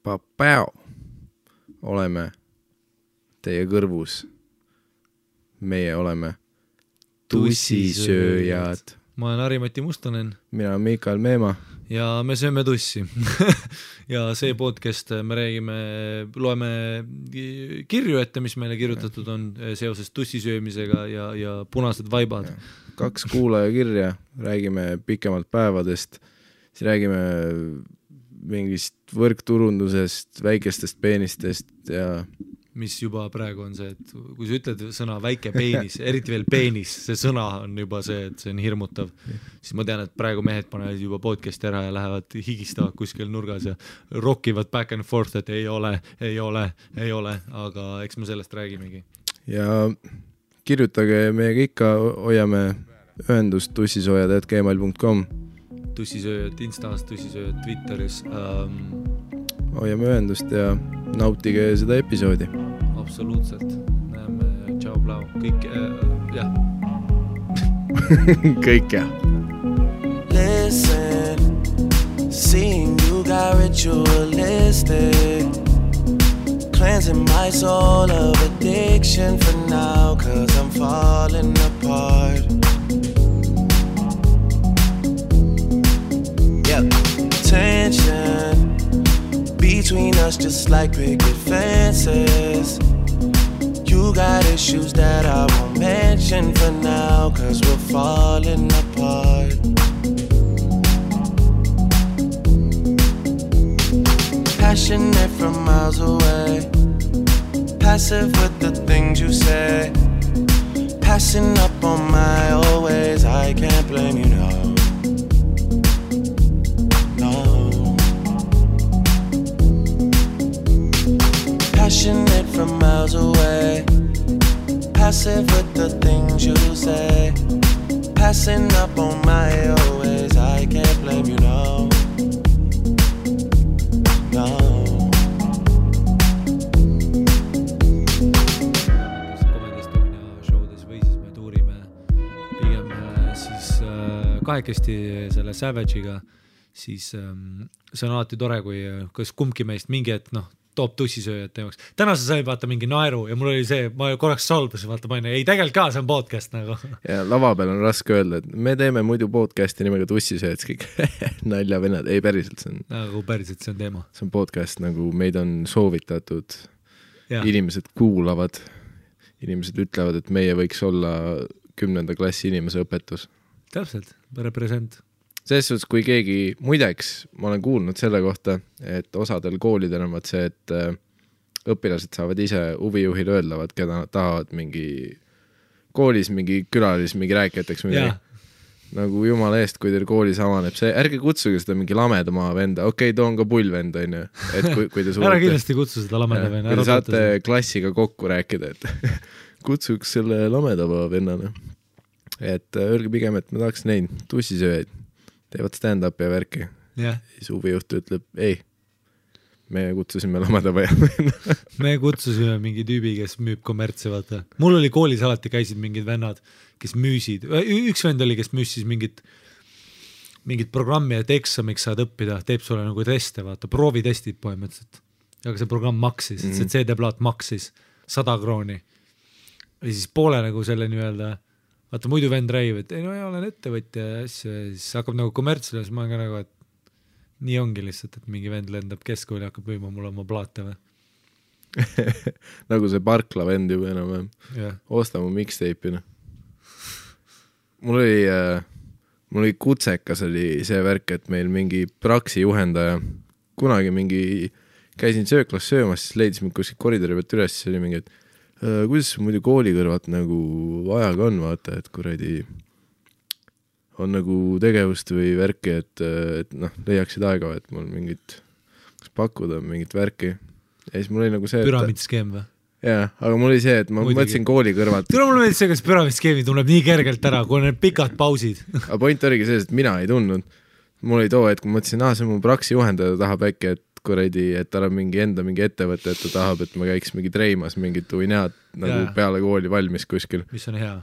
Papao. Oleme teie kõrvus. Meie oleme tussisööjad. Ma olen Ari-Mati Mustonen. Mina olen Mikael Meema. Ja me sööme tussi. Ja see podcast me räägime, loeme kirju ette, mis meile kirjutatud on seoses tussisöömisega ja punased vaibad. 2 kuulaja kirja, räägime pikemalt päevadest, siis räägime mingist võrkturundusest, väikestest peenistest ja mis juba praegu on see, et kui sa ütled sõna väike peenis, eriti veel peenis, see sõna on juba see, et see on hirmutav, siis ma tean, et praegu mehed panevad juba podcasti ära ja lähevad higistavad kuskil nurgas ja rockivad back and forth, et ei ole, aga eks me sellest räägimegi. Ja kirjutage meiega ikka, hoiame ühendust tussisoojad@gmail.com. Tussisööjad Instas, tussisööjad Twitteris. Hoiame ühendust ja nautige seda episoodi. Absoluutselt. Näeme, tšau, blau. Kõik, jah. Kõik, jah. Listen, seeing you got ritualistic, cleansing my soul of addiction for now, 'cause I'm falling apart. Yep, tension between us just like picket fences. You got issues that I won't mention for now, 'cause we're falling apart. Passionate from miles away, passive with the things you say, passing up on my old ways. I can't blame you, no. Passionate from miles away, passive with the things you say, passing up on my old ways. I can't blame you, no. Showdes või siis me tuurime pigem siis kahekesti selle Savage'iga, siis see on alati tore, kui kas kumbki meist mingi hetk toob tussisööjad teemaks. Täna sa sai vaata mingi naeru ja mul oli see, ma korraks solbasin, vaata ma ei tegelikult ka, see on podcast nagu. Ja lava peal on raske öelda, et me teeme muidu podcasti nimega tussisööjad, kõik nalja venad, ei päriselt see on. Nagu päriselt see on teema. See on podcast, nagu meid on soovitatud, inimesed kuulavad, inimesed ütlevad, et meie võiks olla 10. klassi inimese õpetus. Täpselt, represent. Selles suhtes, kui keegi, muideks, ma olen kuulnud selle kohta, et osadel koolidel on see, et õpilased saavad ise huvijuhile öeldavad, keda nad tahavad mingi koolis, mingi külalis, mingi rääkijateks mingi. Nagu jumala eest, kui teil koolis avaneb see, ärge kutsuge seda mingi lamedama venda, toon ka pullvend, on ju, et kui te suudate. Ära kindlasti kutsu seda lameda venna. Kui te saate klassiga kokku rääkida, et kutsuks selle lamedama vennana. Et öelge pigem, et ma tahaks neid tussisööjaid. Teevad stand-up ja värki. Siis huvijuht ütleb, ei, me kutsusime lamada vaja. Me kutsusime mingi tüübi, kes müüb kommertsi, vaata. Mul oli koolis alati käisid mingid vennad, kes müüsid. Üks vend oli, kes müüs siis mingit programmi, et eksamiks saad õppida, teeb sulle nagu teste, vaata, proovitestid põhimõtteliselt. Aga see programm maksis, see CD-plaat maksis 100 krooni. Ja siis poole nagu selle nii-öelda vaata muidu vend räägib, et ei olen ettevõtja ja asju ja siis hakkab nagu kommertsile, siis ma olen ka nagu, et nii ongi lihtsalt, et mingi vend lendab keskkooli ja hakkab müüma mulle oma plaate või. Nagu see Parkla vend juba enam. Osta mu mixtape'ina. Mul oli kutsekas oli see värk, et meil mingi praksi juhendaja kunagi mingi käisin sööklas söömas, siis leidis mind kuskil koridori pealt üles, siis oli mingi, et kuidas muidu kooli kõrvat nagu ajaga on, vaata, et kuradi on nagu tegevust või värki, et leiaksid aega, et mul mingit kas pakkuda mingit värki. Ja siis mul oli nagu see, püramiidskeem või? Jaa, aga mul oli see, et ma mõtlesin kooli kõrvalt. Tule mul meeldis see, kas püramiidskeemi tunneb nii kergelt ära, kui on need pikad pausid. Aga point oligi see, et mina ei tundnud. Mul oli too, et kui mõtlesin, see on mu praksi juhendaja, tahab äkki, et kuradi, et tal on mingi ettevõte, et ta tahab, et ma käiks mingi treimas mingit uinead nagu peale kooli valmis kuskil. Mis on hea?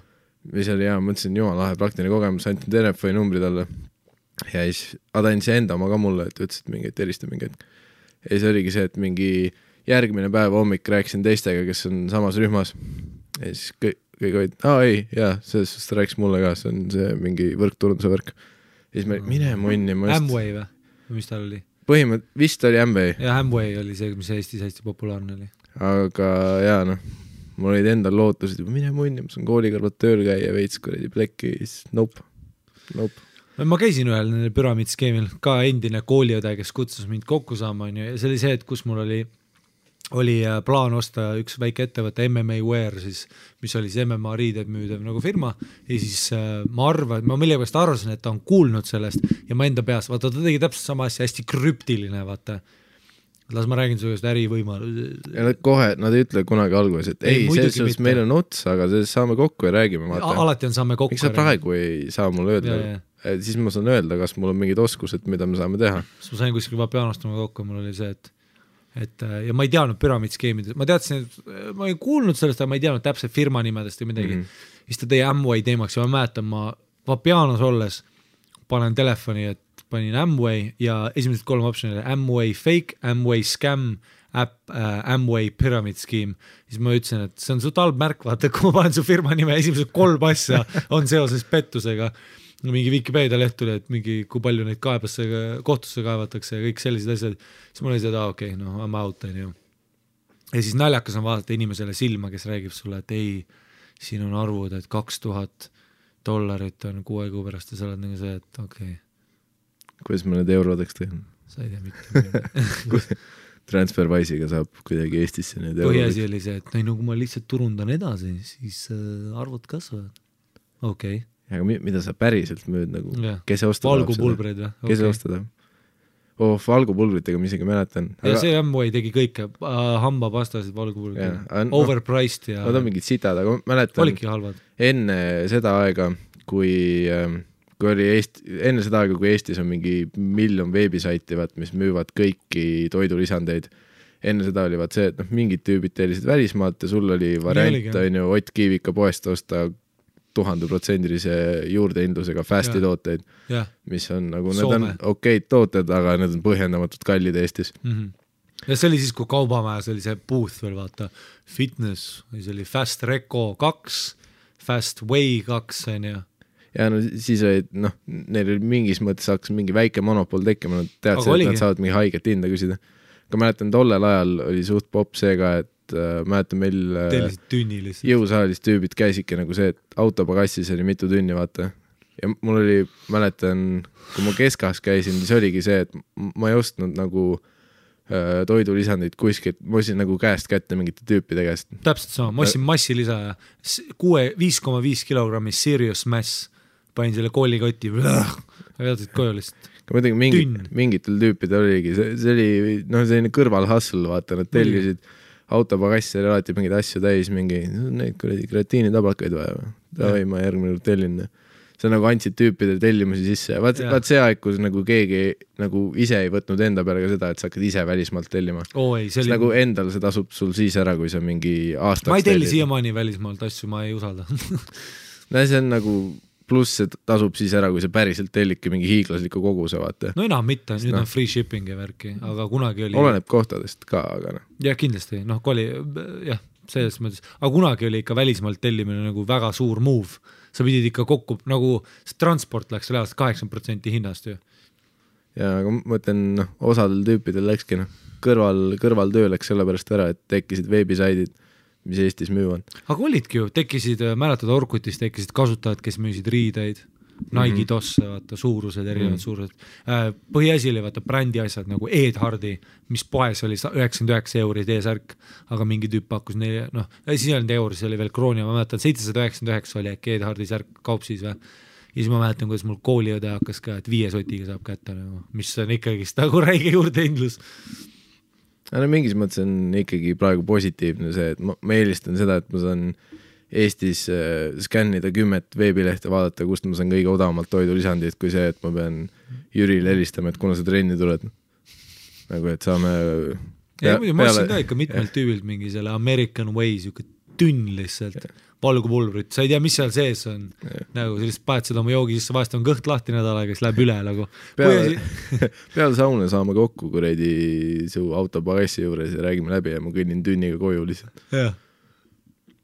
Mis oli hea, mõtlesin, jumal lahe praktiline kogemus, antin telefoni numbri talle. Ja siis ta andis enda oma ka mulle, et ütles, et mingi, et erista mingi, et ja siis oligi see, et mingi järgmine päev hommik rääkisin teistega, kes on samas rühmas ja siis kõik olid, ei, jaa, selles suhtes ta rääkis mulle ka, see on see mingi võrkturunduse värk ja siis me mine munni Amway või? Mis tal oli? Vist oli Amway. Ja Amway oli see, mis Eestis hästi populaarne oli. Aga jaa, noh, mul olid endal lootused, mine munni, ma saan kooli kõrvalt tööl käia veits kuradi plekki, siis nope. Ma käisin ühel püramiidskeemil, ka endine kooliõde, kes kutsus mind kokku saama, ja see oli see, et kus mul oli plaan osta üks väike ettevõte MMA Wear, siis, mis oli siis MMA riided müüdev nagu firma ja siis ma millegipärast arvasin, et ta on kuulnud sellest ja ma enda peas, vaata ta tegi täpselt sama asja, hästi krüptiline, vaata. Las ma räägin sulle just ärivõimalus. Ja nad ei ütle kunagi alguses, et selles meil on ots, aga saame kokku ja räägime. Alati on saame kokku. Miks sa praegu ei saa mulle öelda? Siis ma saan öelda, kas mul on mingid oskused, mida me saame teha. Siis ma sain kuskil pianostama kokku, mul oli see, et ja ma ei teadnud püramiidskeemidest, ma teadsin, et ma ei kuulnud sellest, aga ma ei teadnud täpselt firma nimedest või midagi. Siis ta tõi Amway teemaks ja ma mäletan, ma pianos olles panen telefoni, et panin Amway ja esimesed 3 optionile Amway fake, Amway scam, Amway pyramid scheme. Siis ma ütlesin, et see on su talb märk, vaata, kui ma panen su firma nime, esimesed 3 asja on seoses pettusega. Mingi Wikipedia leht tuli, et mingi, kui palju neid kohtusse kaevatakse ja kõik sellised asjad. Siis mul oli seda, okei, I'm out. Ja siis naljakas on vaadata inimesele silma, kes räägib sulle, et ei, siin on arvud, et $2,000 on 6 kuu pärast ja sa oled nagu see, et okei. Kuidas ma need eurodeks tehan? Sa ei tea mitte. Transferwise'iga saab kuidagi Eestisse need eurodeks. Põhiasi oli see, et kui ma lihtsalt turundan edasi, siis arvud kasvavad. Okei. Aga mida sa päriselt müüd nagu? Kes ostada? Valgupulbrid või? Kes ostada? Valgupulbritega ma isegi mäletan. Ja see Amway tegi kõik, hambapastasid valgupulbrid. Overpriced ja... Nad on mingid sitad, aga mäletan... Olidki halvad. Enne seda aega, kui Eestis on mingi 1 miljon veebisaiti, mis müüvad kõiki toidulisandeid. Enne seda oli see, et mingid tüübid tellisid välismaalt ja sul oli variant, Ott Kiivika poest osta 1000% juurdehindlusega fasti tooteid, mis on nagu, need on okeid tooted, aga need on põhjendamatult kallid Eestis. Ja see oli siis, kui Kaubamäes oli see booth veel, vaata, fitness, see oli Fast Reco 2, Fast Way 2, ja siis olid, neil oli mingis mõttes hakkas mingi väike monopol tekkima, nad teadsid, et nad saavad mingi haiget hinda küsida. Aga mäletan, tollel ajal oli suht pop see ka, et mäletan meil jõusaalis tüübid käisidki nagu see, et autopagassis oli mitu tünni, vaata. Ja mul oli, mäletan, kui ma keskahas käisin, siis oligi see, et ma ei ostnud nagu toidulisandid kuskilt, ma ostsin nagu käest kätte mingite tüüpide käest. Täpselt sama, ma ostsin massilisa ja 5,5 kilogrammi serious mass, panin selle koolikoti ja vedasid koju lihtsalt. Mingitel tüüpidel oligi, see oli selline kõrvalhustle, vaata, nad tellisid autopagassi oli alati mingeid asju täis, neid kreatiinitablakaid vaja. Davai, ma järgmine tellin. See nagu andsid tüüpidele tellimusi sisse. Vaat see aeg, kus nagu keegi nagu ise ei võtnud enda peale ka seda, et sa hakkad ise välismaalt tellima. Nagu endal see tasub sul siis ära, kui sa mingi aastaks ma ei telli siiamaani välismaalt asju, ma ei usalda. See on nagu... Pluss see tasub siis ära, kui see päriselt tellidki mingi hiiglasliku koguse, vaata. No enam mitte, nüüd on free shipping ja värki, aga kunagi oli... Oleneb kohtadest ka, aga jah, kindlasti, selles mõttes, aga kunagi oli ikka välismaalt tellimine nagu väga suur move. Sa pidid ikka kokku, nagu transport läks selle 80% hinnast ju. Ja, aga ma mõtlen, osadel tüüpidel läkski, kõrval töö läks selle pärast ära, et tekkisid veebisaidid, mis Eestis müüvad. Aga olidki ju, tekkisid, mäletad Orkutis, tekkisid kasutajad, kes müüsid riideid, Nike tosse, vaata, suurused, erinevad suurused. Põhiasi oli, vaata, brändi asjad nagu Ed Hardy, mis poes oli 99 € teesärk, aga mingi tüüp pakkus neile, siis ei olnud euri, see oli veel krooni, ma mäletan, 799 oli äkki Ed Hardy särk kaupsis või. Ja siis ma mäletan, kuidas mul kooliõde hakkas ka, et 5 sotiga saab kätte, mis on ikkagi nagu räige juurdehindlus. Mingis mõttes on ikkagi praegu positiivne see, et ma eelistan seda, et ma saan Eestis skännida 10 veebilehte, vaadata, kust ma saan kõige odavamalt toidulisandid, kui see, et ma pean Jürile helistama, et kuna sa trenni tuled. Nagu, et saame... Ma ostsin ka ikka mitmelt tüübilt mingi selle American Way, siuke tünn lihtsalt. valgupulbrit, sa ei tea, mis seal sees on. Nagu sellist paned seda oma joogi sisse, vahest on kõht lahti nädal aega, siis läheb üle nagu. Peale sauna saame kokku kuredi su auto pagassi juures ja räägime läbi ja ma kõnnin tünniga koju lihtsalt. Jah,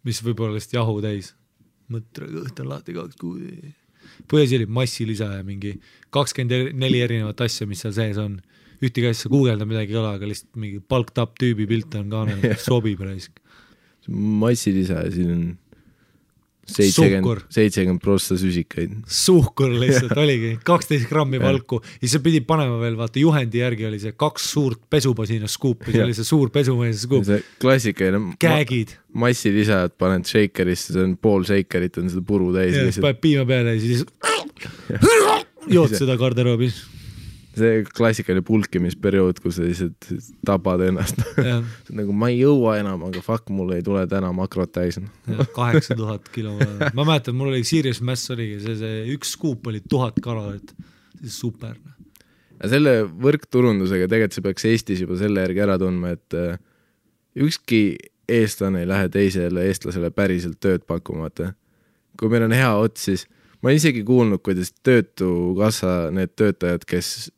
mis võib-olla lihtsalt jahu täis. Mõtre, kõht on lahti 2 kuud. Põhjasi oli massilisa ja mingi 24 erinevat asja, mis seal sees on. Ühtegi asja guugelda midagi ei ole, aga lihtsalt mingi palked up tüübi pilt on kaanel, sobib raisk. Massilisa ja siin on 70% süsikaid. Suhkur lihtsalt oligi, 12 grammi valku ja sa pidi panema veel, vaata juhendi järgi oli see 2 suurt pesupasina skuupi, see oli see suur pesumees skuup. See klassikaline Käägid. Massilisa, et paned shakerisse, see on pool shakerit, on seda puru täis. Ja paned piima peale ja siis jood seda garderoobis. See klassikaline pulkimisperiood, kus sa lihtsalt tapad ennast. Nagu ma ei jõua enam, aga fuck, mul ei tule täna makrot täis. 8000 kilo. Ma mäletan, mul oli Serious Mass oligi, see üks skuup oli 1000 kalorit. See super. Ja selle võrkturundusega tegelikult see peaks Eestis juba selle järgi ära tundma, et ükski eestlane ei lähe teisele eestlasele päriselt tööd pakkumata. Kui meil on hea ots, siis ma olen isegi kuulnud, kuidas töötukassa need töötajad, kes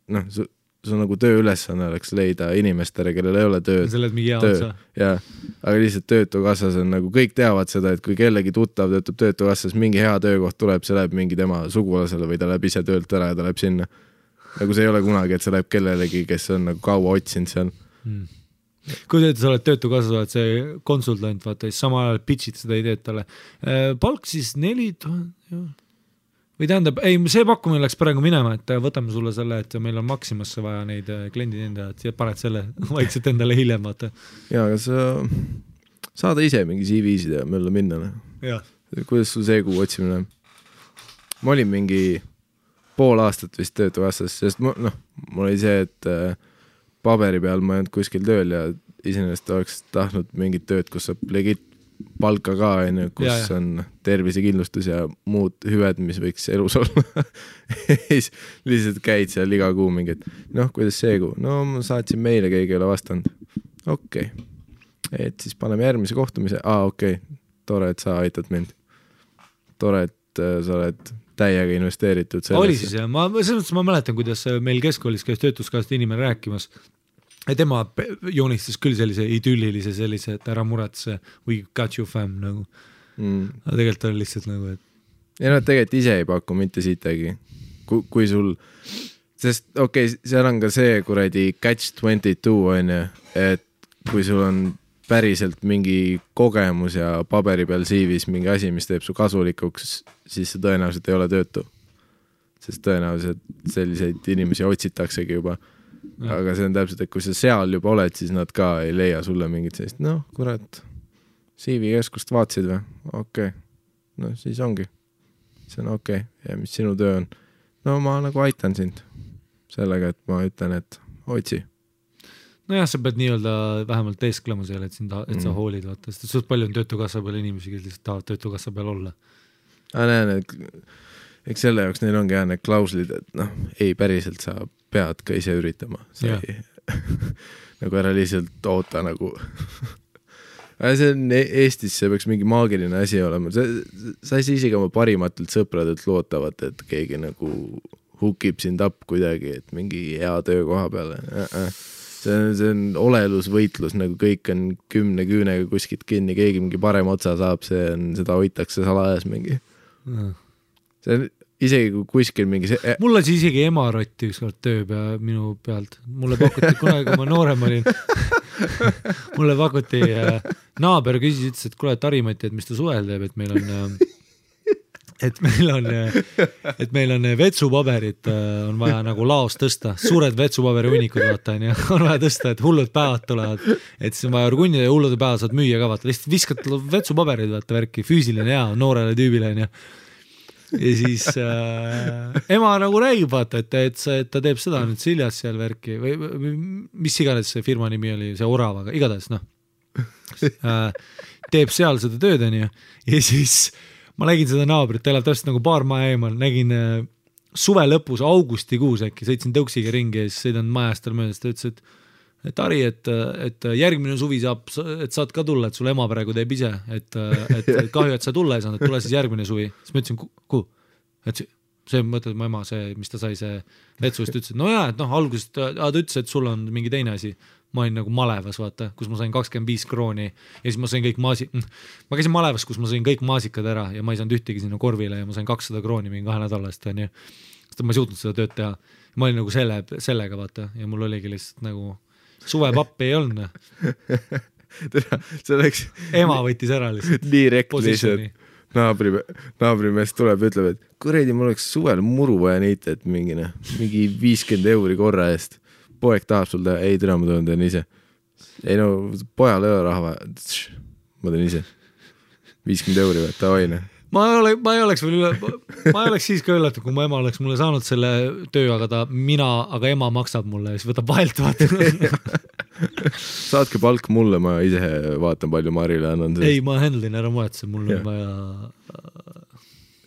su nagu tööülesanne oleks leida inimestele, kellel ei ole tööd. Sa oled mingi hea otsa. Jaa, aga lihtsalt töötukassas on nagu, kõik teavad seda, et kui kellegi tuttav töötab töötukassas, mingi hea töökoht tuleb, see läheb mingi tema sugulasele või ta läheb ise töölt ära ja ta läheb sinna. Nagu see ei ole kunagi, et see läheb kellelegi, kes on nagu kaua otsinud seal. Kui sa oled töötukassas, oled see konsultant, vaata, siis sama ajal pitchid seda ideed talle. Palk siis 4000, või tähendab, ei, see pakkumine läks praegu minema, et võtame sulle selle, et meil on Maximasse vaja neid kliendid endad ja paned selle vaikselt endale hiljem, vaata. Jaa, aga sa saada ise mingi CV-sid ja mööda minna. Kuidas sul see kuu otsimine? Ma olin mingi pool aastat vist töötukassas, sest mul oli see, et paberi peal ma ei olnud kuskil tööl ja iseenesest oleks tahtnud mingit tööd, kus saab legit palka ka, kus on tervisekindlustus ja muud hüved, mis võiks elus olla. Lihtsalt käid seal iga kuu mingid, kuidas see kuu? No ma saatsin meile, keegi ei ole vastanud. Okei. Et siis paneme järgmise kohtumise. Okei. Tore, et sa aitad mind. Tore, et sa oled täiega investeeritud sellesse. Oli siis jah, ma mäletan, kuidas meil keskkoolis käis töötuskassast inimene rääkimas. Ja tema joonistas küll sellise idüllilise sellise, et ära muretse, we got you fam nagu. Aga tegelikult on lihtsalt nagu, et... Ja tegelikult ise ei paku mitte siitagi. Kui sul... Sest seal on ka see kuradi catch-22 on ju, et kui sul on päriselt mingi kogemus ja paberi peal CV-s mingi asi, mis teeb su kasulikuks, siis see tõenäoliselt ei ole töötu. Sest tõenäoliselt selliseid inimesi otsitaksegi juba. Aga see on täpselt, et kui sa seal juba oled, siis nad ka ei leia sulle mingit sellist, kurat, CV-keskust vaatsid või? Okei. Siis ongi. See on okei. Ja mis sinu töö on? Ma nagu aitan sind sellega, et ma ütlen, et otsi. Nojah, sa pead nii-öelda vähemalt teesklema seal, et sa hoolid, vaata. Sest suht palju on töötukassa peal inimesi, kes lihtsalt tahavad töötukassa peal olla. Näen, eks selle jaoks neil ongi need klauslid, et ei päriselt sa pead ka ise üritama. Nagu ära lihtsalt oota nagu. See on Eestis, see peaks mingi maagiline asi olema. Sa ei saa isegi oma parimatelt sõpradelt lootavad, et keegi nagu hukib sind up kuidagi, et mingi hea töökoha peale. See on olelusvõitlus, nagu kõik on 10 küünega kuskilt kinni, keegi mingi parem otsa saab, seda hoitakse salajas mingi. See on isegi kui kuskil mingi Mul oli isegi emarotti ükskord töö minu pealt. Mulle pakuti kunagi, kui ma noorem olin. Mulle pakuti naaber küsis, ütles, et kuule, Tarimati, et mis ta suvel teeb, et meil on vetsupaberit on vaja nagu laos tõsta. Suured vetsupaberi unikud vaata, on vaja tõsta, et hullud päevad tulevad. Et siis on vaja orgunnida ja hullude päevad saad müüa ka vaata. Lihtsalt viskad vetsupaberid vaata värki, füüsiline hea, noorele tüübile ja siis ema nagu räägib vaata, et ta teeb seda nüüd Siljas seal värki või mis iganes see firma nimi oli, see Oravaga, igatahes teeb seal seda tööd ja siis ma nägin seda naabrit, ta elab täpselt nagu paar maja eemal, nägin suve lõpus, augustikuus äkki, sõitsin tõuksiga ringi ja siis sõidan majast tal möödas, ta ütles, et et Ari, et järgmine suvi et saad ka tulla, et sul ema praegu teeb ise, et kahju, et sa tulla ei saanud, et tule siis järgmine suvi. Siis ma ütlesin, kuhu? Et see mõtled mu ema, see, mis ta sai, see vetsust, ütles, et no jaa, et algusest ta ütles, et sul on mingi teine asi. Ma olin nagu Malevas, vaata, kus ma sain 25 krooni ja siis ma sain kõik ma käisin Malevas, kus ma sain kõik maasikad ära ja ma ei saanud ühtegi sinna korvile ja ma sain 200 krooni mingi 2 nädalast, on ju. Sest ma ei suutnud seda tööd teha. Ma olin nagu sellega, vaata, ja mul oligi lihtsalt nagu suvepappi ei olnud. See oleks... Ema võttis ära lihtsalt. Nii rekliselt. Naabrimees tuleb ja ütleb, et kuredi, mul oleks suvel muru vaja niita, et mingi 50 euri korra eest. Poeg tahab sul teha, ei türa, ma teen ise. Ei no, pojal ei ole raha vaja. Ma teen ise. 50 euri vaja, ta hoine. Ma ei oleks siis ka üllatud, kui mu ema oleks mulle saanud selle töö, aga ema maksab mulle ja siis võtab vahelt vaata. Saatke palk mulle, ma ise vaatan palju Marile annan. Ei, ma handlin ära muetse, mul on vaja...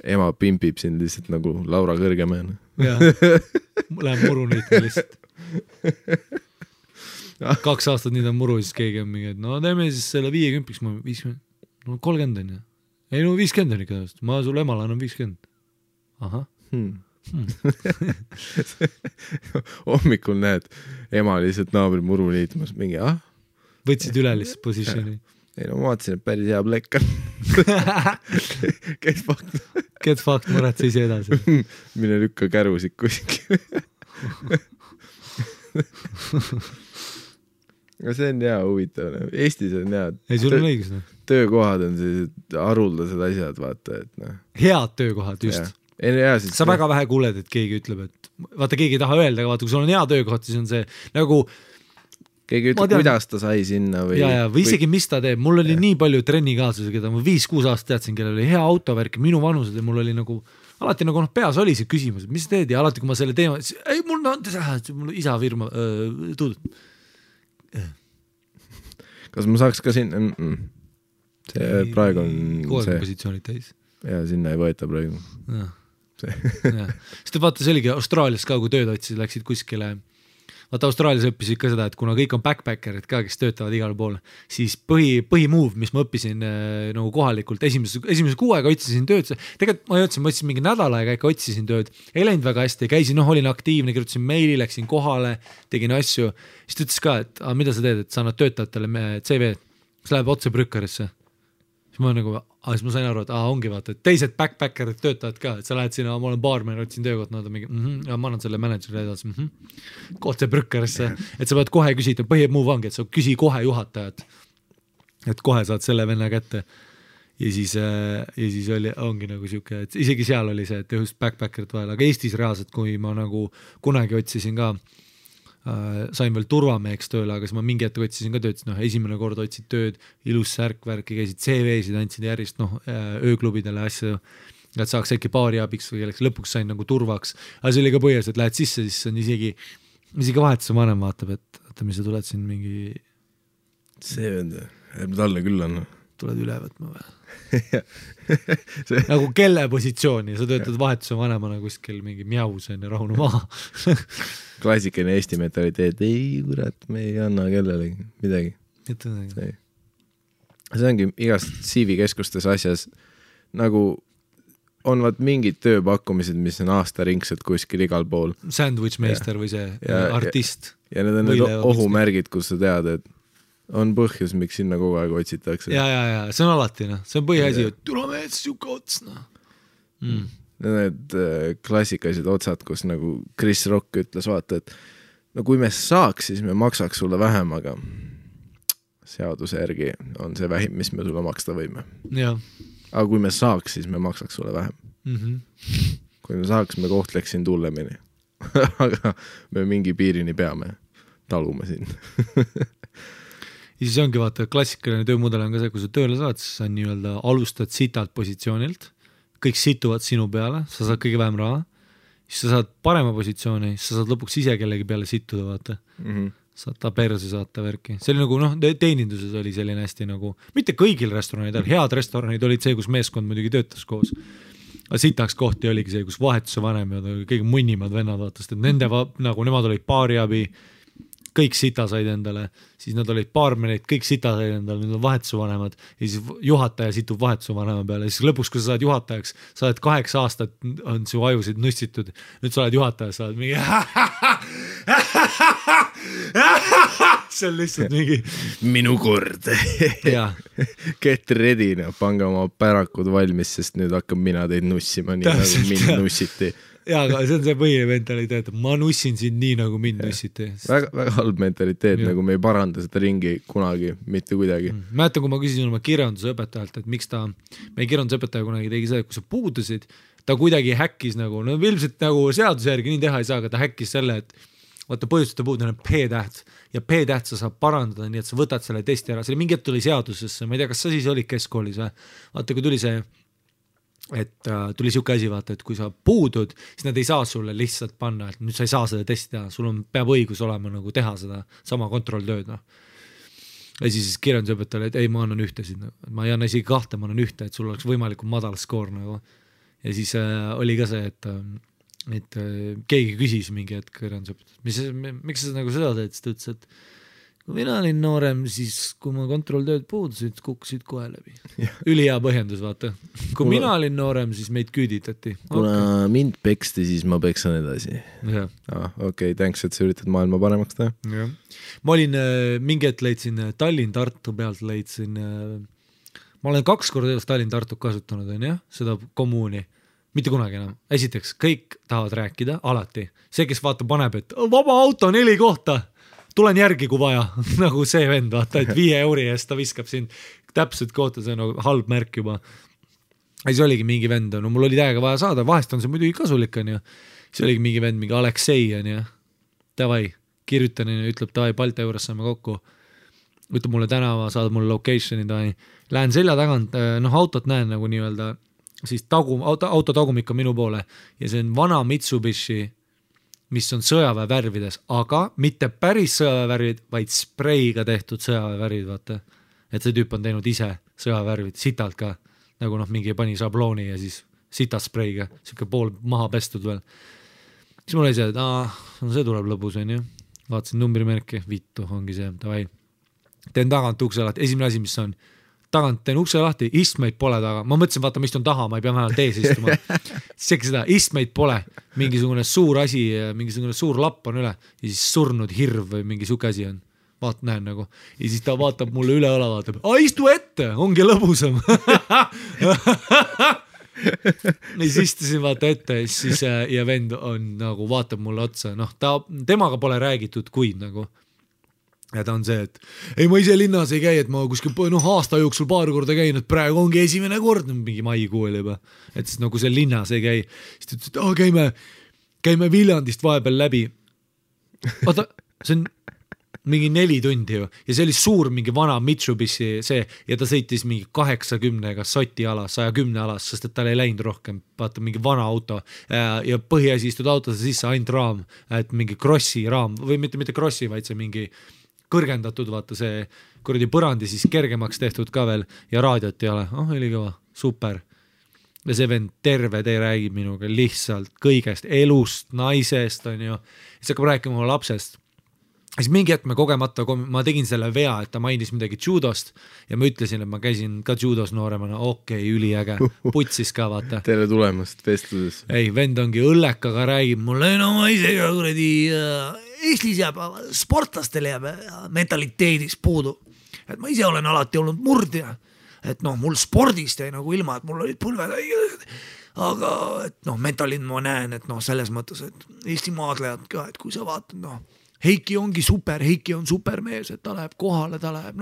Ema pimpib sind lihtsalt nagu Laura Kõrgemäen. Jah, lähen muru niitma lihtsalt. 2 aastat nii ta muru, siis keegi on mingi, et no teeme siis selle 50, ma 50, no 30 on ju. Ei no 50 on ikka, ma sul emale annan 50. Aha. Hommikul näed ema lihtsalt naabri muru liitmas mingi, võtsid üle lihtsalt positioni. Ei no ma vaatasin, et päris hea plekk on. Get fucked, muretse ise edasi. Mine lükka kärusid kuskil. No see on hea huvitav. Eestis on hea. Ei, sul on õigus. Töökohad on sellised haruldased asjad, vaata, et noh. Head töökohad, just. Sa väga vähe kuuled, et keegi ütleb, et vaata, keegi ei taha öelda, aga vaata, kui sul on hea töökoht, siis on see nagu keegi ütleb, kuidas ta sai sinna või... või isegi mis ta teeb. Mul oli nii palju trennikaaslusi, keda ma 5-6 aastat teadsin, kellel oli hea autovärk, minu vanused ja mul oli nagu alati nagu peas oli see küsimus, et mis sa teed ja alati, kui ma selle teema, siis ei, mul isa firma tuudud. Kas ma saaks ka sinna? See praegu on see... positsioonid täis. Ja sinna ei võeta praegu. Sest vaata, see oligi Austraalias ka, kui tööd otsid, läksid kuskile. Vaata, Austraalias õppisid ka seda, et kuna kõik on backpackerid ka, kes töötavad igal pool, siis põhimove, mis ma õppisin nagu kohalikult, esimese 6 aega otsisin tööd, tegelikult ma otsin mingi nädal aega, ikka otsisin tööd, ei läinud väga hästi, käisin, olin aktiivne, kirjutasin meili, läksin kohale, tegin asju, siis ta ütles ka, et mida sa teed, et sa annad töötajatele CV, siis läheb otse Brückerisse. Siis ma nagu, siis ma sain aru, et ongi vaata, et teised backpackerid töötavad ka, et sa lähed sinna, ma olen baarmen, otsin töökoht, nad on mingi, ja ma annan selle managerile edasi, kohta Brückerisse, et sa pead kohe küsida, põhimove ongi, et sa küsi kohe juhatajat, et kohe saad selle venna kätte. Ja siis ongi nagu siuke, et isegi seal oli see, et just backpackerid vahel, aga Eestis reaalselt, kui ma nagu kunagi otsisin ka, sain veel turvameheks tööle, aga siis ma mingi hetk otsisin ka tööd, esimene kord otsid tööd, ilus särkvärki, käisid CV-sid, andsid järjest ööklubidele asju, et saaks äkki paari abiks või kelleks lõpuks sain nagu turvaks, aga see oli ka põhjas, et lähed sisse, siis on isegi vahetuse vanem vaatab, et mis sa tuled siin mingi see vend, talle küll on tuled üle võtma või? Nagu kelle positsiooni, sa töötad vahetuse vanemana kuskil mingi mjausen ja rahunu maha. Klassikaline Eesti mentaliteet, ei kurat, me ei anna kellelegi midagi. See ongi igast CV-keskustes asjas nagu on vaat mingid tööpakkumised, mis on aastaringselt kuskil igal pool. Sandwichmeister või see artist. Ja need on need ohumärgid, kus sa tead, et on põhjus, miks sinna kogu aeg otsitakse. Ja, see on alati, see on põhiasi, et tule mees, siuke ots, Need klassikalised otsad, kus nagu Chris Rock ütles, vaata, et no kui me saaks, siis me maksaks sulle vähem, aga seaduse järgi on see vähim, mis me sulle maksta võime. Aga kui me saaks, siis me maksaks sulle vähem. Kui me saaks, me kohtleks sind hullemini. Aga me mingi piirini peame, talume siin. Ja siis ongi vaata, klassikaline töömudel on ka see, kui sa tööle saad, siis sa nii-öelda alustad sitalt positsioonilt, kõik situvad sinu peale, sa saad kõige vähem raha, siis sa saad parema positsiooni, siis sa saad lõpuks ise kellegi peale situda, vaata. Saad ta perse saata värki. See oli nagu, teeninduses oli selline hästi nagu, mitte kõigil restoranidel, head restoranid olid see, kus meeskond muidugi töötas koos. Aga sitaks kohti oligi see, kus vahetuse vanem ja kõige munnimad vennad vaatast, et nende, nagu nemad olid paariabi, kõik sita said endale, siis nad olid baarmenid, kõik sita said endale, need on vahetusvanemad ja siis juhataja situb vahetusvanema peale ja siis lõpuks, kui sa saad juhatajaks, sa oled 8 aastat, on su ajusid nussitud, nüüd sa oled juhataja, sa oled mingi see on lihtsalt mingi minu kord get ready, pange oma pärakud valmis, sest nüüd hakkab mina teid nussima nii nagu mind nussiti. Jaa, aga see on see põhiline mentaliteet, ma nussin sind nii nagu mind nussiti. Väga halb mentaliteet, nagu me ei paranda seda ringi kunagi, mitte kuidagi. Mäletan, kui ma küsisin oma kirjandusõpetajalt, et miks ta, meie kirjandusõpetaja kunagi tegi seda, kui sa puudusid, ta kuidagi häkkis nagu, no ilmselt nagu seaduse järgi nii teha ei saa, aga ta häkkis selle, et vaata põhjuste puudus on P-täht ja P-täht sa saab parandada, nii et sa võtad selle testi ära, selle mingi hetk tuli seadusesse, ma ei tea, kas sa siis olid keskkoolis või, vaata kui tuli see, et tuli siuke asi, vaata, et kui sa puudud, siis nad ei saa sulle lihtsalt panna, et nüüd sa ei saa seda testi teha, sul on, peab õigus olema nagu teha seda sama kontrolltööd, noh. Ja siis kirjandusõpetajale, et ei, ma annan ühtesid, ma ei anna isegi 2, ma annan 1, et sul oleks võimalikult madal skoor nagu. Ja siis oli ka see, et keegi küsis mingi hetk kirjandusõpetajalt, miks sa nagu seda teed, siis ta ütles, et kui mina olin noorem, siis kui ma kontrolltööd puudusid, kukkusid kohe läbi. Ülihea põhjendus, vaata. Kui mina olin noorem, siis meid küüditati. Kuna mind peksti, siis ma peksan edasi. Okei, thanks, et sa üritad maailma paremaks teha. Ma olin, mingi hetk leidsin Tallinn-Tartu pealt leidsin, ma olen 2 korda elus Tallinn-Tartu kasutanud, on jah, seda kommuuni. Mitte kunagi enam. Esiteks, kõik tahavad rääkida, alati. See, kes vaata paneb, et vaba auto 4 kohta, tulen järgi, kui vaja. Nagu see vend, vaata, et 5 euri eest ta viskab sind täpselt kohta, see on nagu halb märk juba. Ja siis oligi mingi vend, no mul oli täiega vaja saada, vahest on see muidugi kasulik, on ju. Siis oligi mingi vend, mingi Aleksei, on ju. Tavai, kirjutan, ütleb, tavai, Balti juures saame kokku. Ütleb mulle tänava, saad mulle locationi, tavai. Lähen selja tagant, autot näen nagu nii-öelda, siis auto tagumik on minu poole ja see on vana Mitsubishi, mis on sõjaväe värvides, aga mitte päris sõjaväe värvid, vaid spreiga tehtud sõjaväe värvid, vaata. Et see tüüp on teinud ise sõjaväe värvid, sitalt ka, nagu mingi pani šablooni ja siis sitalt spreiga, siuke pool maha pestud veel. Siis mul oli see, et see tuleb lõbus, on ju. Vaatasin numbrimärki, vittu, ongi see, tavai. Teen tagant ukse lahti, esimene asi, mis on tagant teen ukse lahti, istmeid pole taga. Ma mõtlesin, vaata, ma istun taha, ma ei pea vähemalt ees istuma. Siis seda, istmeid pole, mingisugune suur asi, mingisugune suur lapp on üle ja siis surnud hirv või mingi suke asi on. Vaat näen nagu. Ja siis ta vaatab mulle üle õla, vaatab, istu ette, ongi lõbusam. Ja siis istusin vaata ette siis, ja vend on nagu vaatab mulle otsa. Temaga pole räägitud kuid nagu. Ja ta on see, et ei, ma ise linnas ei käi, et ma kuskil aasta jooksul paar korda käin, et praegu ongi esimene kord, mingi maikuu oli juba, et siis nagu see linnas ei käi. Siis ta ütles, et käime Viljandist vahepeal läbi. Oota, see on mingi 4 tundi ju ja see oli suur mingi vana Mitsubishi see ja ta sõitis mingi 80-ga soti alas, 110 alas, sest et tal ei läinud rohkem, vaata mingi vana auto ja põhiasi istud autosse sisse ainult raam, et mingi crossi raam või mitte crossi, vaid see mingi kõrgendatud, vaata see kuradi põrandi siis kergemaks tehtud ka veel ja raadiot ei ole, oli kõva, super. Ja see vend terve tee räägib minuga lihtsalt kõigest, elust, naisest on ju, siis hakkab rääkima oma lapsest. Siis mingi hetk me kogemata, ma tegin selle vea, et ta mainis midagi judost ja ma ütlesin, et ma käisin ka judos nooremana, üliäge, putsis ka vaata. Tere tulemast vestluses. Ei, vend ongi õllekaga räägib mulle, no ma ise ka kuradi Eestis jääb, sportlastel jääb mentaliteedis puudu. Et ma ise olen alati olnud murdja, et mul spordist jäi nagu ilma, et mul olid pulved aga et mentalin ma näen, et selles mõttes, et Eesti maadlejad ka, et kui sa vaatad, Heiki ongi super, Heiki on supermees, et ta läheb kohale, ta läheb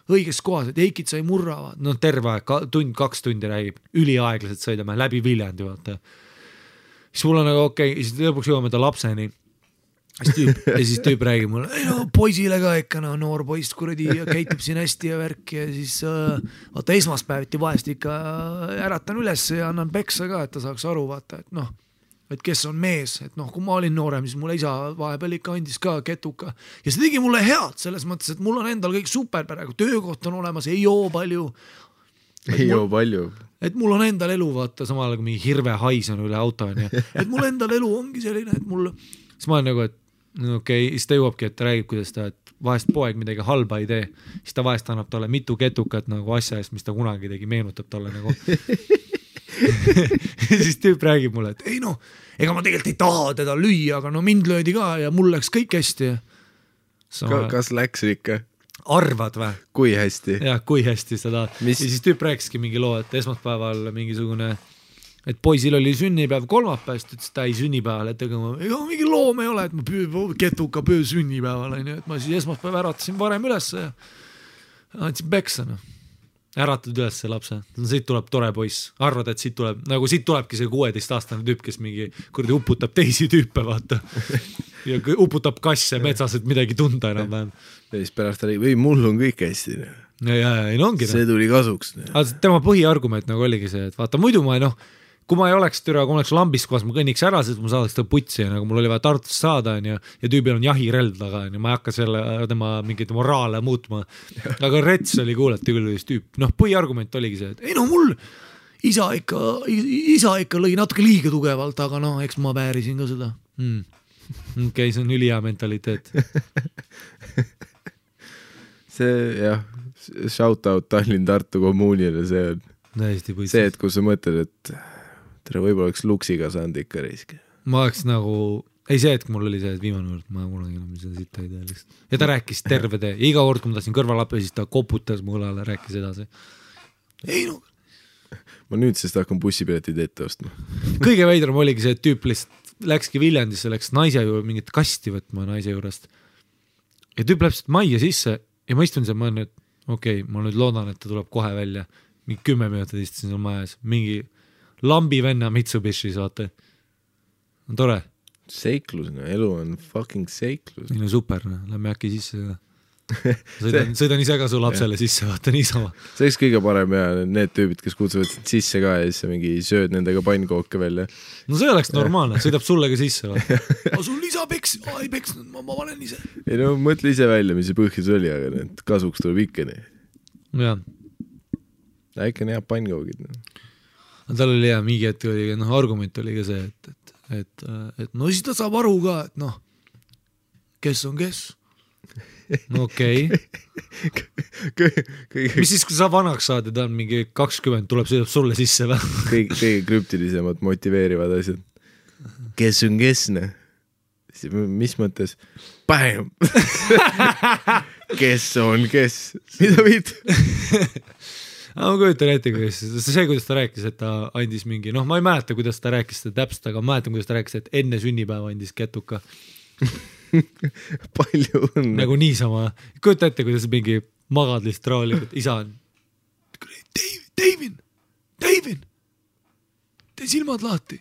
õiges kohas, et Heikit sai murravad, terve aeg, 2 tundi räägib, üliaeglaselt sõidame läbi Viljandi, vaata. Siis mul on okei, siis lõpuks jõuame ta lapseni. Ja siis tüüp räägib mulle, poisile ka ikka, noor poist kuradi käitub siin hästi ja värk ja siis vaata esmaspäeviti vahest ikka äratan üles ja annan peksa ka, et ta saaks aru, vaata, et kes on mees, et kui ma olin noorem, siis mulle isa vahepeal ikka andis ka ketuka ja see tegi mulle head selles mõttes, et mul on endal kõik super praegu, töökoht on olemas, ei joo palju. Et mul on endal elu, vaata, samal kui mingi hirve hais on üle auto, et mul endal elu ongi selline, et mul, siis ma olen nagu, et okei, siis ta jõuabki, et ta räägib, kuidas ta, et vahest poeg midagi halba ei tee, siis ta vahest annab talle mitu ketukat nagu asja eest, mis ta kunagi tegi, meenutab talle nagu siis tüüp räägib mulle, et ei noh, ega ma tegelikult ei taha teda lüüa, aga no mind löödi ka ja mul läks kõik hästi. Kas läks ikka? Arvad või? Kui hästi? Jah, kui hästi seda. Ja siis tüüp rääkiski mingi loo, et esmaspäeval mingisugune, et poisil oli sünnipäev kolmapäevast, et ta ei sünnipäeval, et ega mingi loom ei ole, et ma ketuka pöö sünnipäeval, et ma siis esmaspäev äratasin varem üles ja andsin peksa. Äratad üles see lapse, siit tuleb tore poiss, arvad, et siit tulebki see 16-aastane tüüp, kes mingi kurdi uputab teisi tüüpe, vaata ja uputab kasse metsas, et midagi tunda enam vähem. Ja siis pärast ta või mul on kõik hästi. Ja ongi. See tuli kasuks. Tema põhiargument nagu oligi see, et vaata muidu ma kui ma ei oleks türa, kui ma oleks lambis kohas, ma kõnniks ära, sest ma saadaks ta putsi ja nagu mul oli vaja Tartust saada ja tüübil on jahirelv taga ja ma ei hakka tema mingeid moraale muutma. Aga rets oli kuulati küll tüüp. Põhiargument oligi see, et ei mul isa ikka lõi natuke liiga tugevalt, aga eks ma väärisin ka seda. Okei, see on ülihea mentaliteet. See jah, shout out Tallinn-Tartu kommuunile, see on see, et kui sa mõtled, et tere võib-olla oleks luksiga saanud ikka risk. Ma oleks nagu, ei see, et mul oli see, et viimane kord, ma kunagi enam seda sitta ei tea lihtsalt. Ja ta rääkis terve tee, iga kord, kui ma tahtsin kõrvalappe, siis ta koputas mu õlale, rääkis edasi. Ei ma nüüd sest hakkan bussipiletid ette ostma. Kõige veidram oligi see, et tüüp lihtsalt läkski Viljandisse, läks naise juurde mingit kasti võtma naise juurest. Ja tüüp läheb majja sisse ja ma istun seal, ma olen, et okei, ma nüüd loodan, et ta tuleb kohe välja. Mingi 10 minutit istusin seal majas, mingi lambi venna Mitsubishis, vaata. On tore. Seiklus, elu on fucking seiklus. Super, lähme äkki sisse. Sõidan ise ka su lapsele sisse, vaata niisama. See oleks kõige parem ja need tüübid, kes kutsuvad sisse ka ja siis mingi sööd nendega pannkooke välja. No see oleks normaalne, sõidab sulle ka sisse. Sul isa peks, ei peksnud, ma panen ise. Ei mõtle ise välja, mis see põhjus oli, aga need kasuks tuleb ikka nii. Jah. Äkki on hea pannkoogid. Tal oli hea, mingi hetk oli, argument oli ka see, et no siis ta saab aru ka, et kes on kes. No okei. Mis siis, kui sa vanaks saad ja ta on mingi 20, sõidab sulle sisse või? Kõige krüptilisemad motiveerivad asjad. Kes on kes, ne? Mis mõttes? Bam! Kes on kes? Mida viid? Ma kujutan ette, kuidas ta rääkis, et ta andis mingi, ma ei mäleta, kuidas ta rääkis seda täpselt, aga ma mäletan, kuidas ta rääkis, et enne sünnipäeva andis ketuka. Palju õnne. Nagu niisama. Kujuta ette, kuidas mingi magad lihtsalt raalikult. Isa on Davin, tee silmad lahti.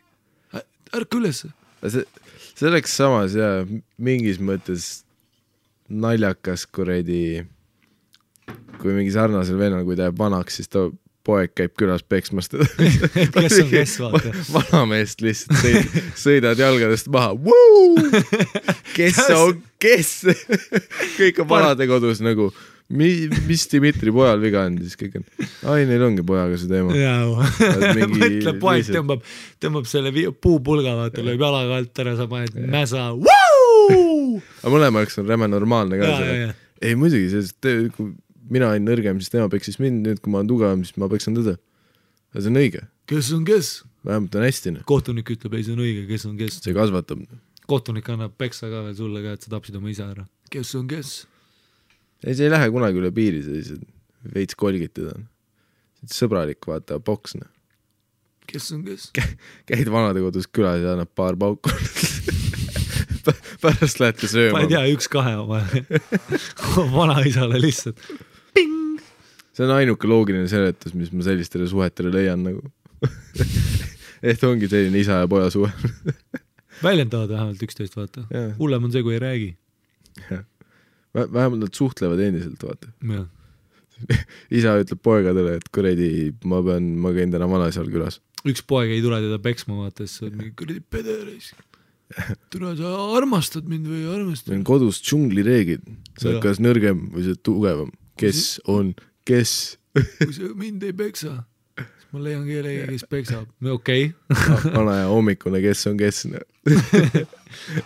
Ärka üles. See oleks samas ja mingis mõttes naljakas kuredi, kui mingi sarnasel vennal, kui ta jääb vanaks, siis ta poeg käib külas peksmast. Kes on kes, vaata. Vanameest lihtsalt sõidad jalgadest maha. Kes on kes? Kõik on vanade kodus nagu, mis Dimitri pojal viga on, siis kõik on, neil ongi pojaga see teema. Mõtle, poeg tõmbab selle puupulga, vaata, lööb jalaga alt ära, sa paned mäsa. Aga mõlemaks on räme normaalne ka. Ei muidugi, sest kui mina olen nõrgem, siis tema peksis mind, nüüd kui ma olen tugevam, siis ma peksan tõde. Ja see on õige. Kes on kes? Vähemalt on hästi. Kohtunik ütleb, ei see on õige, kes on kes. See kasvatab. Kohtunik annab peksa ka veel sulle ka, et sa tapsid oma isa ära. Kes on kes? Ei, see ei lähe kunagi üle piiri, see veits kolgid teda. Sõbralik, vaata, boksne. Kes on kes? Käid vanade kodus külas ja annab paar pauku. Pärast lähete sööma. Ma ei tea, 1-2 oma vanaisale lihtsalt. Ping! See on ainuke loogiline seletus, mis ma sellistele suhetele leian nagu. Et ongi selline isa ja poja suhe. Väljendavad vähemalt 11, vaata. Hullem on see, kui ei räägi. Vähemalt nad suhtlevad endiselt, vaata. Ja. Isa ütleb poegadele, et kuredi, ma käin täna vanaisal külas. Üks poeg ei tule teda peksma, vaata, siis on mingi kuredi pederis. Tule, sa armastad mind või armastad? Meil on kodus džunglireegid. Sa oled kas nõrgem või sa tugevam. Kes on kes? Kui sa mind ei peksa, ma leian kellegi, kes peksab. Okei. Vana ja hommikune, kes on kes.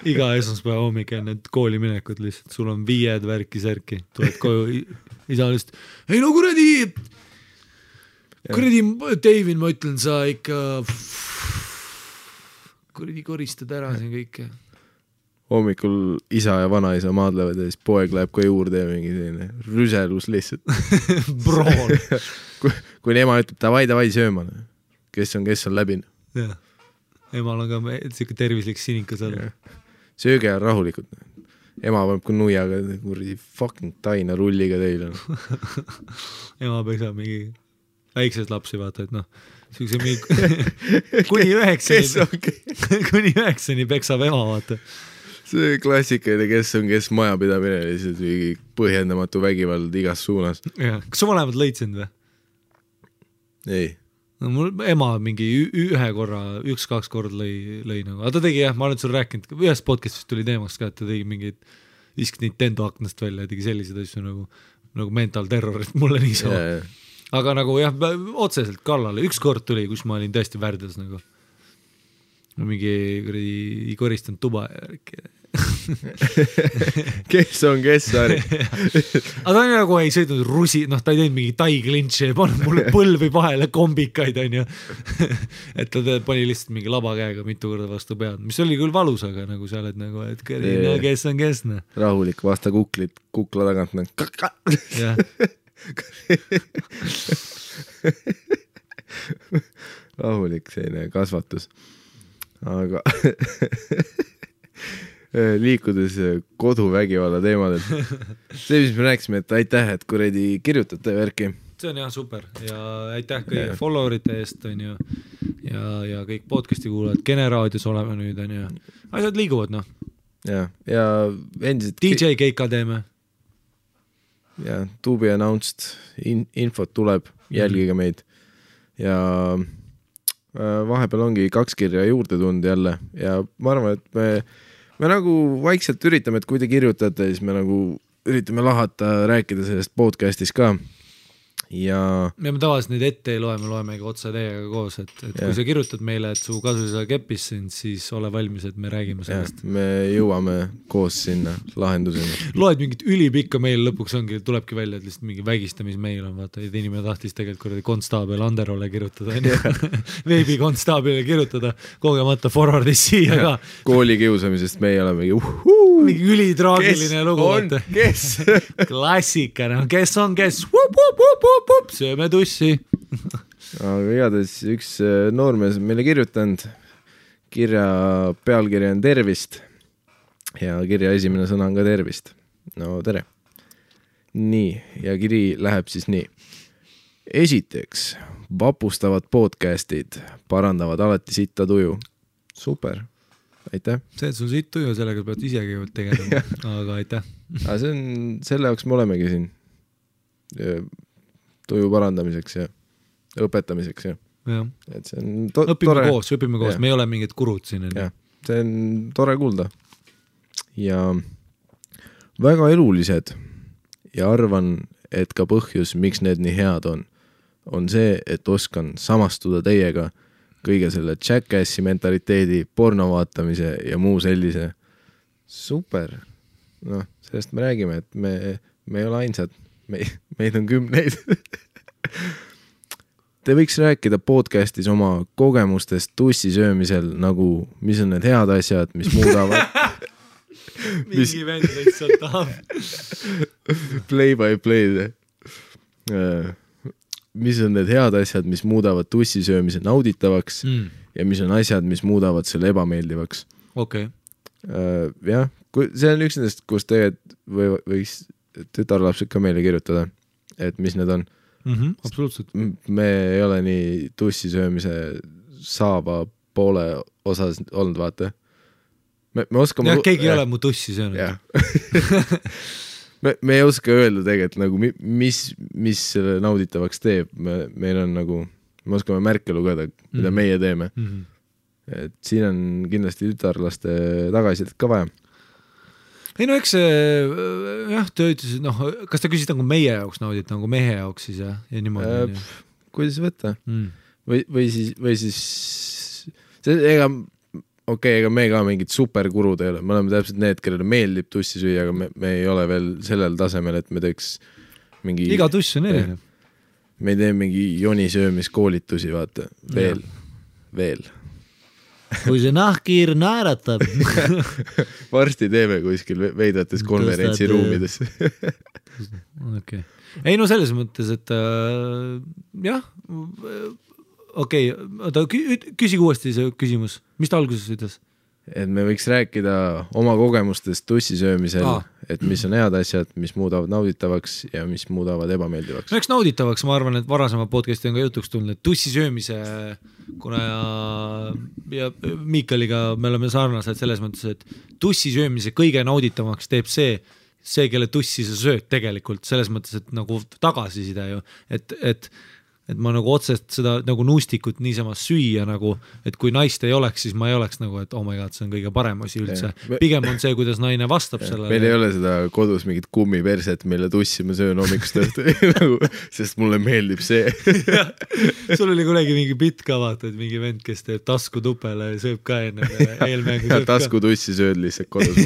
Iga esmaspäeva hommik enne kooli minekut lihtsalt. Sul on 5 värki-särki. Tuled koju isa lihtsalt. Ei no kuradi David, ma ütlen, sa ikka kuradi koristad ära siin kõike. Hommikul isa ja vanaisa maadlevad ja siis poeg läheb ka juurde ja mingi selline rüselus lihtsalt. Broon. Kui ema ütleb, davai sööma. Kes on läbinud. Jah. Emal on ka siuke tervislik sinikas all. Sööge ja rahulikult. Ema paneb ka nuiaga kuradi fucking taina rulliga teile. Ema peksab mingi väiksed lapsi, vaata, et noh, siukse mingi kuni 9 peksab ema, vaata. See klassikaline, kes majapidamine, lihtsalt mingi põhjendamatu vägivald igas suunas. Kas su vanemad lõid sind või? Ei. No, mul ema mingi 1-2 korda lõi nagu. Aga ta tegi jah, ma olen sul rääkinud, ühes podcastist tuli teemaks ka, et ta tegi mingid viskas Nintendo aknast välja, tegi sellised asju nagu mental terror, et mulle nii sama. Aga nagu jah, otseselt kallale. 1 kord tuli, kus ma olin tõesti värdes nagu. Mingi koristanud tuba ja kes on kes, Ari? Aga ta nagu ei sõidnud ta ei teinud mingi tai klintši ja pannud mulle põlvi vahele kombikaid, on ju. Et ta pani lihtsalt mingi labakäega mitu korda vastu pead, mis oli küll valus, aga nagu sa oled nagu, et kes on kes. Rahulik, vasta kukla tagant. Jah. Rahulik selline kasvatus. Aga liikudes koduvägivalla teemadel. See, mis me rääkisime, et aitäh, et kuradi kirjutate värki. See on jah super ja aitäh kõige followerite eest, on ju, ja kõik podcasti kuulajad, Generaadios oleme nüüd, on ju. Asjad liiguvad, noh. Ja endiselt... DJ keika teeme. Ja to be announced, infot tuleb, jälgige meid. Ja vahepeal ongi 2 kirja juurde tund jälle ja ma arvan, et me nagu vaikselt üritame, et kui te kirjutate, siis me nagu üritame lahata, rääkida sellest podcastis ka. Ja me tavaliselt neid ette ei loe, me loemegi otsa teiega koos, et kui sa kirjutad meile, et su kasusisa keppis sind, siis ole valmis, et me räägime sellest. Me jõuame koos sinna lahenduseni. Loed mingit ülipikka meil lõpuks tulebki välja, et lihtsalt mingi vägistamismeil on, vaata, et inimene tahtis tegelikult konstaabel Anderole kirjutada, veebi konstaabile kirjutada, kogemata forwardis siia ka. Kooli kiusamisest me ei ole mingi ülitraagiline lugu. Kes? Klassika, kes on kes? Sööme tussi. Aga igatahes üks noormees meile kirjutanud. Kirja pealkirja on tervist ja kirja esimene sõna on ka tervist. No tere. Nii, ja kiri läheb siis nii. Esiteks, vapustavad podcastid parandavad alati sitta tuju. Super, aitäh. See, et sul sitt tuju, sellega pead isegi tegema, aga aitäh. Aga see on, selle jaoks me olemegi siin. Tuju parandamiseks ja õpetamiseks ja. Et see on õpime koos, me ei ole mingid kurud siin. Ja, see on tore kuulda. Ja väga elulised ja arvan, et ka põhjus, miks need nii head on see, et oskan samastuda teiega kõige selle Jackassi mentaliteedi, porno vaatamise ja muu sellise. Super. Noh, sellest me räägime, et me ei ole ainsad. Meid on 10. Te võiks rääkida podcastis oma kogemustest tussi söömisel, nagu mis on need head asjad, mis muudavad mingi vend lihtsalt tahab play by play mis on need head asjad, mis muudavad tussi söömise nauditavaks ja mis on asjad, mis muudavad selle ebameeldivaks. Okay. Jah, see on üks nendest, kus tegelikult võiks tütarlapsed ka meile kirjutada, et mis need on. Absoluutselt. Me ei ole nii tussi söömise saava poole osas olnud, vaata. Me oskame... Ja, keegi ei ole mu tussi söönud. me ei oska öelda tegelikult, nagu, mis selle nauditavaks teeb. Meil on nagu, me oskame märke lugeda, mida meie teeme. Et siin on kindlasti tütarlaste tagasiselt ka vaja. Ei no eks jah, te ütlesid, kas ta küsid nagu meie jaoks naudit, nagu mehe jaoks siis ja niimoodi? kuidas võtta või siis ega me ka mingid superkurud ei ole, me oleme täpselt need, kellele meeldib tussi süüa, aga me ei ole veel sellel tasemel, et me teeks mingi iga tuss on erinev. Me ei tee mingi jonisöömiskoolitusi, vaata, veel. Kui see nahkhiir naeratab. Varsti teeme kuskil veidrates konverentsiruumides. Okay. Ei no selles mõttes, et jah, küsi uuesti see küsimus. Mis ta alguses ütles? Et me võiks rääkida oma kogemustest tussisöömisel, et mis on head asjad, mis muudavad nauditavaks ja mis muudavad ebameeldivaks. No eks nauditavaks, ma arvan, et varasema podcasti on ka jutuks tulnud, et tussisöömise, kuna ja Miikaliga me oleme sarnased selles mõttes, et tussisöömise kõige nauditavaks teeb see, kelle tussi sa sööd tegelikult, selles mõttes, et nagu tagasiside ju, et ma nagu otsest seda nagu nuustikut niisama süüa nagu, et kui naist ei oleks, siis ma ei oleks nagu, et oh my god, see on kõige parem asi üldse. Pigem on see, kuidas naine vastab sellele. Meil ei ole seda kodus mingit kummiperset, mille tussi ma söön hommikust õhtu, sest mulle meeldib see. Sul oli kunagi mingi bitt ka vaata, et mingi vend, kes teeb tasku tupele ja sööb ka enne eelmängu. Ja tasku tussi sööd lihtsalt kodus.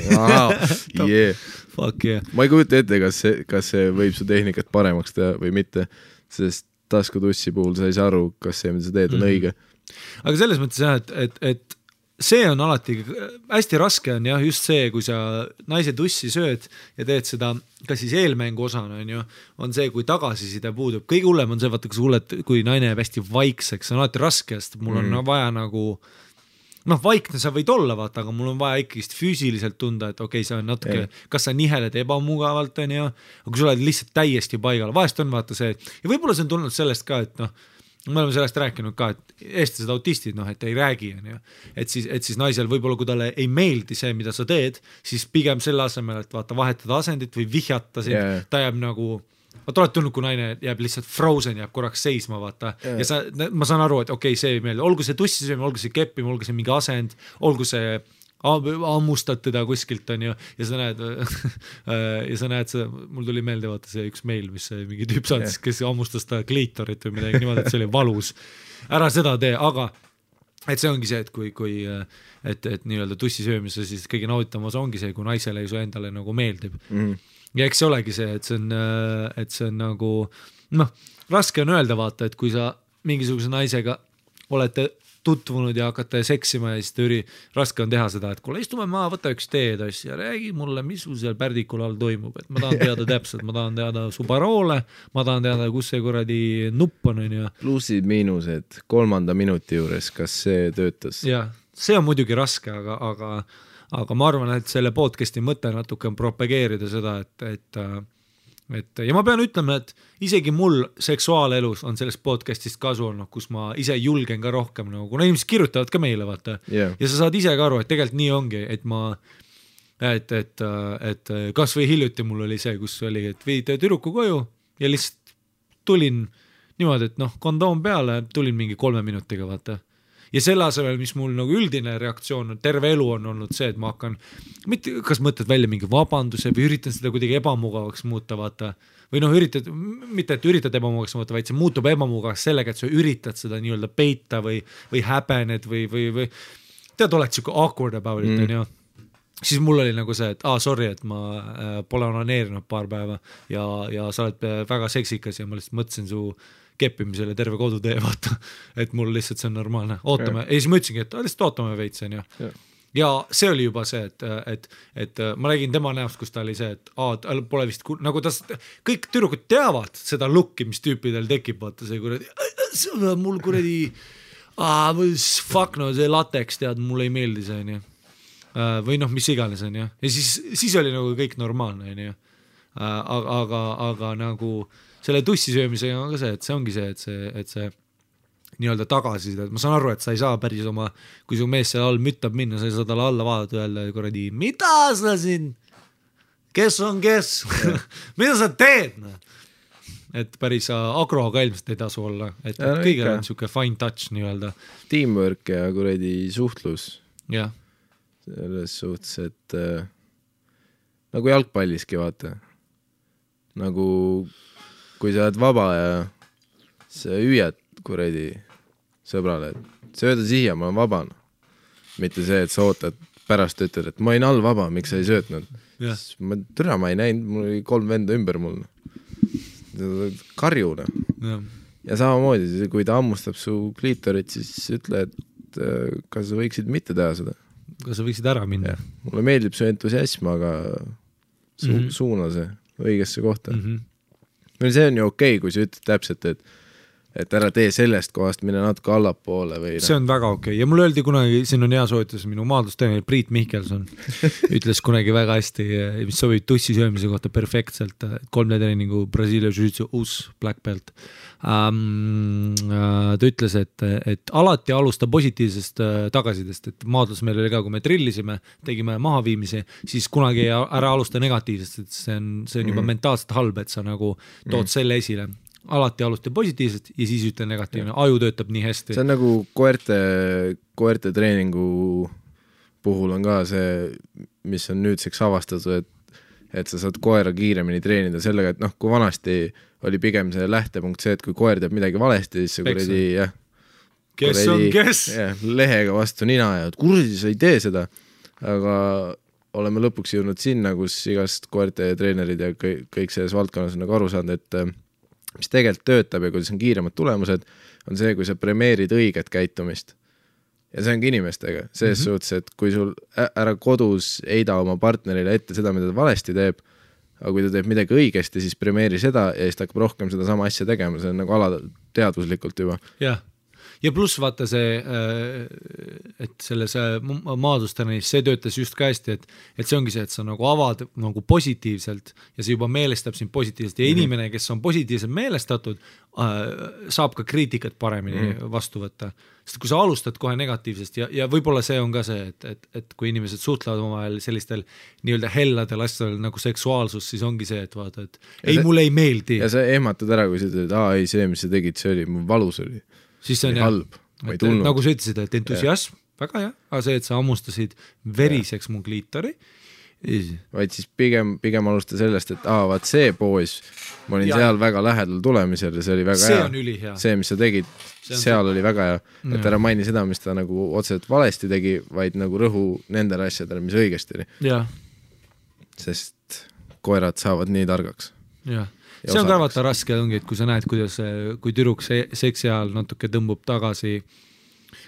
Fuck yeah. Ma ei kujuta ette, kas see võib su tehnikat paremaks teha või mitte, sest tasku tussi puhul sa ei saa aru, kas see, mida sa teed, on õige. Aga selles mõttes jah, et see on alati hästi raske on jah, just see, kui sa naise tussi sööd ja teed seda, kas siis eelmängu osana on see, kui tagasiside puudub. Kõige hullem on see, vaata, kui naine jääb hästi vaikseks, on alati raske, sest mul on vaja nagu vaikne sa võid olla, vaata, aga mul on vaja ikkist füüsiliselt tunda, et okei, see on natuke, kas sa niheled ebamugavalt, aga kui sa oled lihtsalt täiesti paigal, vahest on vaata see, ja võib-olla see on tulnud sellest ka, et me oleme sellest rääkinud ka, et eestlased autistid, et ei räägi, et siis naisel võib-olla, kui talle ei meeldi see, mida sa teed, siis pigem selle asemel, et vaata, vahetada asendit või vihjata sind, ta jääb nagu vaata, oled tulnud, kui naine jääb lihtsalt frozen, jääb korraks seisma, vaata. Ja ma saan aru, et okei, see ei meeldi. Olgu see tussisöömine, olgu see keppimine, olgu see mingi asend, olgu see ammustad teda kuskilt, on ju, ja sa näed seda, mul tuli meelde, vaata see üks meil, mis see mingi tüüp saatis, kes ammustas ta kliitorit või midagi niimoodi, et see oli valus. Ära seda tee, aga et see ongi see, et kui et nii-öelda tussisöömise, siis kõige nauditamas ongi see, kui naisele ei su endale nagu meeldib. Ja eks see olegi see, et see on nagu, raske on öelda vaata, et kui sa mingisuguse naisega olete tutvunud ja hakkate seksima ja siis raske on teha seda, et kuule, istume maa, võta üks teedass ja räägi mulle, mis sul seal pärdikul all toimub, et ma tahan teada täpselt, ma tahan teada su paroole, ma tahan teada, kus see kuradi nupp on ja plussid, miinused 3. minuti juures, kas see töötas? Ja, see on muidugi raske, aga ma arvan, et selle podcasti mõte natuke on propageerida seda, et ja ma pean ütlema, et isegi mul seksuaalelus on sellest podcastist kasu olnud, kus ma ise julgen ka rohkem, kuna inimesed kirjutavad ka meile, vaata. Ja sa saad ise ka aru, et tegelikult nii ongi, et kas või hiljuti mul oli see, kus oli, et viid tüdruku koju ja lihtsalt tulin niimoodi, et kondoom peale, tulin mingi 3 minutiga, vaata. Ja selle asemel, mis mul nagu üldine reaktsioon on, terve elu on olnud see, et ma hakkan, kas mõtled välja mingi vabanduse või üritan seda kuidagi ebamugavaks muuta, vaata, või mitte et üritad ebamugavaks muuta, vaid see muutub ebamugavaks sellega, et sa üritad seda nii-öelda peita või häbened või tead, oled siuke awkward about it, on ju. Siis mul oli nagu see, et sorry, et ma pole onaneerinud paar päeva ja sa oled väga seksikas ja ma lihtsalt mõtlesin su keppimisele terve kodutee, vaata, et mul lihtsalt see on normaalne, ootame, ja siis ma ütlesingi, et lihtsalt ootame veits, on ju. Ja see oli juba see, et ma räägin tema näost, kus ta oli see, et pole vist, nagu kõik tüdrukud teavad seda looki, mis tüüpidel tekib, vaata see kuradi, mul kuradi, fuck no, see lateks, tead, mulle ei meeldi see, on ju. Või mis iganes, on ju. Ja siis oli nagu kõik normaalne, on ju. Aga nagu selle tussisöömisega on ka see, et see ongi see, et see nii-öelda tagasi, ma saan aru, et sa ei saa päris oma, kui su mees seal all müttab minna, sa ei saa talle alla vaadata öelda kuradi, mida sa siin, kes on kes, mida sa teed, et päris agroga ilmselt ei tasu olla, et kõigil on siuke fine touch nii-öelda. Teamwork ja kuradi suhtlus. Jah. Selles suhtes, et nagu jalgpalliski, vaata. Nagu kui sa oled vaba ja sa hüüad kuradi sõbrale, et sööda siia, ma olen vaba. Mitte see, et sa ootad pärast ütled, et ma olin all vaba, miks sa ei söötnud. Ma ei näinud, mul oli 3 venda ümber mul. Karjuna. Ja samamoodi, kui ta ammustab su kliitorit, siis ütle, et kas sa võiksid mitte teha seda. Kas sa võiksid ära minna? Mulle meeldib su entusiasm, aga suuna see õigesse kohta. See on ju okei, kui sa ütled täpselt, et ära tee sellest kohast, mine natuke allapoole või... See on väga okei. Ja mulle öeldi kunagi, siin on hea soovitus, minu maadlusteener Priit Mihkelson ütles kunagi väga hästi, mis sobib tussi söömise kohta perfektselt, 3 treeningu Brasiilia Jiu-Jitsu uus black belt. Ta ütles, et alati alusta positiivsest tagasidest, et maadlus meil oli ka, kui me trillisime, tegime mahaviimisi, siis kunagi ära alusta negatiivsest, et see on juba mentaalselt halb, et sa nagu tood selle esile. Alati alusta positiivselt ja siis ütle negatiivne. Aju töötab nii hästi. See on nagu koerte treeningu puhul on ka see, mis on nüüdseks avastatud, et sa saad koera kiiremini treenida sellega, et kui vanasti oli pigem see lähtepunkt see, et kui koer teeb midagi valesti, siis see kuradi, kes? Lehega vastu nina ja kuradi, sa ei tee seda. Aga oleme lõpuks jõudnud sinna, kus igast koerte treenerid ja kõik selles valdkonnas on nagu aru saanud, et mis tegelikult töötab ja kuidas on kiiremad tulemused, on see, kui sa premeerid õiget käitumist. Ja see ongi inimestega. Selles suhtes, et kui sul ära kodus eida oma partnerile ette seda, mida ta valesti teeb, aga kui ta teeb midagi õigesti, siis premeeri seda ja siis ta hakkab rohkem seda sama asja tegema. See on nagu alateadvuslikult juba. Ja pluss vaata see, et selles maadlustanis see töötas just ka hästi, et see ongi see, et sa nagu avad nagu positiivselt ja see juba meelestab sind positiivselt ja inimene, kes on positiivselt meelestatud, saab ka kriitikat paremini vastu võtta. Sest kui sa alustad kohe negatiivsest ja võib-olla see on ka see, et kui inimesed suhtlevad omavahel sellistel nii-öelda helladel asjadel nagu seksuaalsus, siis ongi see, et vaata, et mulle ei meeldi. Ja sa ehmatad ära, kui sa ütled, ei see, mis sa tegid, see oli, mul valus oli. Siis see on halb, ma ei tulnud. Nagu sa ütlesid, et entusiasm, väga hea, aga see, et sa ammustasid veriseks mu kliitori. Vaid siis pigem alusta sellest, et vaat see poos, ma olin seal väga lähedal tulemisel ja see oli väga see hea. On ülihea. See, mis sa tegid, seal oli väga hea. Et ära maini seda, mis ta nagu otseselt valesti tegi, vaid nagu rõhu nendele asjadele, mis õigesti oli. Sest koerad saavad nii targaks. See on ka vaata raske ongi, et kui sa näed, kuidas kui tüdruk seksi ajal natuke tõmbub tagasi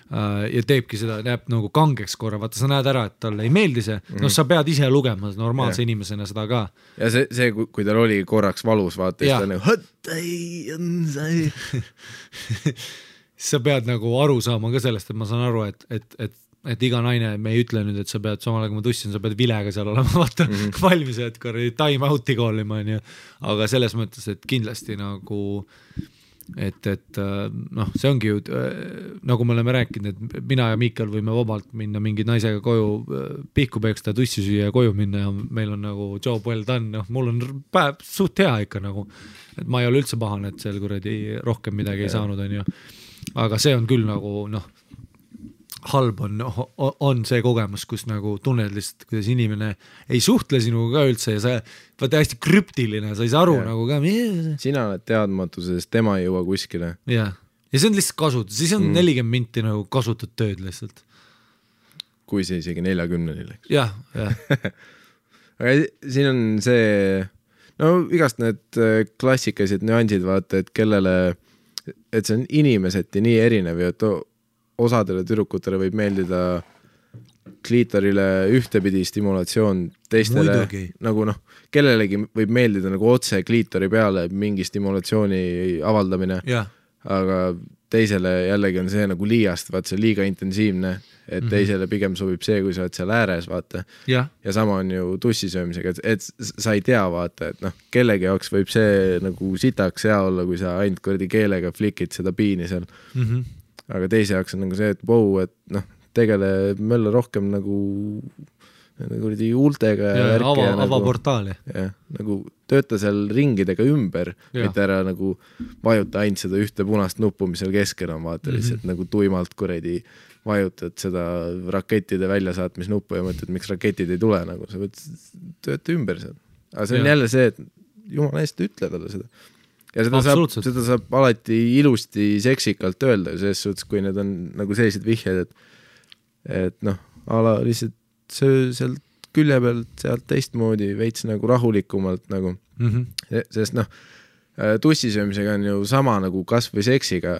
ja teebki seda, näeb nagu kangeks korra, vaata sa näed ära, et talle ei meeldi see, sa pead ise lugema normaalse inimesena seda ka. Ja see kui tal oli korraks valus, vaata, siis ta nagu sa pead nagu aru saama ka sellest, et ma saan aru, et iga naine, me ei ütle nüüd, et sa pead samal aega ma tussin, sa pead vilega seal olema, vaata valmis, et time out'i koolima, aga selles mõttes, et kindlasti nagu et see ongi ju nagu me oleme rääkinud, et mina ja Miikal võime vabalt minna mingi naisega koju pihku peeksta, tussi süüa ja koju minna ja meil on nagu job well done, mul on päev suht hea ikka nagu, et ma ei ole üldse pahane, et seal kuradi rohkem midagi ei saanud, aga see on küll nagu halb on see kogemus, kus nagu tunned lihtsalt, kuidas inimene ei suhtle sinuga ka üldse ja sa vaata hästi krüptiline, sa ei saa aru nagu ka. Sina oled teadmatuses, tema ei jõua kuskile. Ja see on lihtsalt kasut, siis on 40 minti nagu kasutad tööd lihtsalt. Kui see isegi 40 läks. Jah. Aga siin on see, igast need klassikalised nüansid vaata, et kellele, et see on inimeseti nii erinev ja osadele tüdrukutele võib meeldida kliitorile ühtepidi stimulatsioon, teistele muidugi. Nagu kellelegi võib meeldida nagu otse kliitori peale mingi stimulatsiooni avaldamine, aga teisele jällegi on see nagu liiast, vaat see liiga intensiivne, et teisele pigem sobib see, kui sa oled seal ääres, vaata. Ja sama on ju tussisöömisega, et sa ei tea, vaata, et kellegi jaoks võib see nagu sitaks hea olla, kui sa ainult kordi keelega flikid seda piini seal. Aga teise jaoks on nagu see, et et tegele mölla rohkem nagu huultega ja avaportaali. Nagu tööta seal ringidega ümber, mitte ära nagu vajuta ainult seda ühte punast nuppu, mis seal keskel on, vaata lihtsalt nagu tuimalt kuredi vajutad seda rakettide väljasaatmisnuppu ja mõtled, miks raketid ei tule, nagu sa võid tööta ümber seal. Aga see on jälle see, et jumala eest ütle talle seda. ja seda saab alati ilusti seksikalt öelda selles suhtes, kui need on nagu sellised vihjed, et noh, ala lihtsalt sealt külje pealt sealt teistmoodi veits nagu rahulikumalt nagu, sest noh, tussisöömisega on ju sama nagu kas või seksiga,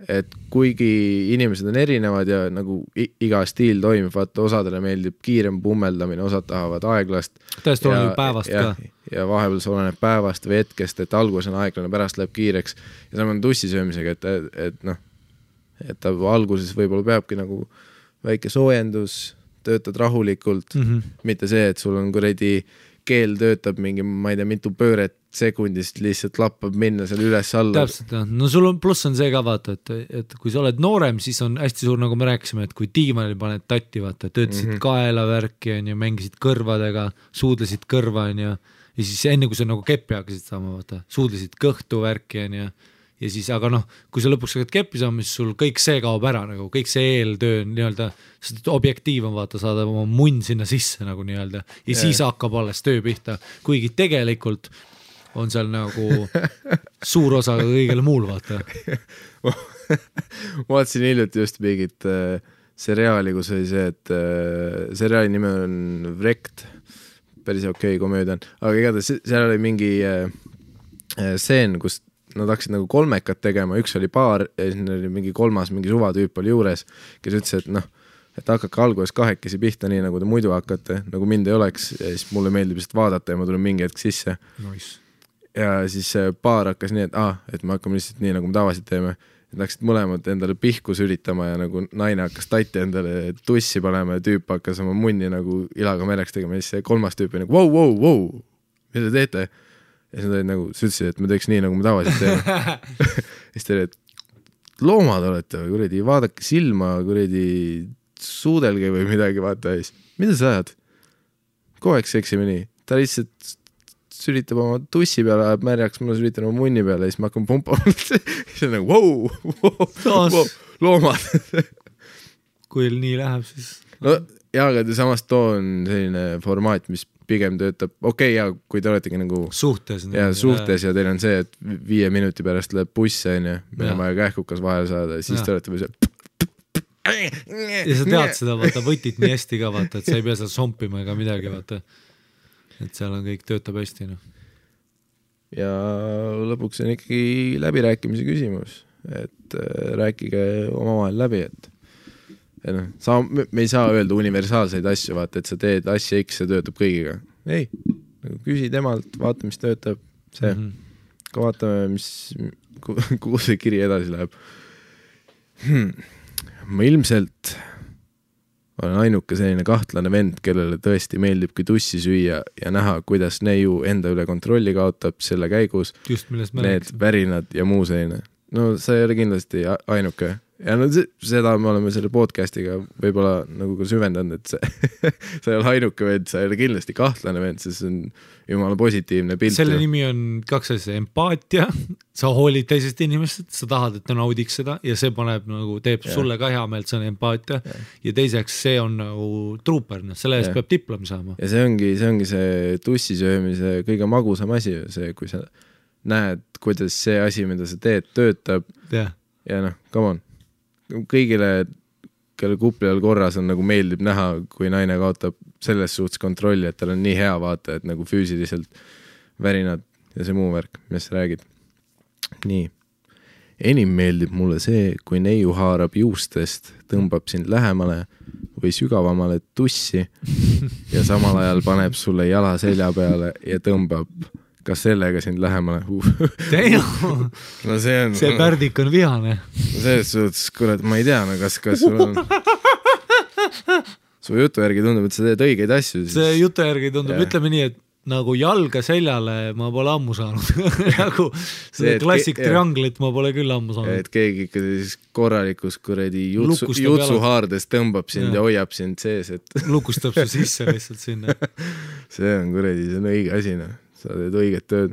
et kuigi inimesed on erinevad ja nagu iga stiil toimib, vaata osadele meeldib kiirem pummeldamine, osad tahavad aeglast. Täiesti oleneb päevast ka. Ja vahepeal see oleneb päevast või hetkest, et alguses on aeglane, pärast läheb kiireks. Ja sama on tussisöömisega, et noh, et ta alguses võib-olla peabki nagu väike soojendus, töötad rahulikult, mitte see, et sul on kuradi keel töötab mingi, ma ei tea, mitu pööret sekundist lihtsalt lappab minna seal üles-alla. Täpselt, no sul on pluss on see ka vaata, et kui sa oled noorem, siis on hästi suur, nagu me rääkisime, et kui diivanil paned tatti, vaata, töötasid kaelavärki on ju, mängisid kõrvadega, suudlesid kõrva on ju, ja siis enne kui sa nagu keppi hakkasid saama, vaata, suudlesid kõhtu värki on ju, ja siis, aga noh, kui sa lõpuks hakkad keppi saama, siis sul kõik see kaob ära, nagu kõik see eeltöö nii-öelda, seda objektiiv on vaata, saada oma munn sinna sisse nagu nii-öelda, ja siis hakkab alles töö pihta, kuigi tegelikult on seal nagu suur osa kõigele muul, vaata. Ma vaatasin hiljuti just mingit seriaali, kus oli see, et seriaali nime on Wrecked, päris okei komöödia on, aga igatahes seal oli mingi stseen, kus nad hakkasid nagu kolmekat tegema, üks oli paar ja siis oli mingi kolmas, mingi suvatüüp oli juures, kes ütles, et noh, et hakake alguses kahekesi pihta nii, nagu te muidu hakkate, nagu mind ei oleks ja siis mulle meeldib lihtsalt vaadata ja ma tulen mingi hetk sisse. Nice. Ja siis paar hakkas nii, et me hakkame lihtsalt nii, nagu me tavaliselt teeme, et läksid mõlemad endale pihkus üritama ja nagu naine hakkas tatti endale tussi panema ja tüüp hakkas oma munni nagu ilaga mereks tegema ja siis see kolmas tüüp oli nagu wow, mida te teete? Ja siis nagu, sa ütlesid, et me teeks nii, nagu me tavaliselt teeme. siis te olid, et loomad olete või kuredi, vaadake silma, kuredi suudelge või midagi, vaata siis. Mida sa ajad? Kogu aeg seksime nii. Ta lihtsalt sülitab oma tussi peale, ajab märjaks, ma sülitan oma munni peale ja siis ma hakkan pumpama. siis on nagu, wow, loomad. kui nii läheb, siis... No, jaa, aga samas too on selline formaat, mis pigem töötab, ja kui te oletegi nagu suhtes ja teil on see, et 5 minuti pärast läheb buss ja meil on vaja kähkukas vahel saada ja siis te olete või see ja sa tead seda, vaata, võtit nii hästi ka, vaata, et sa ei pea seal sompima ega midagi, vaata, et seal on kõik töötab hästi, noh. Ja lõpuks on ikkagi läbirääkimise küsimus, et rääkige omavahel läbi, et me ei saa öelda universaalseid asju, vaata, et sa teed asja X ja töötab kõigiga. Ei, küsi temalt, vaata, mis töötab, see. Ka vaatame, kuhu see kiri edasi läheb. Ma ilmselt olen ainuke selline kahtlane vend, kellele tõesti meeldibki tussi süüa ja näha, kuidas neiu enda üle kontrolli kaotab selle käigus. Just, millest me need värinad ja muu selline. No sa ei ole kindlasti ainuke. Ja no seda me oleme selle podcastiga võib-olla nagu ka süvendanud, et sa ei ole ainuke vend, sa ei ole kindlasti kahtlane vend, see on jumala positiivne pilt. Selle nimi on 2 asja, empaatia, sa hoolid teisest inimesest, sa tahad, et ta naudiks seda ja see paneb nagu, teeb sulle ka hea meelt, see on empaatia ja teiseks see on nagu trooper, selle eest peab diplomi saama. Ja see ongi see tussisöömise kõige magusam asi, see, kui sa näed, kuidas see asi, mida sa teed, töötab ja noh, come on. Kõigile, kelle kuplil korras on nagu meeldib näha, kui naine kaotab selles suhtes kontrolli, et tal on nii hea vaata, et nagu füüsiliselt värinad ja see muu värk, mis sa räägid. Nii. Enim meeldib mulle see, kui neiu haarab juustest, tõmbab sind lähemale või sügavamale tussi ja samal ajal paneb sulle jala selja peale ja tõmbab kas sellega sind lähemale? No see pärdik on vihane. Selles suhtes, kurat, ma ei tea, no kas sul on... Su jutu järgi tundub, et sa teed õigeid asju. Siis... See jutu järgi tundub, ütleme nii, et nagu jalga seljale ma pole ammu saanud. nagu see klassik trianglit ma pole küll ammu saanud. Et keegi ikka siis korralikus kuredi jutsuhaardes tõmbab sind ja hoiab sind sees. Et... Lukustab su sisse lihtsalt sinna. See on kuredi, see on õige asina. Sa teed õiget tööd.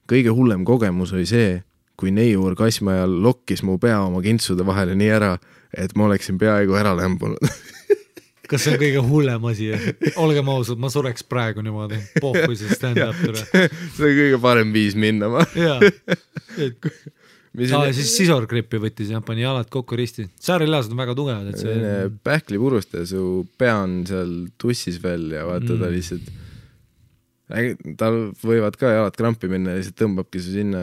Kõige hullem kogemus oli see, kui neiu orgasmi ajal lokkis mu pea oma kintsude vahele nii ära, et ma oleksin peaaegu ära lämbunud. kas see on kõige hullem asi? Olgem ausad, ma sureks praegu niimoodi. Pohkui see stand-up tule. See on kõige parem viis minna, ma. Jaa. Siis sisorgrippi võttis ja pani jalad kokku risti. Säärilihased on väga tugevad. Et see... Pähklipurust ja su pea on seal tussis veel ja vaata ta lihtsalt... Tal võivad ka jalad krampi minna ja lihtsalt tõmbabki su sinna.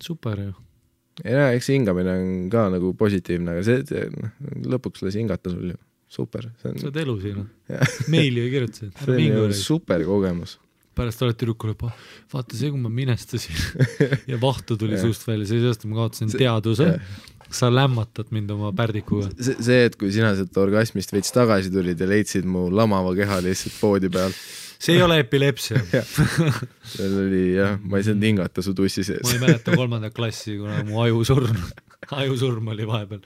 Super ju. Ja eks hingamine on ka nagu positiivne, aga see lõpuks lasi hingata sul ju. Super. Sa oled elu siin. Meili ju kirjutasid. See on ju super kogemus. Pärast oled tüdrukule, vaata see, kui ma minestasin ja vahtu tuli suust välja, seepärast ma kaotasin teaduse. Sa lämmatad mind oma pärdikuga. See, et kui sina sealt orgasmist veits tagasi tulid ja leidsid mu lamava keha lihtsalt poodi peal. See ei ole epilepsia. Seal oli jah, ma ei saanud hingata su tussi sees. Ma ei mäleta 3. klassi, kuna mu ajusurm oli vahepeal.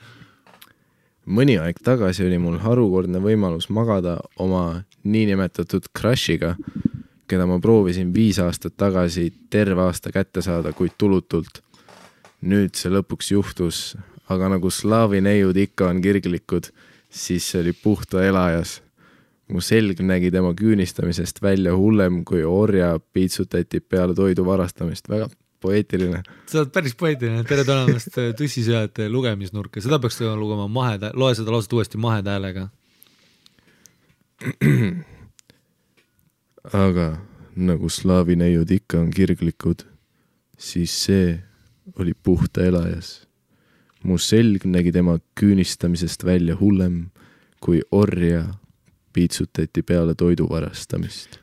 Mõni aeg tagasi oli mul harukordne võimalus magada oma niinimetatud crushiga, keda ma proovisin 5 aastat tagasi terve aasta kätte saada, kuid tulutult. Nüüd see lõpuks juhtus, aga nagu slaavi neiud ikka on kirglikud, siis see oli puhta elajas. Mu selg nägi tema küünistamisest välja hullem, kui orja piitsutati peale toidu varastamist. Väga poeetiline. Sa oled päris poeetiline. Tere tulemast Tussisööjate lugemisnurka. Seda peaks lugema loe seda lauset uuesti mahedäälega. Aga nagu slaavi neiud ikka on kirglikud, siis see oli puhta elajas. Mu selg nägi tema küünistamisest välja hullem, kui orja piitsutati peale toidu varastamist.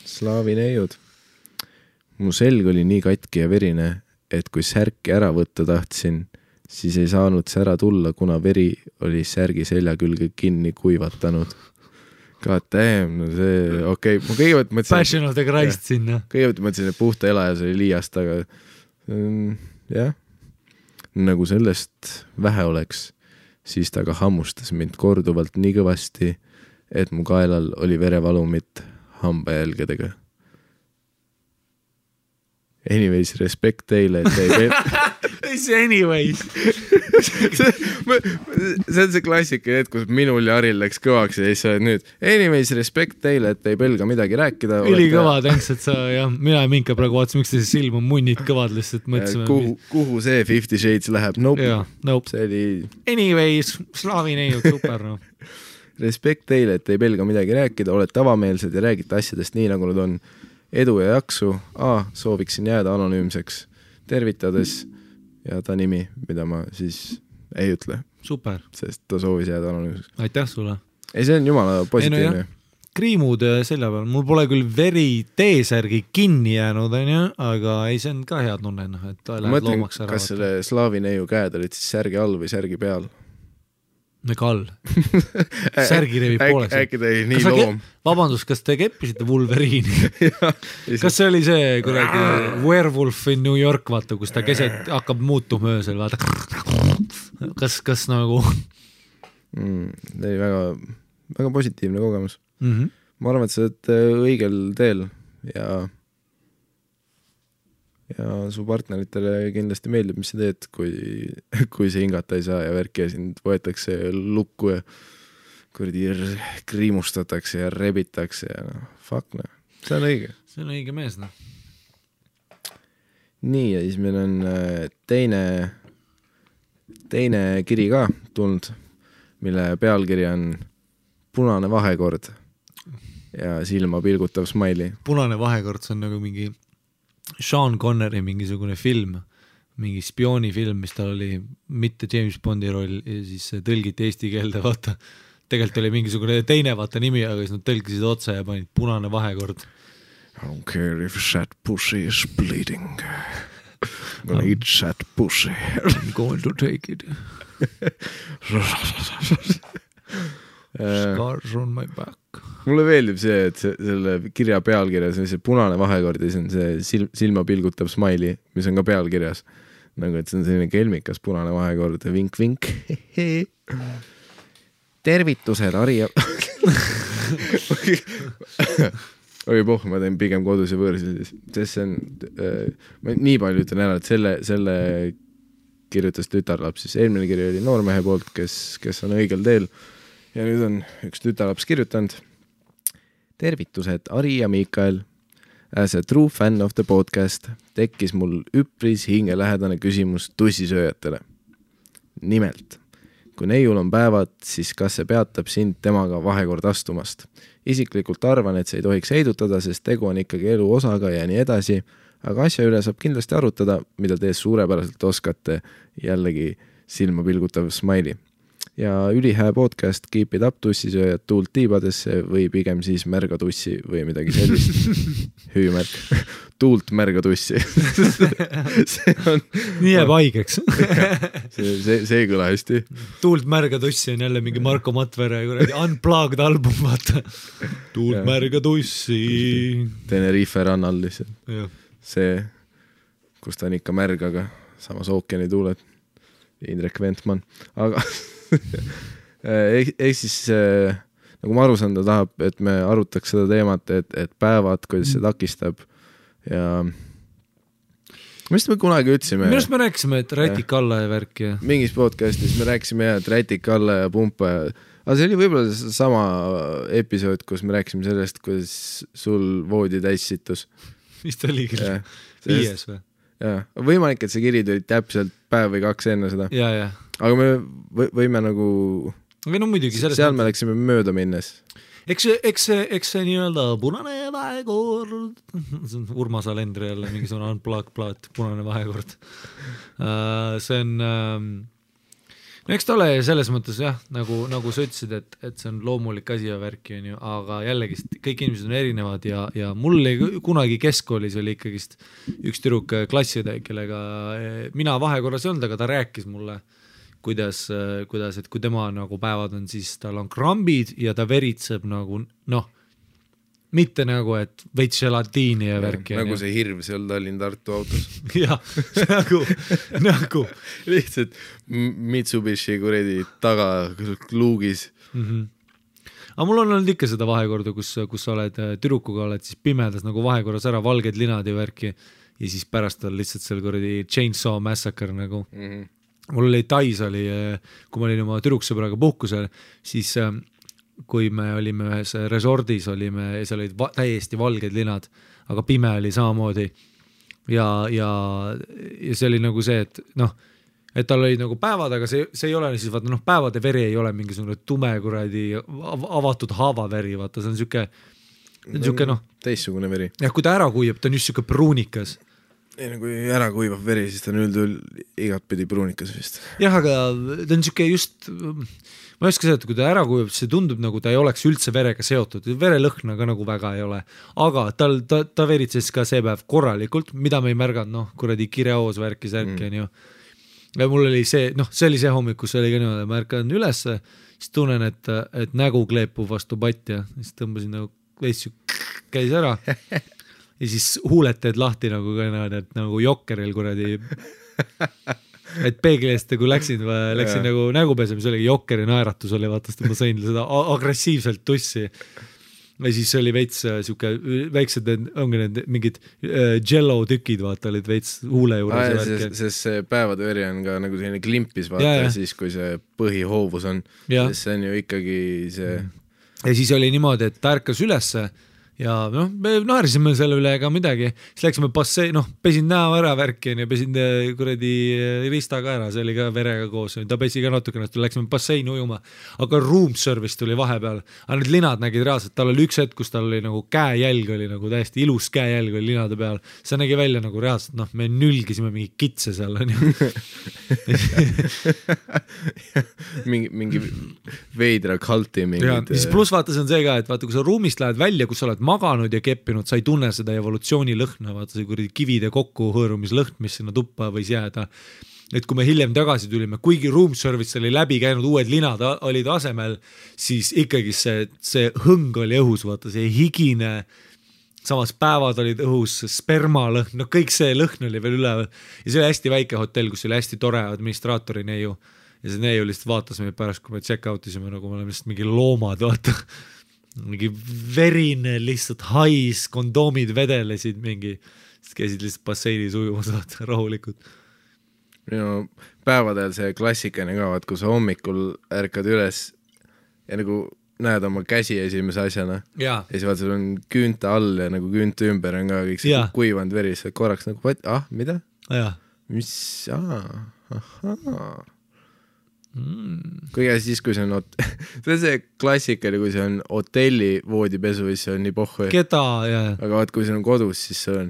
Slaavi neiud. Mu selg oli nii katki ja verine, et kui särki ära võtta tahtsin, siis ei saanud sära tulla, kuna veri oli särgi selja külge kinni kuivatanud. God damn, no see, okei. Ma kõigepealt mõtlesin... Passion of the Christ sinna. Kõigepealt mõtlesin, et puhta elajas oli liiast, aga jah. Nagu sellest vähe oleks, siis ta ka hammustas mind korduvalt nii kõvasti, et mu kaelal oli verevalumit hambajälgedega. Anyways, respekt teile, et ei Mis anyways? see on see klassika, et kus minul ja Aril läks kõvaks ja siis sa oled nüüd anyways, respekt teile, et ei pelga midagi rääkida. Ülikõva, tänks, et sa ja mina ja Minka praegu vaatsin, miks see silm on munnid kõvad lihtsalt mõtlesime. Kuhu see 50 Shades läheb? Nope. See oli... Anyways, slaavi neiud, super no. Respekt teile, et ei pelga midagi rääkida, olete avameelsed ja räägite asjadest nii, nagu nad on. Edu ja jaksu. Sooviksin jääda anonüümseks. Tervitades ja ta nimi, mida ma siis ei ütle. Super. Sest ta soovis jääda anonüümseks. Aitäh sulle. Ei, see on jumala positiivne. Kriimud selja peal. Mul pole küll veri T-särgi kinni jäänud, aga ei, see on ka hea tunne, et ta läheb loomaks ära. Kas selle slaavi neiu käed olid siis särgi all või särgi peal? Ega all. Särgi revib pooleks. Äkki ta ei nii loom. Vabandust, kas te keppisite Wolverine'i? Kas see oli see kuradi Werewolf in New York, vaata, kus ta keset hakkab muutuma öösel, vaata. Kas nagu... See oli väga positiivne kogemus. Ma arvan, et sa oled õigel teel ja su partneritele kindlasti meeldib, mis sa teed, kui see hingata ei saa ja värki ja sind võetakse lukku ja kurdi kriimustatakse ja rebitakse ja fuck no. See on õige. See on õige mees, no. Nii, ja siis meil on teine kiri ka tulnud, mille pealkiri on Punane vahekord ja silma pilgutav smiley. Punane vahekord, see on nagu mingi Sean Connery mingisugune film, mingi spioonifilm, mis tal oli mitte James Bondi roll ja siis tõlgiti eesti keelde, vaata. Tegelikult oli mingisugune teine vaata nimi, aga siis nad tõlgisid otsa ja panid Punane vahekord. I don't care if that pussy is bleeding. I'm gonna eat that pussy. I'm going to take it. Scars on my back. Mulle meeldib see, et selle kirja pealkirjas on see punane vahekord ja see on see silma pilgutav smiley, mis on ka pealkirjas. Nagu, et see on selline kelmikas punane vahekord. Vink, vink. Tervitused, Ari. Ma teen pigem kodus ja võõrsil. Sest see on, ma nii palju ütlen ära, et selle kirjutas tütarlaps, siis eelmine kiri oli noormehe poolt, kes on õigel teel ja nüüd on üks tütarlaps kirjutanud. Tervitused, Ari ja Miikael. As a true fan of the podcast tekkis mul üpris hingelähedane küsimus tussisööjatele. Nimelt, kui neiul on päevad, siis kas see peatab sind temaga vahekord astumast? Isiklikult arvan, et see ei tohiks heidutada, sest tegu on ikkagi elu osaga ja nii edasi, aga asja üle saab kindlasti arutada, mida te suurepäraselt oskate, jällegi silma pilgutav smiley. Ja ülihää podcast Keep it up tussisööjad tuult tiibadesse või pigem siis märga tussi või midagi sellist. Hüümärk. Tuult märga tussi. Nii jääb haigeks. see ei kõla hästi. Tuult märga tussi on jälle mingi Marko Matvere unplugged album, vaata. Tuult märga tussi. Tenerife rannal lihtsalt. See, kus ta on ikka märg, aga samas ookeani tuuled. Indrek Ventman. Aga ehk siis nagu ma aru saan, ta tahab, et me arutaks seda teemat, et päevad, kuidas see takistab ja mis me kunagi ütlesime? Millest me rääkisime, et rätik alla ja värk ja mingis podcastis me rääkisime et rätik alla ja pumpa ja aga see oli võib-olla sama episood, kus me rääkisime sellest, kuidas sul voodi täis situs. Mis ta oli küll? 5 või? Jaa, võimalik, et see kiri tuli täpselt päev või 2 enne seda. Jaa. Aga me võime nagu või no muidugi seal me läksime mööda minnes. Eks see nii-öelda punane vahekord, Urmas Alendri jälle mingisugune unplugged plaat, punane vahekord. See on no eks ta ole selles mõttes jah, nagu sa ütlesid, et see on loomulik asi ja värki on ju, aga jällegi kõik inimesed on erinevad ja mul kunagi keskkoolis oli ikkagist üks tüdruk klassiõde, kellega mina vahekorras ei olnud, aga ta rääkis mulle kuidas, et kui tema nagu päevad on, siis tal on krambid ja ta veritseb nagu mitte nagu, et veits gelatiini ja värki. Nagu see hirv seal Tallinn-Tartu autos. Jah, nagu. Lihtsalt Mitsubishi kuredi taga luugis. Aga mul on olnud ikka seda vahekorda, kus sa oled tüdrukuga, oled siis pimedas nagu vahekorras ära, valged linad ja värki ja siis pärast on lihtsalt seal kuredi Chainsaw Massacre nagu. Mul oli Tais oli, kui ma olin oma tüdruksõbraga puhkusel, siis kui me olime ühes resordis, seal olid täiesti valged linad, aga pime oli samamoodi ja see oli nagu see, et tal oli nagu päevad, aga see ei ole siis, vaata päevade veri ei ole mingisugune tume kuradi avatud haavaveri, vaata, see on siuke teistsugune veri. Ja kui ta ära kuiab, ta on just siuke pruunikas. Ei, kui ära kuivab veri, siis ta on üldüül igat pidi pruunikas vist. Jah, aga ta on siuke just, ma ei oska seda, et kui ta ära kuivab, see tundub nagu ta ei oleks üldse verega seotud, verelõhna ka nagu väga ei ole, aga ta veritses ka see päev korralikult, mida me ei märganud, kuradi kireoos värkis ärki on ju. Ja mul oli see, see oli see hommik, kus oli ka niimoodi, ma ärkan üles, siis tunnen, et nägu kleepub vastu patja, siis tõmbasin nagu veits käis ära ja siis huuled teed lahti nagu nagu jokkeril kuradi, et peegli eest kui läksin nagu nägupesem, see oli jokkeri naeratus oli, vaatast, et ma sain seda agressiivselt tussi ja siis oli veits siuke väiksed, ongi need mingid jello tükid, vaata, olid veits huule juures. Sest see päevade veri on ka nagu selline klimpis, vaata, siis kui see põhihoovus on, sest see on ju ikkagi see. Ja siis oli niimoodi, et ta ärkas ülesse ja me naerisime selle üle ega midagi, siis läksime pesin näo ära värki ja pesin kuradi ristaga ära, see oli ka verega koos, ta pesi ka natukene, läksime basseini ujuma, aga room service tuli vahepeal, aga need linad nägid reaalselt, tal oli üks hetk, kus tal oli nagu käejälg oli nagu täiesti ilus käejälg oli linade peal, see nägi välja nagu reaalselt, me nülgisime mingi kitse seal on ju. mingi veidra kalti mingid. Siis pluss vaata, see on see ka, et vaata, kui sa ruumist lähed välja, kus sa oled maganud ja keppinud, sa ei tunne seda evolutsiooni lõhna, vaata see kuradi kivide kokku hõõrumislõhn, mis sinna tuppa võis jääda. Et kui me hiljem tagasi tulime, kuigi room service oli läbi käinud, uued linad olid asemel, siis ikkagi see hõng oli õhus, vaata see higine, samas päevad olid õhus, spermalõhn, kõik see lõhn oli veel üleval ja see oli hästi väike hotell, kus oli hästi tore administraatori neiu ja see neiu lihtsalt vaatas meid pärast, kui me check out isime, nagu me oleme lihtsalt mingi loomad, vaata mingi verine lihtsalt hais, kondoomid vedelesid mingi, siis käisid lihtsalt basseinis ujumas rahulikult. päevadel see klassikaline ka, vaat kui sa hommikul ärkad üles ja nagu näed oma käsi esimese asjana ja siis vaat sul on küünte all ja nagu küünte ümber on ka kõik see kuivanud veri, sa korraks nagu, mida? Mis, Kõige siis, kui see on see on see klassikaline, kui see on hotelli voodipesu, siis see on nii pohhu. Keda, jah. Aga vaat, kui see on kodus, siis see on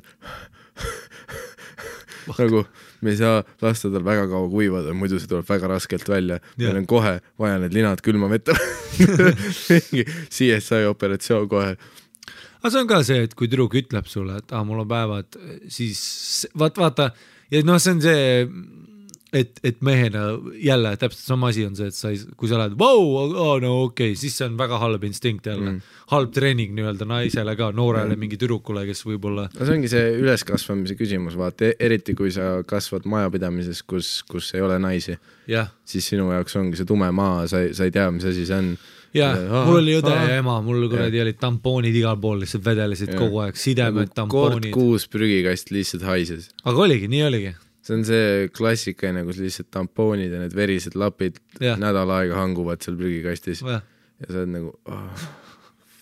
nagu me ei saa lasta tal väga kaua kuivada, muidu see tuleb väga raskelt välja. Meil on kohe vaja need linad külma vetta. CSI operatsioon kohe. Aga see on ka see, et kui tüdruk ütleb sulle, et mul on päevad, siis vaata, ja noh, see on see, et mehena jälle täpselt sama asi on see, et kui sa lähed, no okei, siis see on väga halb instinkt jälle. Halb treening nii-öelda naisele ka, noorele mingi tüdrukule, kes võib-olla... No see ongi see üleskasvamise küsimus, vaata, eriti kui sa kasvad majapidamises, kus ei ole naisi, siis sinu jaoks ongi see tume maa, sa ei tea, mis asi see on. Mul oli õde ja ema, mul kuradi olid tampoonid igal pool, lihtsalt vedelesid kogu aeg, sidemed, tampoonid. Kord 6 prügikast lihtsalt haises. Aga oligi, nii oligi. See on see klassikaine, kus lihtsalt tampoonid ja need verised lapid nädal aega hanguvad seal prügikastis. Ja sa oled nagu,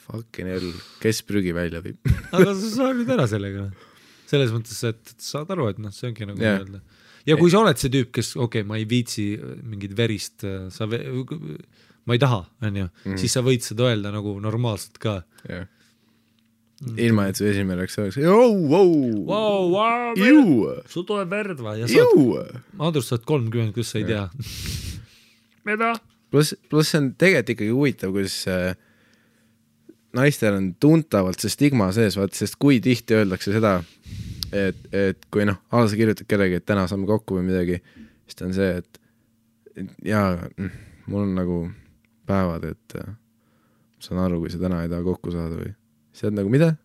fucking hell, kes prügi välja viib? Aga sa saad nüüd ära sellega. Selles mõttes, et saad aru, et see ongi nagu öelda. Ja kui sa oled see tüüp, kes, ma ei viitsi mingit verist, ma ei taha, siis sa võid seda öelda nagu normaalselt ka. Ilma, et su esimene oleks sul tuleb verd va ja Andrus saad 30, kus sa ei tea. Mida? Plus see on tegelikult ikkagi huvitav, kus naistel on tuntavalt see stigma sees, sest kui tihti öeldakse seda, et kui sa kirjutad kellegi, et täna saame kokku või midagi, siis ta on see, et mul on nagu päevad, et saan aru, kui sa täna ei taha kokku saada või see on nagu mida?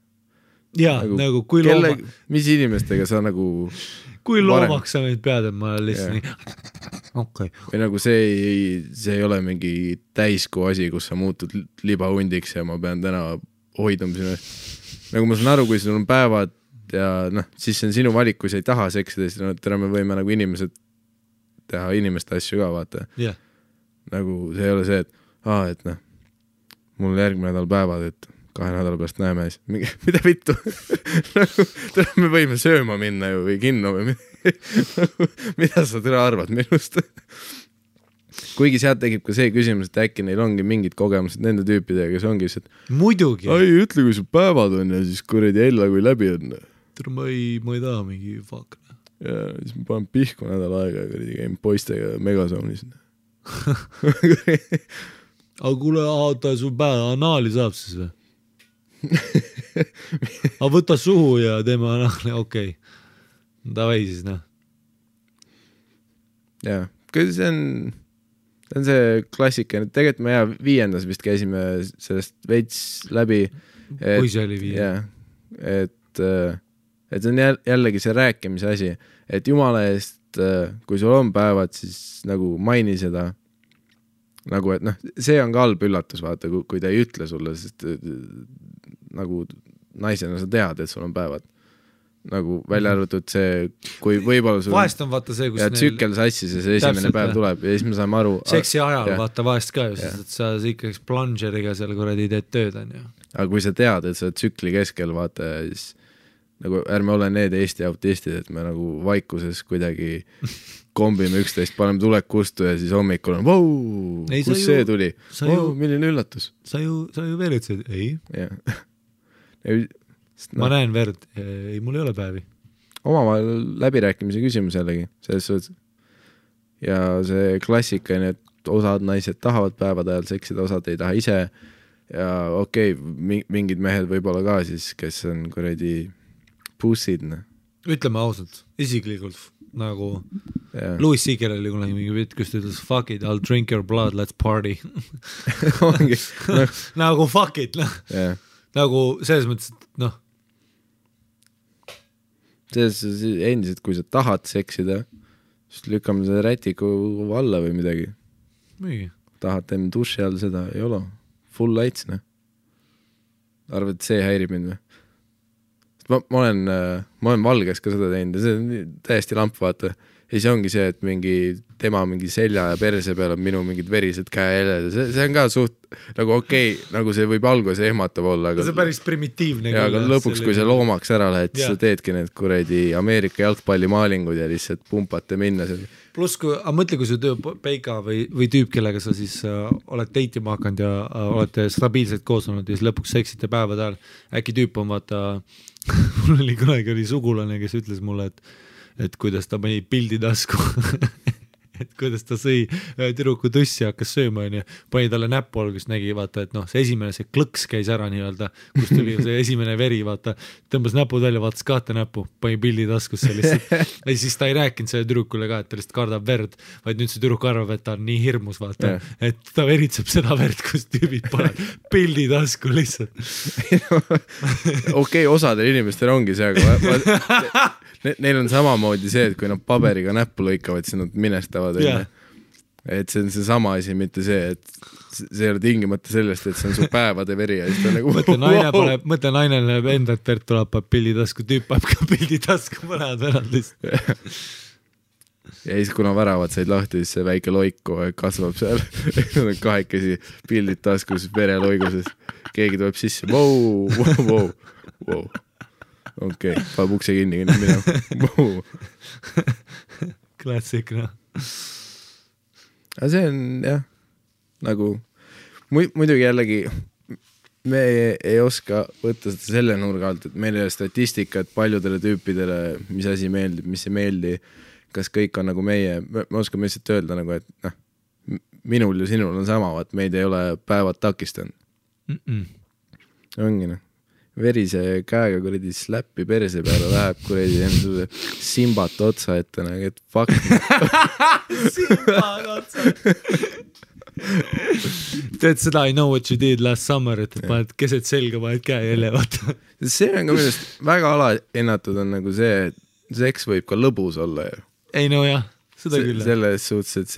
Jaa, nagu kui looma... Mis inimestega sa nagu... Kui loomaks sa meid pead, et ma lihtsalt nii... Okay. Või nagu see ei ole mingi täiskuu asi, kus sa muutud libahundiks ja ma pean täna hoiduma sinu. Nagu ma saan aru, kui sul on päevad ja siis see on sinu valik, kui sa ei taha seksida, siis täna me võime nagu inimesed teha inimeste asju ka, vaata. Nagu see ei ole see, et mul järgmine nädal päevad, et 2 nädala pärast näeme siis. Mida vittu? Me võime sööma minna ju või kinno või mida sa täna arvad minust? Kuigi sealt tegib ka see küsimus, et äkki neil ongi mingid kogemused nende tüüpidega, kes ongi see, et muidugi. Ai, ütle, kui sul päevad on ja siis kuradi ella, kui läbi on. Ma ei taha mingi fuck. Ja siis ma panen pihku nädal aega ja kuradi käin poistega Megazoonis. Aga kuule, sul päeva anaali saab siis või? Aga võta suhu ja teeme anaali, okei. Davai siis, Jaa, kui see on see klassika, tegelikult me 5. vist käisime sellest veits läbi. Kui see oli 5? Jaa, et see on jällegi see rääkimise asi, et jumala eest, kui sul on päevad, siis nagu maini seda, nagu et see on ka halb üllatus, vaata, kui ta ei ütle sulle, sest nagu naisena sa tead, et sul on päevad. Nagu välja arvatud see, kui võib-olla sul vahest on vaata see, kus ja tsükkel sassis ja see esimene päev tuleb ja siis me saame aru seksi ajal vaata vahest ka ju, sest et sa ikkagi plungeriga seal kuradi teed tööd on ju. Aga kui sa tead, et sa tsükli keskel vaata, siis nagu ärme ole need Eesti autistid, et me nagu vaikuses kuidagi kombime üksteist, paneme tulek kustu ja siis hommikul on kus see tuli? Milline üllatus? Sa ju veeritsid? Ei. Ma näen verd, ei, mul ei ole päevi. Omavahel läbirääkimise küsimus jällegi, selles suhtes. Ja see klassikaline, et osad naised tahavad päevad ajal seksida, osad ei taha ise ja mingid mehed võib-olla ka siis, kes on kuradi pussid. Ütleme ausalt, isiklikult nagu Louis Seeger oli kunagi mingi pitt, kus ta ütles fuck it, I'll drink your blood, let's party. Nagu fuck it, nagu selles mõttes, et endiselt, kui sa tahad seksida, siis lükkame seda rätiku alla või midagi. Tahad teeme duši all seda, ei ole. Full lights, Arvad, et see häirib mind või? Ma olen valges ka seda teinud ja see on täiesti lamp, vaata. ja siis ongi see, et tema mingi selja ja perse peal on minu mingid verised käeheled, see on ka suht nagu okei, nagu see võib alguses ehmatav olla, aga see on päris primitiivne. Ja aga lõpuks, kui sa loomaks ära lähed, siis sa teedki need kuredi Ameerika jalgpallimaalingud ja lihtsalt pumpate minna seal. Pluss, mõtle, kui su peika või tüüp, kellega sa siis oled deitima hakanud ja olete stabiilselt koos olnud ja siis lõpuks seksite päevade ajal, äkki tüüp on vaata, mul oli kunagi sugulane, kes ütles mulle, et kuidas ta pani pildi tasku et kuidas ta sõi tüdruku tussi ja hakkas sööma ja pani talle näppu alguses nägi, vaata, et see esimene, see klõks käis ära nii-öelda, kus tuli see esimene veri, vaata, tõmbas näpud välja, vaatas kahte näppu, pani pildi taskusse lihtsalt ja siis ta ei rääkinud selle tüdrukule ka, et ta lihtsalt kardab verd, vaid nüüd see tüdruk arvab, et ta on nii hirmus, vaata, et ta veritseb seda verd, kus tüübid pole pildi tasku lihtsalt okei, osadel inimestel ongi see, aga neil on samamoodi see, et kui nad paberiga näppu lõikavad, siis nad minestavad. Et see on see sama asi, mitte see, et see ei ole tingimata sellest, et see on su päevade veri ja siis ta nagu mõtle naine näeb enda, et verd tuleb pildi tasku, tüüp paneb ka pildi tasku mõned värad lihtsalt. Ja siis kuna väravad said lahti, siis see väike loiku kasvab seal. Nad on kahekesi pildid taskus, vereloiguses. Keegi tuleb sisse. Wow. Okei, paneb ukse kinni minema. Klassik, Aga see on, jah, nagu muidugi jällegi me ei oska võtta seda selle nurga alt, et meil ei ole statistikat paljudele tüüpidele, mis asi meeldib, mis ei meeldi, kas kõik on nagu meie, me oskame lihtsalt öelda nagu, et minul ja sinul on sama, et meid ei ole päevad takistanud. Ongi verise käega kuredi släppi perse peale läheb kuredi enda simbat otsa ette, et fuck. Simbat otsa. Teed seda I know what you did last summer, et paned keset selga, paned käe jälle, vaata. See on ka millest väga alahinnatud on nagu see, et seks võib ka lõbus olla. Ei no jah, seda küll. Selles suhtes, et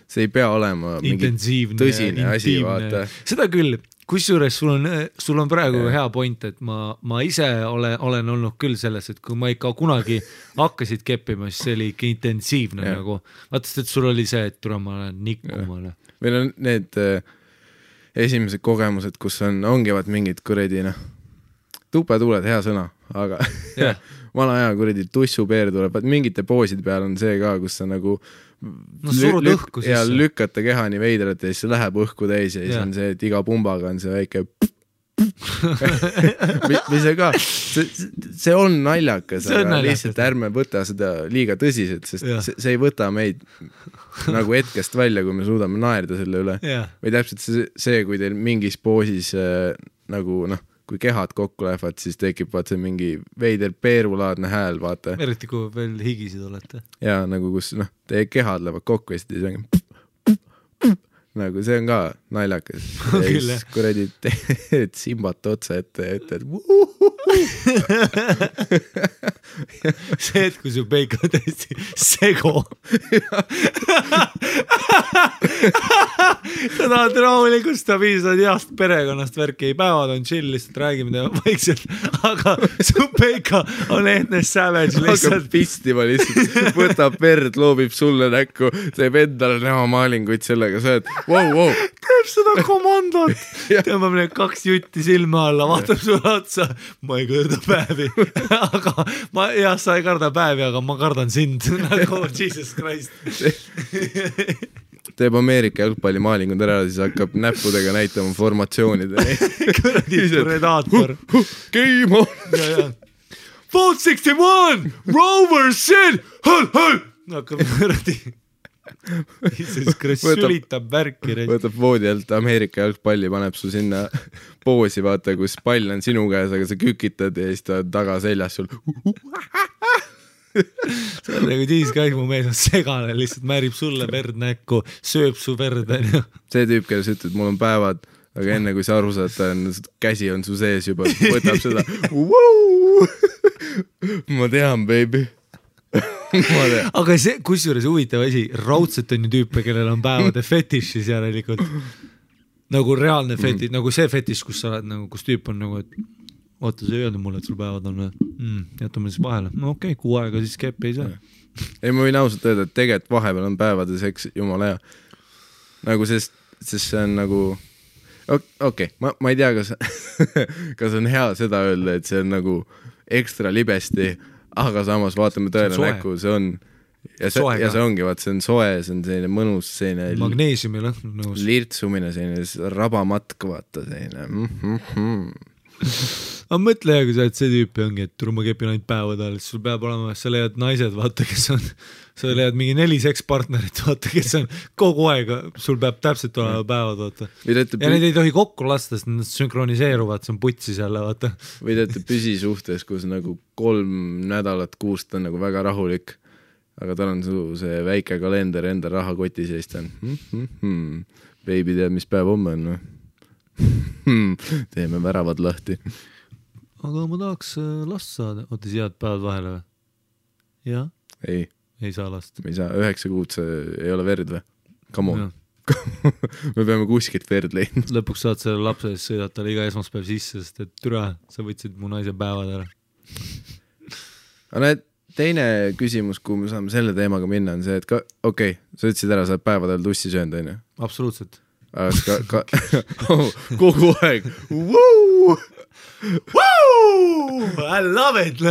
see ei pea olema mingi tõsine asi, vaata. Seda küll. Kusjuures sul on praegu hea point, et ma ise olen olnud küll selles, et kui ma ikka kunagi hakkasid keppima, siis see oli ikka intensiivne nagu. Vaatast, et sul oli see, et tule ma olen nikkumale. Meil on need esimesed kogemused, kus ongi mingid kuredi, tupetuuled, hea sõna, aga vana aja kuredi tussupeer tuleb, mingite pooside peal on see ka, kus sa nagu surud õhku ja lükkata keha nii veidralt ja siis see läheb õhku täis ja siis on see, et iga pumbaga on see väike mis see ka, see on naljakas, aga lihtsalt ärme võta seda liiga tõsiselt, sest see ei võta meid nagu hetkest välja, kui me suudame naerda selle üle. Või täpselt see, kui teil mingis poosis nagu kui kehad kokku lähevad, siis tekib vaata mingi veider peerulaadne hääl, vaata. Eriti kui veel higisid olete. Ja nagu kus teie kehad lähevad kokku ja siis on nagu see on ka naljakas. Ja siis kuredi teed simbat otsa ette, et see, et kui su peik on täiesti sego. Sa tahad rahulikult stabiilsed heast perekonnast värki, ei päevad on chill, lihtsalt räägime teema vaikselt, aga su peika on Ethne Savage lihtsalt. Hakkab pistima lihtsalt, võtab verd, loobib sulle näkku, teeb endale näo maalinguid sellega, sa oled wow. Teeb seda komandot, tõmbab need 2 jutti silma alla, vaatab sulle otsa, ma ei kõrda päevi, aga sa ei karda päevi, aga ma kardan sind, nagu Jesus Christ. Teeb Ameerika jalgpallimaalingud ära, siis hakkab näppudega näitama formatsioonide. Kuradi predaator. Game on! Vote 61! Rover Sin! Hõl! Hakkab kuradi... sülitab värki. Võtab voodi alt Ameerika jalgpalli, paneb su sinna poosi, vaata, kus pall on sinu käes, aga sa kükitad ja siis ta taga seljas sul. See on nagu tiiskaig, mu mees on segane, lihtsalt määrib sulle verd näkku, sööb su verd. See tüüp, kelle sa ütled, mul on päevad, aga enne kui sa aru saad, käsi on su sees juba, võtab seda. Ma tean, baby. Aga see, kusjuures huvitav asi, raudselt on ju tüüpe, kellel on päevade fetišis järelikult nagu reaalne fetiš, nagu see fetiš, kus sa oled nagu, kus tüüp on nagu, et oota, sa ei öelnud mulle, et sul päevad on jätame siis vahele. No okei, 6 aega siis keppi ei saa. Ei, ma võin ausalt öelda, et tegelikult vahepeal on päevades, eks jumala hea. Nagu sest see on nagu okei, ma ei tea, kas on hea seda öelda, et see on nagu ekstra libesti, aga samas vaatame tõele näkku, see on ja see ongi, vaat see on soe, see on selline mõnus, selline magneesiumi lõhn nõus. Lirtsumine, selline rabamatk, vaata selline aga mõtle, kui sa oled see tüüpi ongi, et ma kepin ainult päevad all, sul peab olema, sa leiad naised, vaata, kes on, sa leiad mingi 4 sekspartnerit, vaata, kes on kogu aeg, sul peab täpselt olema päevad, vaata. Ja need ei tohi kokku lasta, sest nad sünkroniseeruvad, see on putsis jälle, vaata. Või teete püsisuhtes, kus nagu 3 nädalat kuust on nagu väga rahulik, aga tal on see väike kalender enda rahakoti seest on. Baby tead, mis päev homme on, teeme väravad lahti. Aga ma tahaks last saada. Oota, siis jääd päevad vahele või? Jah? Ei saa last. Me ei saa, 9 kuud see ei ole verd või? Come on. Me peame kuskilt verd leidma. Lõpuks saad selle lapse ees sõidata talle iga esmaspäev sisse, sest et türa, sa võtsid mu naise päevad ära. Aga näed, teine küsimus, kui me saame selle teemaga minna, on see, et okei, sa ütlesid ära, sa oled päevadel tussi söönud, on ju? Absoluutselt. Kogu aeg I love it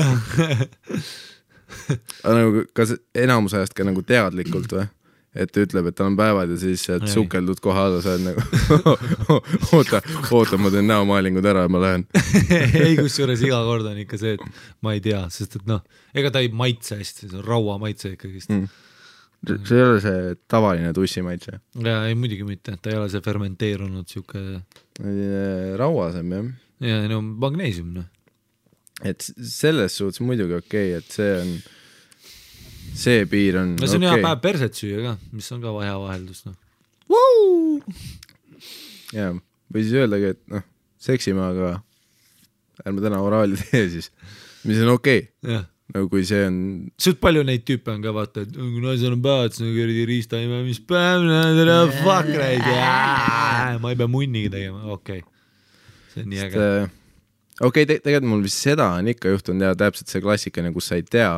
nagu, kas enamus ajast ka nagu teadlikult või? Et ütleb, et tal on päevad ja siis sukeldud koha alla, sa oled nagu oota, ma teen näomaalingud ära ja ma lähen. Ei, kusjuures iga kord on ikka see, et ma ei tea, sest et noh, ega ta ei maitse hästi, see on raua maitse ikkagist. See ei ole see tavaline tussimaitse? Ja ei, muidugi mitte, ta ei ole see fermenteerunud siuke rauasem, jah. Ja no magneesium, noh. Et selles suhtes muidugi okei, et see on see piir on no see on hea päev perset süüa ka, mis on ka hea vaheldus, noh. Ja, või siis öeldagi, et noh, seksime, aga ärme täna oraali tee siis, mis on okei. Jah. Nagu kui see on suht palju neid tüüpe on ka, vaata, et kui naisel on päevad, siis on kõrdi riistaime, mis päev, fuck raid, ma ei pea munniga tegema, okei. See on nii äge. Okei, tegelikult mul vist seda on ikka juhtunud ja täpselt see klassikane, kus sa ei tea,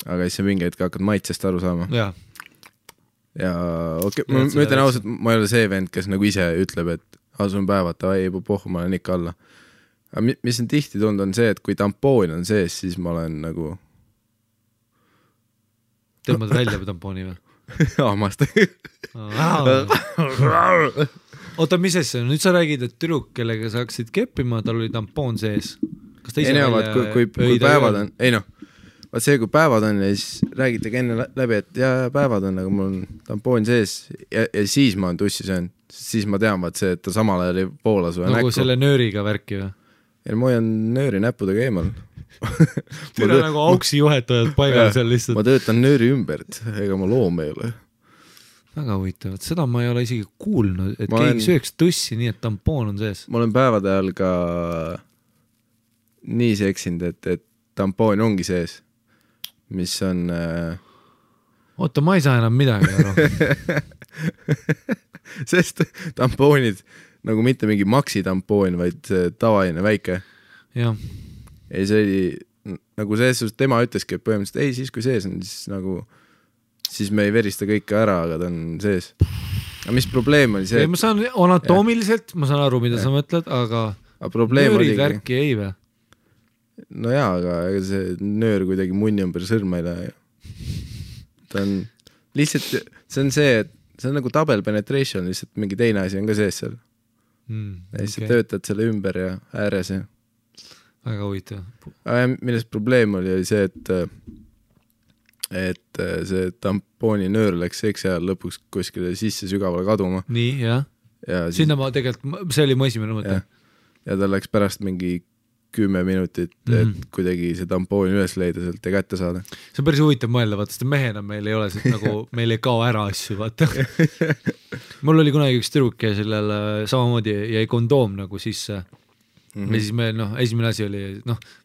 aga siis sa mingi hetk hakkad maitsest aru saama. Ja okei, ma ütlen ausalt, ma ei ole see vend, kes nagu ise ütleb, et asun päevad, ei pohhu, ma olen ikka alla. Aga mis on tihti tund on see, et kui tampoon on sees, siis ma olen nagu tõmbad välja tampooni või? Aamast. Oota, mis asja? Nüüd sa räägid, et tüdruk, kellega sa hakkasid keppima, tal oli tampoon sees. Kas ta ise kui päevad on, ei noh, vaat see, kui päevad on ja siis räägitegi enne läbi, et päevad on, aga mul on tampoon sees ja siis ma olen tussi söönud, siis ma tean vaat see, et ta samal ajal ei poola su näkku. Nagu selle nööriga värki või? Ja ma hoian nööri näppudega eemal. Tule nagu auksi juhetajad paigal seal lihtsalt. Ma töötan nööri ümbert, ega ma loom ei ole. Väga huvitavat, seda ma ei ole isegi kuulnud, et keegi sööks tussi nii, et tampoon on sees. Ma olen päevade ajal ka nii seksinud, et tampoon ongi sees, mis on oota, ma ei saa enam midagi aru. Sest tampoonid nagu mitte mingi maksi tampoon, vaid tavaline väike. Jah. Ei, see oli nagu selles suhtes, tema ütleski, et põhimõtteliselt ei, siis kui sees on, siis nagu siis me ei verista kõike ära, aga ta on sees. Aga mis probleem oli see? Ei, ma saan anatoomiliselt, ma saan aru, mida sa mõtled, aga nöörid värki ei või? No jaa, aga ega see nöör kuidagi munni ümber sõrma ei lähe. Ta on lihtsalt, see on see, et see on nagu double penetration, lihtsalt mingi teine asi on ka sees seal. Ja siis töötad selle ümber ja ääres ja väga huvitav. Millest probleem oli see, et see tampooni nöör läks seksi ajal lõpuks kuskile sisse sügavale kaduma. Nii, jah. Sinna ma tegelikult, see oli mu esimene mõte. Ja ta läks pärast mingi 10 minutit, et kuidagi see tampooni üles leida sealt ja kätte saada. See on päris huvitav mõelda, vaata, sest mehena meil ei ole nagu, meil ei kao ära asju, vaata. Mul oli kunagi üks tüdruk ja sellele samamoodi jäi kondoom nagu sisse. Ja siis me, esimene asi oli,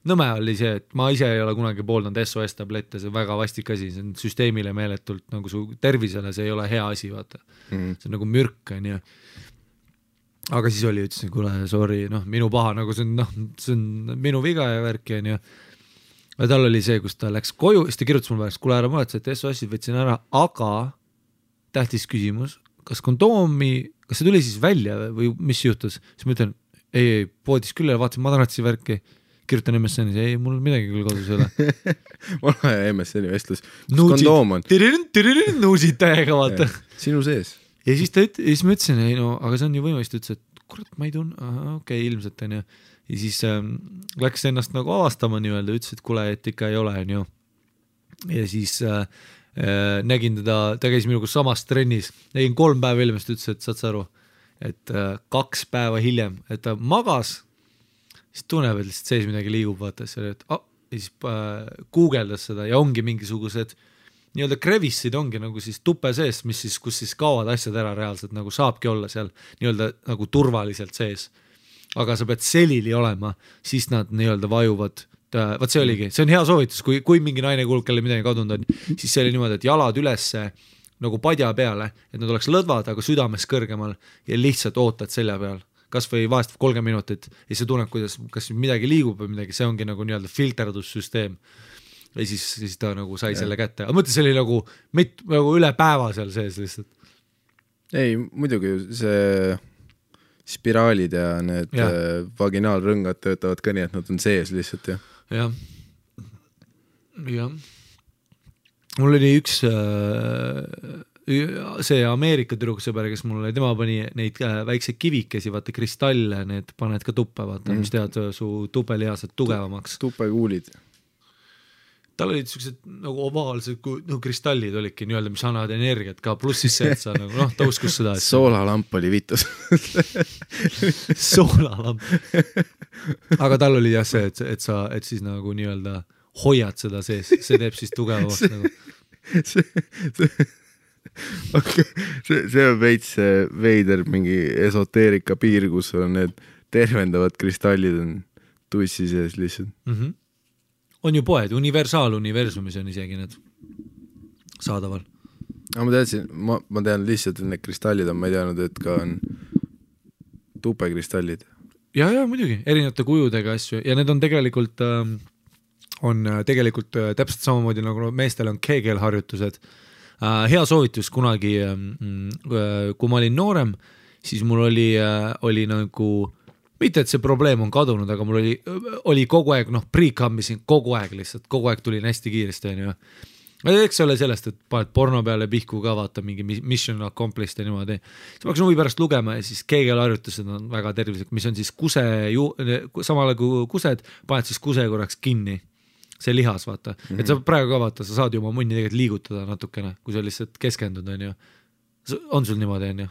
nõme oli see, et ma ise ei ole kunagi pooldanud SOS-tablette, see on väga vastik asi, see on süsteemile meeletult, nagu su tervisele see ei ole hea asi, vaata. See on nagu mürk, on ju. aga siis ütlesin, kuule, sorry, minu paha, nagu see on minu viga ja värki on ju. Ja tal oli see, kus ta läks koju, siis ta kirjutas mulle pärast, kuule ära mõelda, et SOS-id võtsin ära, aga tähtis küsimus, kas see tuli siis välja või mis juhtus? Siis ma ütlen, ei, poodis küll ja vaatasin madratsi värki, kirjutan MSN-is, ei, mul midagi küll kodus ei ole. Mul on MSN-i vestlus, kus kondoom on? Nuusid täiega, vaata. Sinu sees. Ja siis ma ütlesin, ei no, aga see on ju võimalist, ütles, et kurat, ma ei tunne, okei, ilmselt on ju. Ja siis läks ennast nagu avastama nii-öelda, ütles, et kuule, et ikka ei ole, on ju. Ja siis nägin ta käis minuga samas trennis, nägin 3 päeva hiljem, siis ütles, et saad sa aru, et 2 päeva hiljem, et ta magas, siis tunneb, et lihtsalt sees midagi liigub, vaata, ja siis guugeldas seda ja ongi mingisugused nii-öelda krevissid ongi nagu siis tupe sees, kus siis kaovad asjad ära reaalselt, nagu saabki olla seal nii-öelda nagu turvaliselt sees. Aga sa pead selili olema, siis nad nii-öelda vajuvad. Vaat see oligi, see on hea soovitus, kui mingi naine kuulub, kelle midagi kadunud on, siis see oli niimoodi, et jalad ülesse nagu padja peale, et nad oleks lõdvad, aga südames kõrgemal ja lihtsalt ootad selja peal. Kas või vahest 30 minutit ja see tunneb, kas midagi liigub või midagi, see ongi nagu nii-öelda filterdussüsteem. Ja siis ta nagu sai selle kätte. Aga mõtle, see oli nagu üle päeva seal sees lihtsalt. Ei, muidugi see spiraalid ja need vaginaalrõngad töötavad ka nii, et nad on sees lihtsalt, jah. Jah. Mul oli üks see Ameerika tüdruksõber, kes mul oli, tema pani neid väikseid kivikesi, vaata kristalle, need paned ka tuppe, vaata, mis tead su tupelihased tugevamaks. Tupekuulid. Tal olid sellised nagu ovaalsed kristallid olidki nii-öelda, mis annavad energiat ka, pluss siis see, et sa nagu, ta uskus seda. Soolalamp oli vitus. Soolalamp. Aga tal oli jah see, et siis nagu nii-öelda hoiad seda sees, see teeb siis tugevamaks nagu. See on veits veider mingi esoteerika piir, kus on need tervendavad kristallid on tussi sees lihtsalt. On ju poed, universaaluniversumis on isegi need saadaval. Ma tean lihtsalt, et need kristallid on, ma ei teadnud, et ka on tupekristallid. Ja, muidugi, erinevate kujudega asju ja need on tegelikult täpselt samamoodi nagu meestel on keegelharjutused. Hea soovitus kunagi, kui ma olin noorem, siis mul oli nagu mitte, et see probleem on kadunud, aga mul oli kogu aeg, pre-cammisin kogu aeg lihtsalt, kogu aeg tulin hästi kiiresti, on ju. Eks ole sellest, et paned porno peale pihku ka vaata mingi mission accomplished ja niimoodi. Siis ma hakkasin huvi pärast lugema ja siis keegelharjutused on väga tervislik, mis on siis samale kui kused, paned siis kuse korraks kinni. See lihas, vaata. Et sa praegu ka vaata, sa saad ju oma munni tegelikult liigutada natukene, kui sa lihtsalt keskendud, on ju. On sul niimoodi, on ju?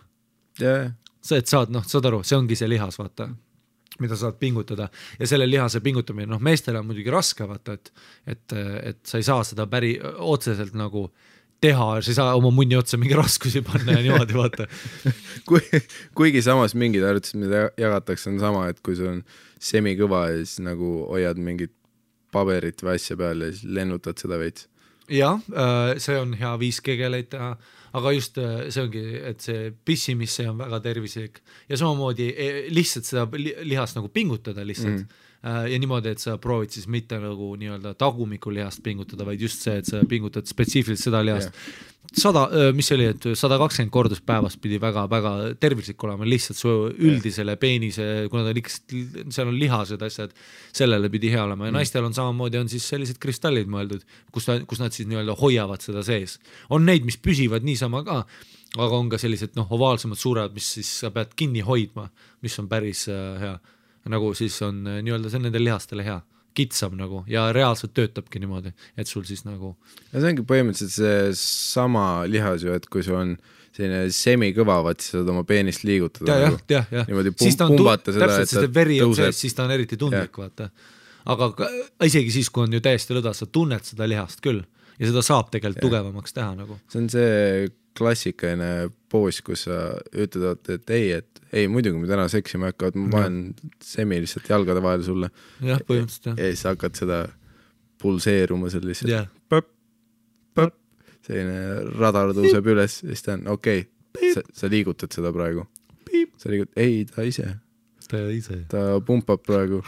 Yeah. See, et saad aru, see ongi see lihas, vaata, mida saad pingutada ja selle lihase pingutamine, meestele on muidugi raske, vaata, et sa ei saa seda otseselt nagu teha, sa ei saa oma munni otsa mingi raskusi panna ja niimoodi, vaata. Kuigi samas mingid harjutused, mida jagatakse, on sama, et kui sul on semikõva ja siis nagu hoiad mingit paberit või asja peal ja siis lennutad seda veits. Jah, see on hea 5 kegeleid teha, aga just see ongi, et see pissimisse on väga tervislik ja samamoodi lihtsalt seda lihast nagu pingutada lihtsalt ja niimoodi, et sa proovid siis mitte nagu nii-öelda tagumiku lihast pingutada, vaid just see, et sa pingutad spetsiifiliselt seda lihast. 120 kordus päevast pidi väga-väga tervislik olema, lihtsalt su üldisele peenise, kuna seal on lihased asjad, sellele pidi hea olema ja naistel on samamoodi, on siis sellised kristallid mõeldud, kus nad siis nii-öelda hoiavad seda sees. On neid, mis püsivad niisama ka, aga on ka sellised ovaalsemad suured, mis siis sa pead kinni hoidma, mis on päris hea. Nagu siis on nii-öelda see nendel lihastele hea. Kitsam nagu ja reaalselt töötabki niimoodi, et sul siis nagu... Ja see ongi põhimõtteliselt see sama lihas ju, et kui sul on selline semikõva, vaat siis saad oma peenist liigutada. Ja. Niimoodi pumbata seda, et ta veri on sees, siis ta on eriti tundlik, vaata. Aga isegi siis, kui on ju täiesti lõda, sa tunned seda lihast küll ja seda saab tegelikult tugevamaks teha nagu. See on see klassikaline poos, kus sa ütled, et ei, muidugi me täna seksima hakkavad, ma panen semi lihtsalt jalgade vahel sulle. Jah, põhimõtteliselt. Ja siis hakkad seda pulseeruma seal lihtsalt. Põp. Selline radar tõuseb üles ja siis ta on okei, sa liigutad seda praegu. ei, ta ise. Ta pumpab praegu.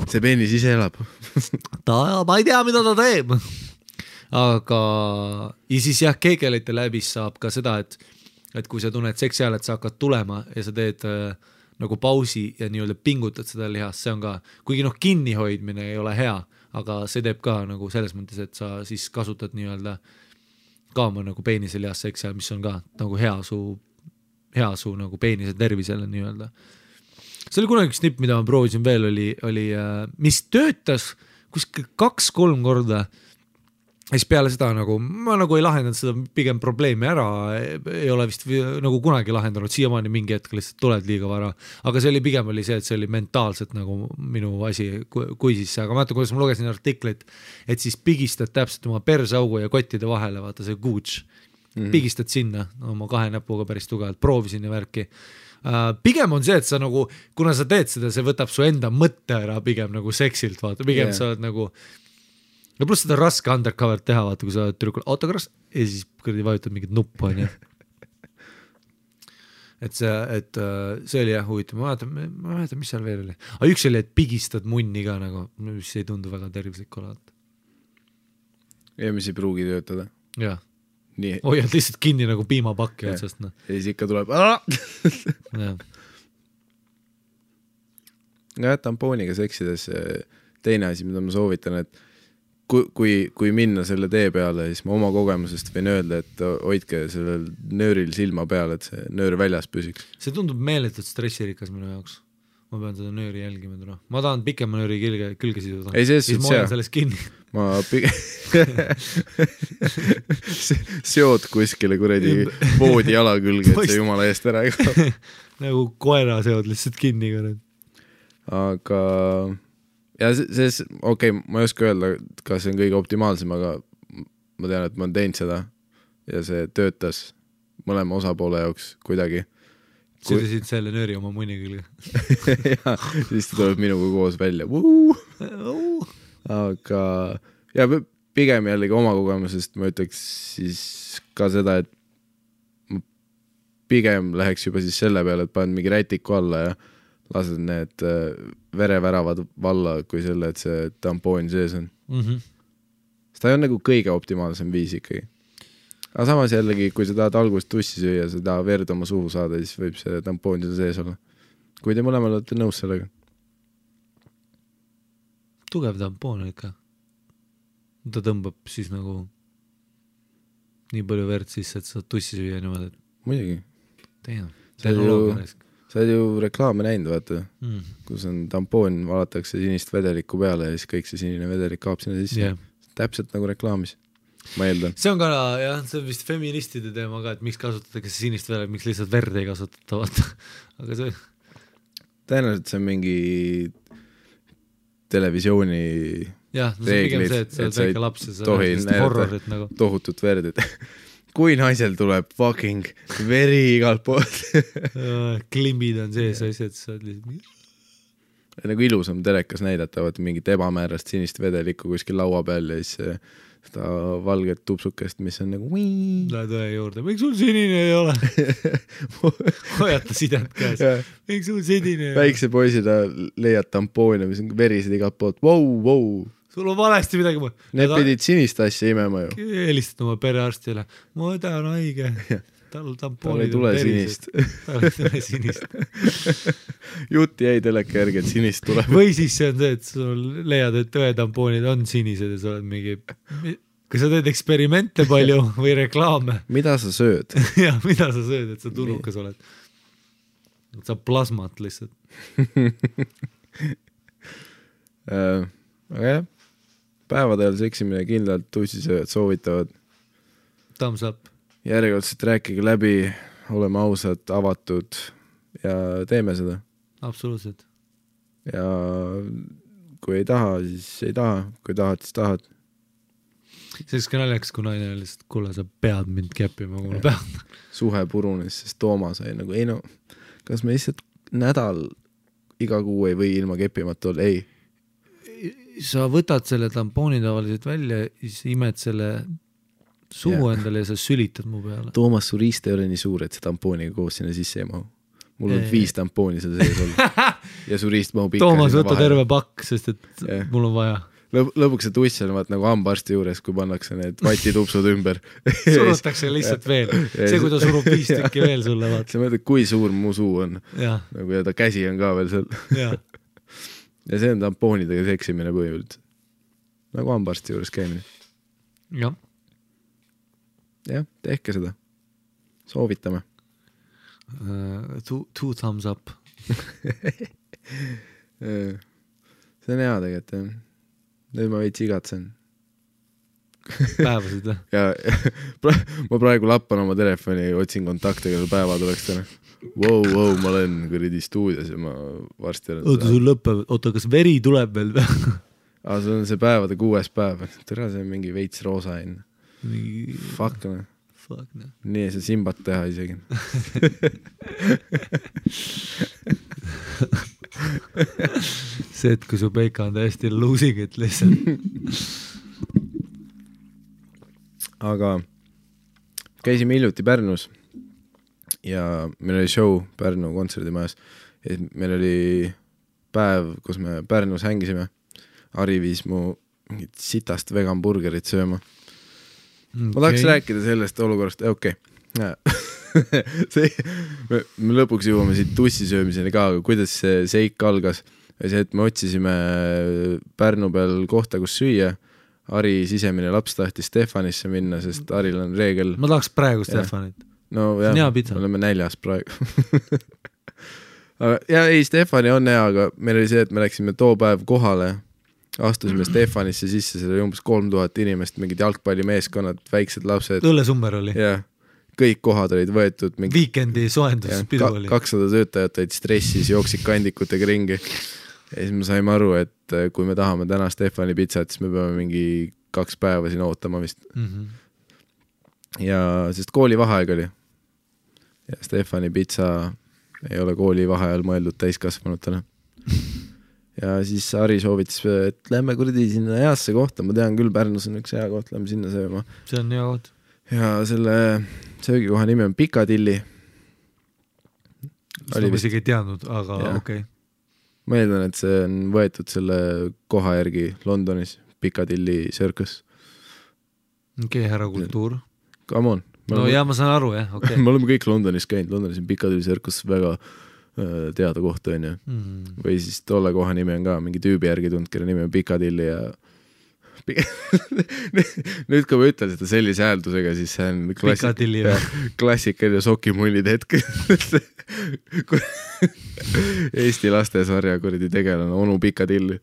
See peenis ise elab. Ma ei tea, mida ta teeb. Aga ja siis jah, keegelite läbis saab ka seda, et kui sa tunned seksi ajal, et sa hakkad tulema ja sa teed nagu pausi ja nii-öelda pingutad seda lihast, see on ka, kuigi kinnihoidmine ei ole hea, aga see teeb ka nagu selles mõttes, et sa siis kasutad nii-öelda ka oma nagu peenise lihast seksi ajal, mis on ka nagu hea su nagu peenise tervisele nii-öelda. See oli kunagi üks nipp, mida ma proovisin veel, oli mis töötas kuskil 2-3 korda. Ja siis peale seda nagu, ma nagu ei lahendanud seda pigem probleemi ära, ei ole vist nagu kunagi lahendanud, siiamaani mingi hetk lihtsalt tuled liiga vara, aga see oli pigem oli see, et see oli mentaalselt nagu minu asi, kui siis, aga ma mäletan, kuidas ma lugesin artiklit, et siis pigistad täpselt oma persaugu ja kottide vahele, vaata see gooch, pigistad sinna oma 2 näpuga päris tugevalt, proovisin ja värki. Pigem on see, et sa nagu, kuna sa teed seda, see võtab su enda mõtte ära pigem nagu seksilt, vaata, pigem sa oled nagu ja pluss seda raske undercover teha, vaata, kui sa oled tüdrukul autogras ja siis kõrdi vajutad mingit nuppu, on ju. Et see oli jah huvitav, ma mäletan, mis seal veel oli. Aga üks oli, et pigistad munni ka nagu, mis ei tundu väga tervislik olevat. Ja mis ei pruugi töötada. Jah. Hoiad lihtsalt kinni nagu piimapakki otsast. No. Ja siis ikka tuleb ja tampooniga seksides teine asi, mida ma soovitan, et kui minna selle tee peale, siis ma oma kogemusest võin öelda, et hoidke sellel nööril silma peale, et see nöör väljas püsiks. See tundub meeletult stressirikas minu jaoks. Ma pean seda nööri jälgima täna. Ma tahan pikema nööri külge siduda. Ei, siis ma hoian sellest kinni. Ma seod kuskile kuredi voodi jala külge, et see jumala eest ära ei kao. Nagu koera seod lihtsalt kinni. Aga ja okei, ma ei oska öelda, kas see on kõige optimaalsem, aga ma tean, et ma olen teinud seda ja see töötas mõlema osapoole jaoks kuidagi. Sidusid selle nööri oma munni külge. Ja, siis ta tuleb minuga koos välja. Aga ja pigem jällegi oma kogemusest ma ütleks siis ka seda, et ma pigem läheks juba siis selle peale, et panen mingi rätiku alla ja lased need vereväravad valla kui selle, et see tampoon sees on. Seda on nagu kõige optimaalsem viis ikkagi. Aga samas jällegi, kui sa tahad algust tussi süüa, sa tahad verd oma suhu saada, siis võib see tampoon sees olla. Kui te mõlemal olete nõus sellega. Tugev tampoon ikka. Ta tõmbab siis nagu nii palju verd sisse, et sa tussi süüa niimoodi. Muidugi. Sa oled ju reklaame näinud, vaata, kus on tampoon, valatakse sinist vedelikku peale ja siis kõik see sinine vedelik kaab sinna sisse. Täpselt nagu reklaamis, ma eeldan. See on ka, jah, see on vist feministide teema ka, et miks kasutatakse sinist vedelik, miks lihtsalt verd ei kasutata, vaata. Aga see... Tõenäoliselt see on mingi televisiooni reeglid, et sa väike laps ja sa horrorit nagu. Tohutut verdid. Kui naisel tuleb fucking veri igalt poolt. Klimbid on sees asjad, sa oled lihtsalt... Nagu ilusam telekas näidata, vaata mingit ebamäärast sinist vedelikku kuskil laua peal ja siis seda valget tupsukest, mis on nagu... Lähed õe juurde, miks sul sinine ei ole? Hoiata sidet käes. Miks sul sinine ei ole? Väikse poisina leiad tampoone, mis on verised igalt poolt. Wow. Sul on valesti midagi. Need pidid sinist asja imema ju. Helistad oma perearstile. Ma õdan haige. Tal ei tule sinist. Tal ei tule sinist. Jutt jäi teleka järgi, et sinist tuleb. Või siis see on see, et sul leiad, et õetampoonid on sinised ja sa oled mingi... Kui sa teed eksperimente palju või reklaame. Mida sa sööd? Jah, mida sa sööd, et sa turukas oled. Et sa plasmat lihtsalt. Aga jah. Päevadel seksimine kindlalt tussisööjad soovitavad. Thumbs up. Järjekordselt rääkige läbi, oleme ausad, avatud ja teeme seda. Absoluutselt. Ja kui ei taha, siis ei taha. Kui tahad, siis tahad. Selleks ka naljakas, kui naine oli lihtsalt, kuule, sa pead mind keppima, kui ma pean. Suhe purunes, sest Tooma sai nagu, ei no, kas me lihtsalt nädal iga kuu ei või ilma keppimata olla? Ei. Sa võtad selle tampooni tavaliselt välja, siis imed selle suhu endale ja sa sülitad mu peale. Toomas, su riist ei ole nii suur, et see tampooniga koos sinna sisse ei mahu. Mul on 5 tampooni seal sees olnud. Ja su riist mahub ikka. Toomas, võta terve pakk, sest et mul on vaja. Lõpuks see tuss on vaat nagu hambaarsti juures, kui pannakse need vatitupsud ümber. Surutakse lihtsalt veel. See, kui ta surub 5 tükki veel sulle, vaat. Sa mõtled, kui suur mu suu on. Nagu ja ta käsi on ka veel seal. Ja see on tampoonidega seksimine põhimõtteliselt. Nagu hambaarsti juures käimine. Jah, tehke seda. Soovitame. 2 thumbs up. See on hea tegelikult. Nüüd ma veits igatsen. Päevasid, ja ma praegu lappan oma telefoni, otsin kontakte, kelle päeva tuleks täna. Wow, ma olen kuridi stuudios ja ma varsti olen. Oota, sul lõpeb, kas veri tuleb veel? See on see päevade 6. päev. Tere, see on mingi veits roosa enne. Fuck, ne. Nii ei saa simbat teha isegi. See, et kui su peika on täiesti losing, et lihtsalt. Aga käisime hiljuti Pärnus ja meil oli show Pärnu kontserdimajas. Meil oli päev, kus me Pärnus hängisime. Ari viis mu mingit sitast vegan burgerit sööma. Ma tahaks rääkida sellest olukorrast, okei. Me lõpuks jõuame siit tussisöömiseni ka, aga kuidas see seik algas. See, et me otsisime Pärnu peal kohta, kus süüa. Ari sisemine laps tahtis Stefanisse minna, sest Aril on reegel. Ma tahaks praegu Stefanit. No jah, oleme näljas praegu. Ja ei, Stefani on hea, aga meil oli see, et me läksime too päev kohale. Astusime Stefanisse sisse, seal oli umbes 3000 inimest, mingid jalgpallimeeskonnad, väiksed lapsed. Õllesummer oli. Jah, kõik kohad olid võetud. Weekendi soenduspidu oli. 200 töötajat olid stressis, jooksid kandikutega ringi. Ja siis me saime aru, et kui me tahame täna Stefani pitsat, siis me peame mingi 2 päeva siin ootama vist. Ja sest kooli vaheaeg oli. Ja Stefani pitsa ei ole kooli vaheajal mõeldud täiskasvanutele. Ja siis Ari soovitas, et lähme kuradi sinna heasse kohta, ma tean küll, Pärnus on üks hea koht, lähme sinna sööma. See on hea koht. Ja selle söögikoha nimi on Piccadilly. Seda ma isegi ei teadnud, aga okei. Ma eeldan, et see on võetud selle koha järgi Londonis, Piccadilly Circus. Okei, härra kultuur. Come on. No ja ma saan aru, jah, okei. Me oleme kõik Londonis käinud, Londonis on Piccadilly Circus väga teada koht on ju. Või siis tolle koha nimi on ka mingi tüübi järgi tund, kelle nimi on Piccadilly ja nüüd kui ma ütlen seda sellise hääldusega, siis see on klassikaline sokimullid hetk. Eesti lastesarja kuradi tegelane onu Piccadilly.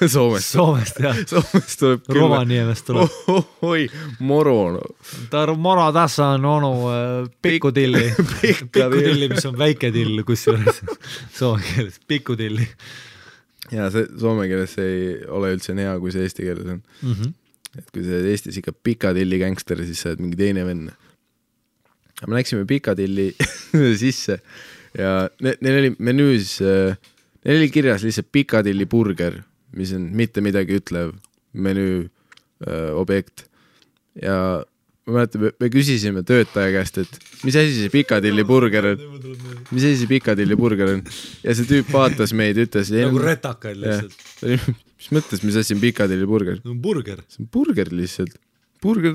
Soomest, jah. Soomest tuleb küll. Rovaniemest tuleb. Oi, moro. Moro tässä on onu Pikkudilli. Pikkudilli, mis on väike till, kusjuures soome keeles. Pikkudilli. Ja see soome keeles ei ole üldse hea, kui see eesti keeles on. Et kui see Eestis ikka Piccadilly gangster, siis sa oled mingi teine vend. Me läksime Piccadilly sisse ja neil oli menüüs, neil oli kirjas lihtsalt Piccadilly burger, mis on mitte midagi ütlev menüü objekt. Ja ma mäletan, me küsisime töötaja käest, et mis asi see Piccadilly burger on? Mis asi see Piccadilly burger on? Ja see tüüp vaatas meid, ütles... Nagu retakaid lihtsalt. Mis mõttes, mis asi on Piccadilly burger? Burger. See on burger lihtsalt. Burger,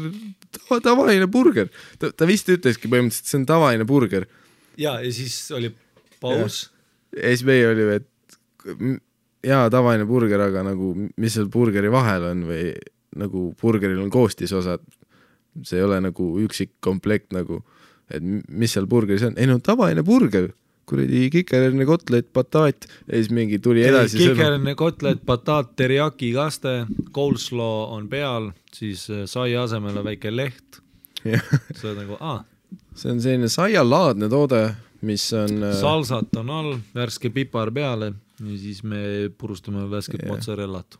tavaline burger. Ta vist ütleski põhimõtteliselt, see on tavaline burger. Ja siis oli paus. Ja siis meie oli, et tavaline burger, aga nagu, mis seal burgeri vahel on või nagu burgeril on koostisosad. See ei ole nagu üksik komplekt nagu, et mis seal burgeris on. Ei no tavaline burger, kuradi kikerenne kotlet, bataat ja siis mingi tuli edasi. Kikerenne kotlet, bataat, teriyaki kaste, coleslaw on peal, siis sai asemele väike leht. See on nagu, see on selline saialaadne toode, mis on... Salsat on all, värske pipar peale ja siis me purustame värsket mozzarellat.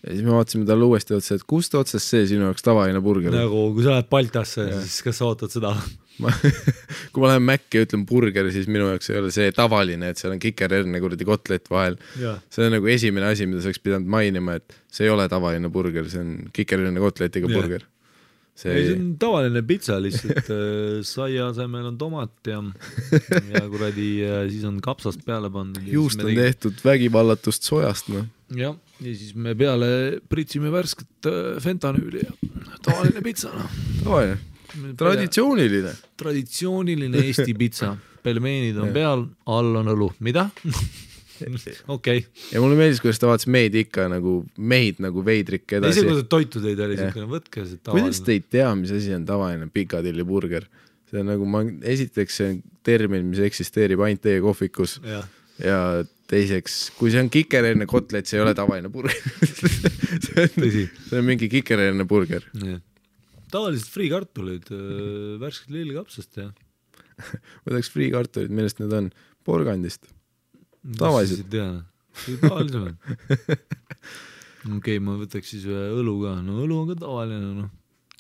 Ja siis me vaatasime talle uuesti otsa, et kust otsast see sinu jaoks tavaline burger? Nagu, kui sa lähed Baltasse, siis kas sa ootad seda? Kui ma lähen Mäkki ja ütlen burger, siis minu jaoks ei ole see tavaline, et seal on kikererne kuradi kotlet vahel. See on nagu esimene asi, mida sa oleks pidanud mainima, et see ei ole tavaline burger, see on kikererne kotletiga burger. see on tavaline pitsa lihtsalt, saia asemel on tomat ja kuradi siis on kapsast peale pandud. Juust on tehtud vägivallatust sojast, noh. Ja siis me peale pritsime värsket fentanüüli ja tavaline pitsa, noh. Tavaline. Traditsiooniline Eesti pitsa. Pelmeenid on peal, all on õlu. Mida? Okei. Ja mulle meeldis, kuidas ta vaatas meid ikka nagu meid nagu veidrikke edasi. Ise kuidas toitu teid oli, võtke see tavaline. Kuidas te ei tea, mis asi on tavaline Piccadilly burger? See on nagu, esiteks see on termin, mis eksisteerib ainult teie kohvikus ja teiseks, kui see on kikerenne kotlet, see ei ole tavaline burger. see on mingi kikerenne burger. Tavaliselt friikartulid, värsked lillekapsast ja võtaks friikartulid, millest need on? Porgandist. Tavaliselt. Tavaliselt. Okei, ma võtaks siis ühe õlu ka. No õlu on ka tavaline. No.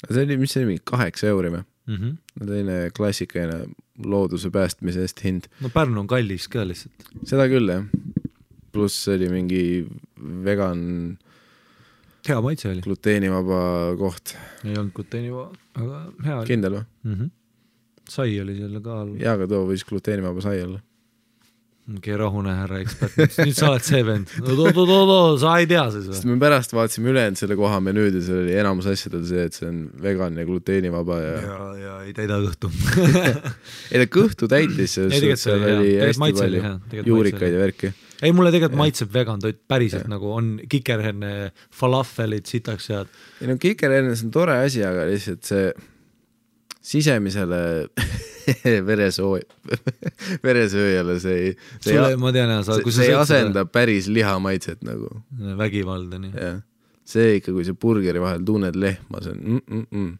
See oli, mis see oli, 8 euri või? Teine klassikaline looduse päästmise eest hind. No Pärnu on kallis ka lihtsalt. Seda küll, jah. Pluss oli mingi vegan hea maitse oli. Gluteenivaba koht. Ei olnud gluteenivaba, aga hea oli. Kindel või? Sai oli selle ka all. Jaa, aga too võis gluteenivaba sai olla. Okei, rahune härra ekspert. Nüüd sa oled see vend. Sa ei tea siis või? Sest me pärast vaatasime ülejäänud selle koha menüüd ja see oli enamus asjadel see, et see on vegan ja gluteenivaba ja ei täida kõhtu. Ei ta kõhtu täitis, seal oli hästi palju juurikaid ja värki. Ei, mulle tegelikult maitseb vegan toit päriselt nagu on kikerherne falafelid sitaks head. Ei no kikerhernes on tore asi, aga lihtsalt see sisemisele veresööjale see ei asenda päris lihamaitset nagu. Vägivalda, nii. See ikka, kui see burgeri vahel tunned lehma, see on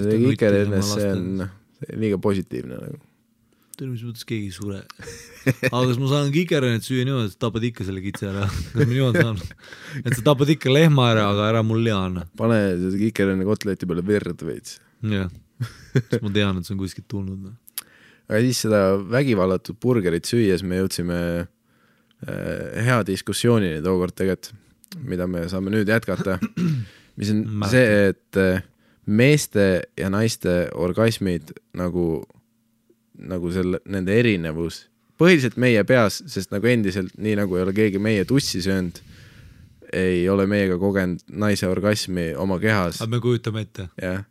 see kikerhernes, see on liiga positiivne nagu. Mis mõttes keegi sure. Aga kas ma saan kikerhennet süüa niimoodi, et tapad ikka selle kitse ära? Kas ma niimoodi saan? Et sa tapad ikka lehma ära, aga ära mul liana. Pane see kikerhenne kotleti peale verd veits. Jah, siis ma tean, et see on kuskilt tulnud. Aga siis seda vägivallatud burgerit süües me jõudsime hea diskussioonini tookord tegelikult, mida me saame nüüd jätkata. Mis on see, et meeste ja naiste orgasmid nagu selle, nende erinevus, põhiliselt meie peas, sest nagu endiselt, nii nagu ei ole keegi meie tussi söönud, ei ole meiega kogenud naise orgasmi oma kehas. Aga me kujutame ette. Jah,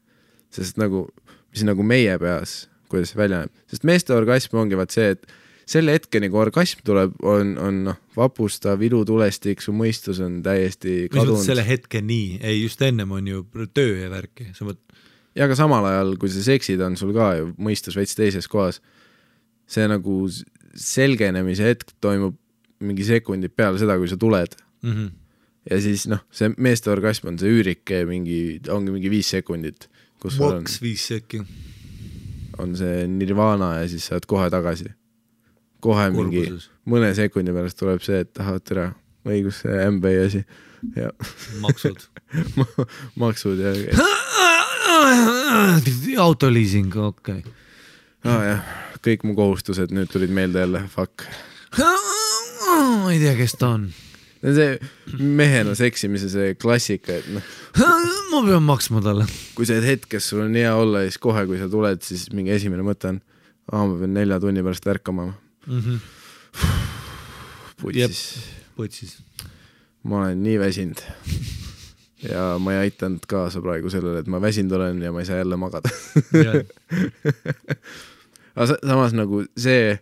sest nagu, mis nagu meie peas, kuidas see välja näeb. Sest meeste orgasm ongi vaat see, et selle hetkeni, kui orgasm tuleb, on vapustav, ilutulestik, su mõistus on täiesti kadunud. Mis selle hetkeni? Ei, just ennem on ju töö ja värki. Ja ka samal ajal, kui sa seksid, on sul ka ju mõistus veits teises kohas. See nagu selgenemise hetk toimub mingi sekundid peale seda, kui sa tuled. Ja siis see meeste orgasm on see üürike, ongi mingi 5 sekundit. Maks 5 sekki. On see nirvana ja siis saad kohe tagasi. Kohe mingi mõne sekundi pärast tuleb see, et tahavad tere õigus see MBA asi. Ja. Maksud. Maksud ja autoliising, okei. Jah, kõik mu kohustused nüüd tulid meelde jälle, fuck. Ma ei tea, kes ta on. See mehena seksimise see klassika, et ma pean maksma talle. Kui see hetk, sul on hea olla, siis kohe, kui sa tuled, siis mingi esimene mõte on, ma pean 4 tunni pärast ärkama. Putsis. Ma olen nii väsinud. Ja ma ei aitanud kaasa praegu sellele, et ma väsinud olen ja ma ei saa jälle magada. Aga samas nagu see,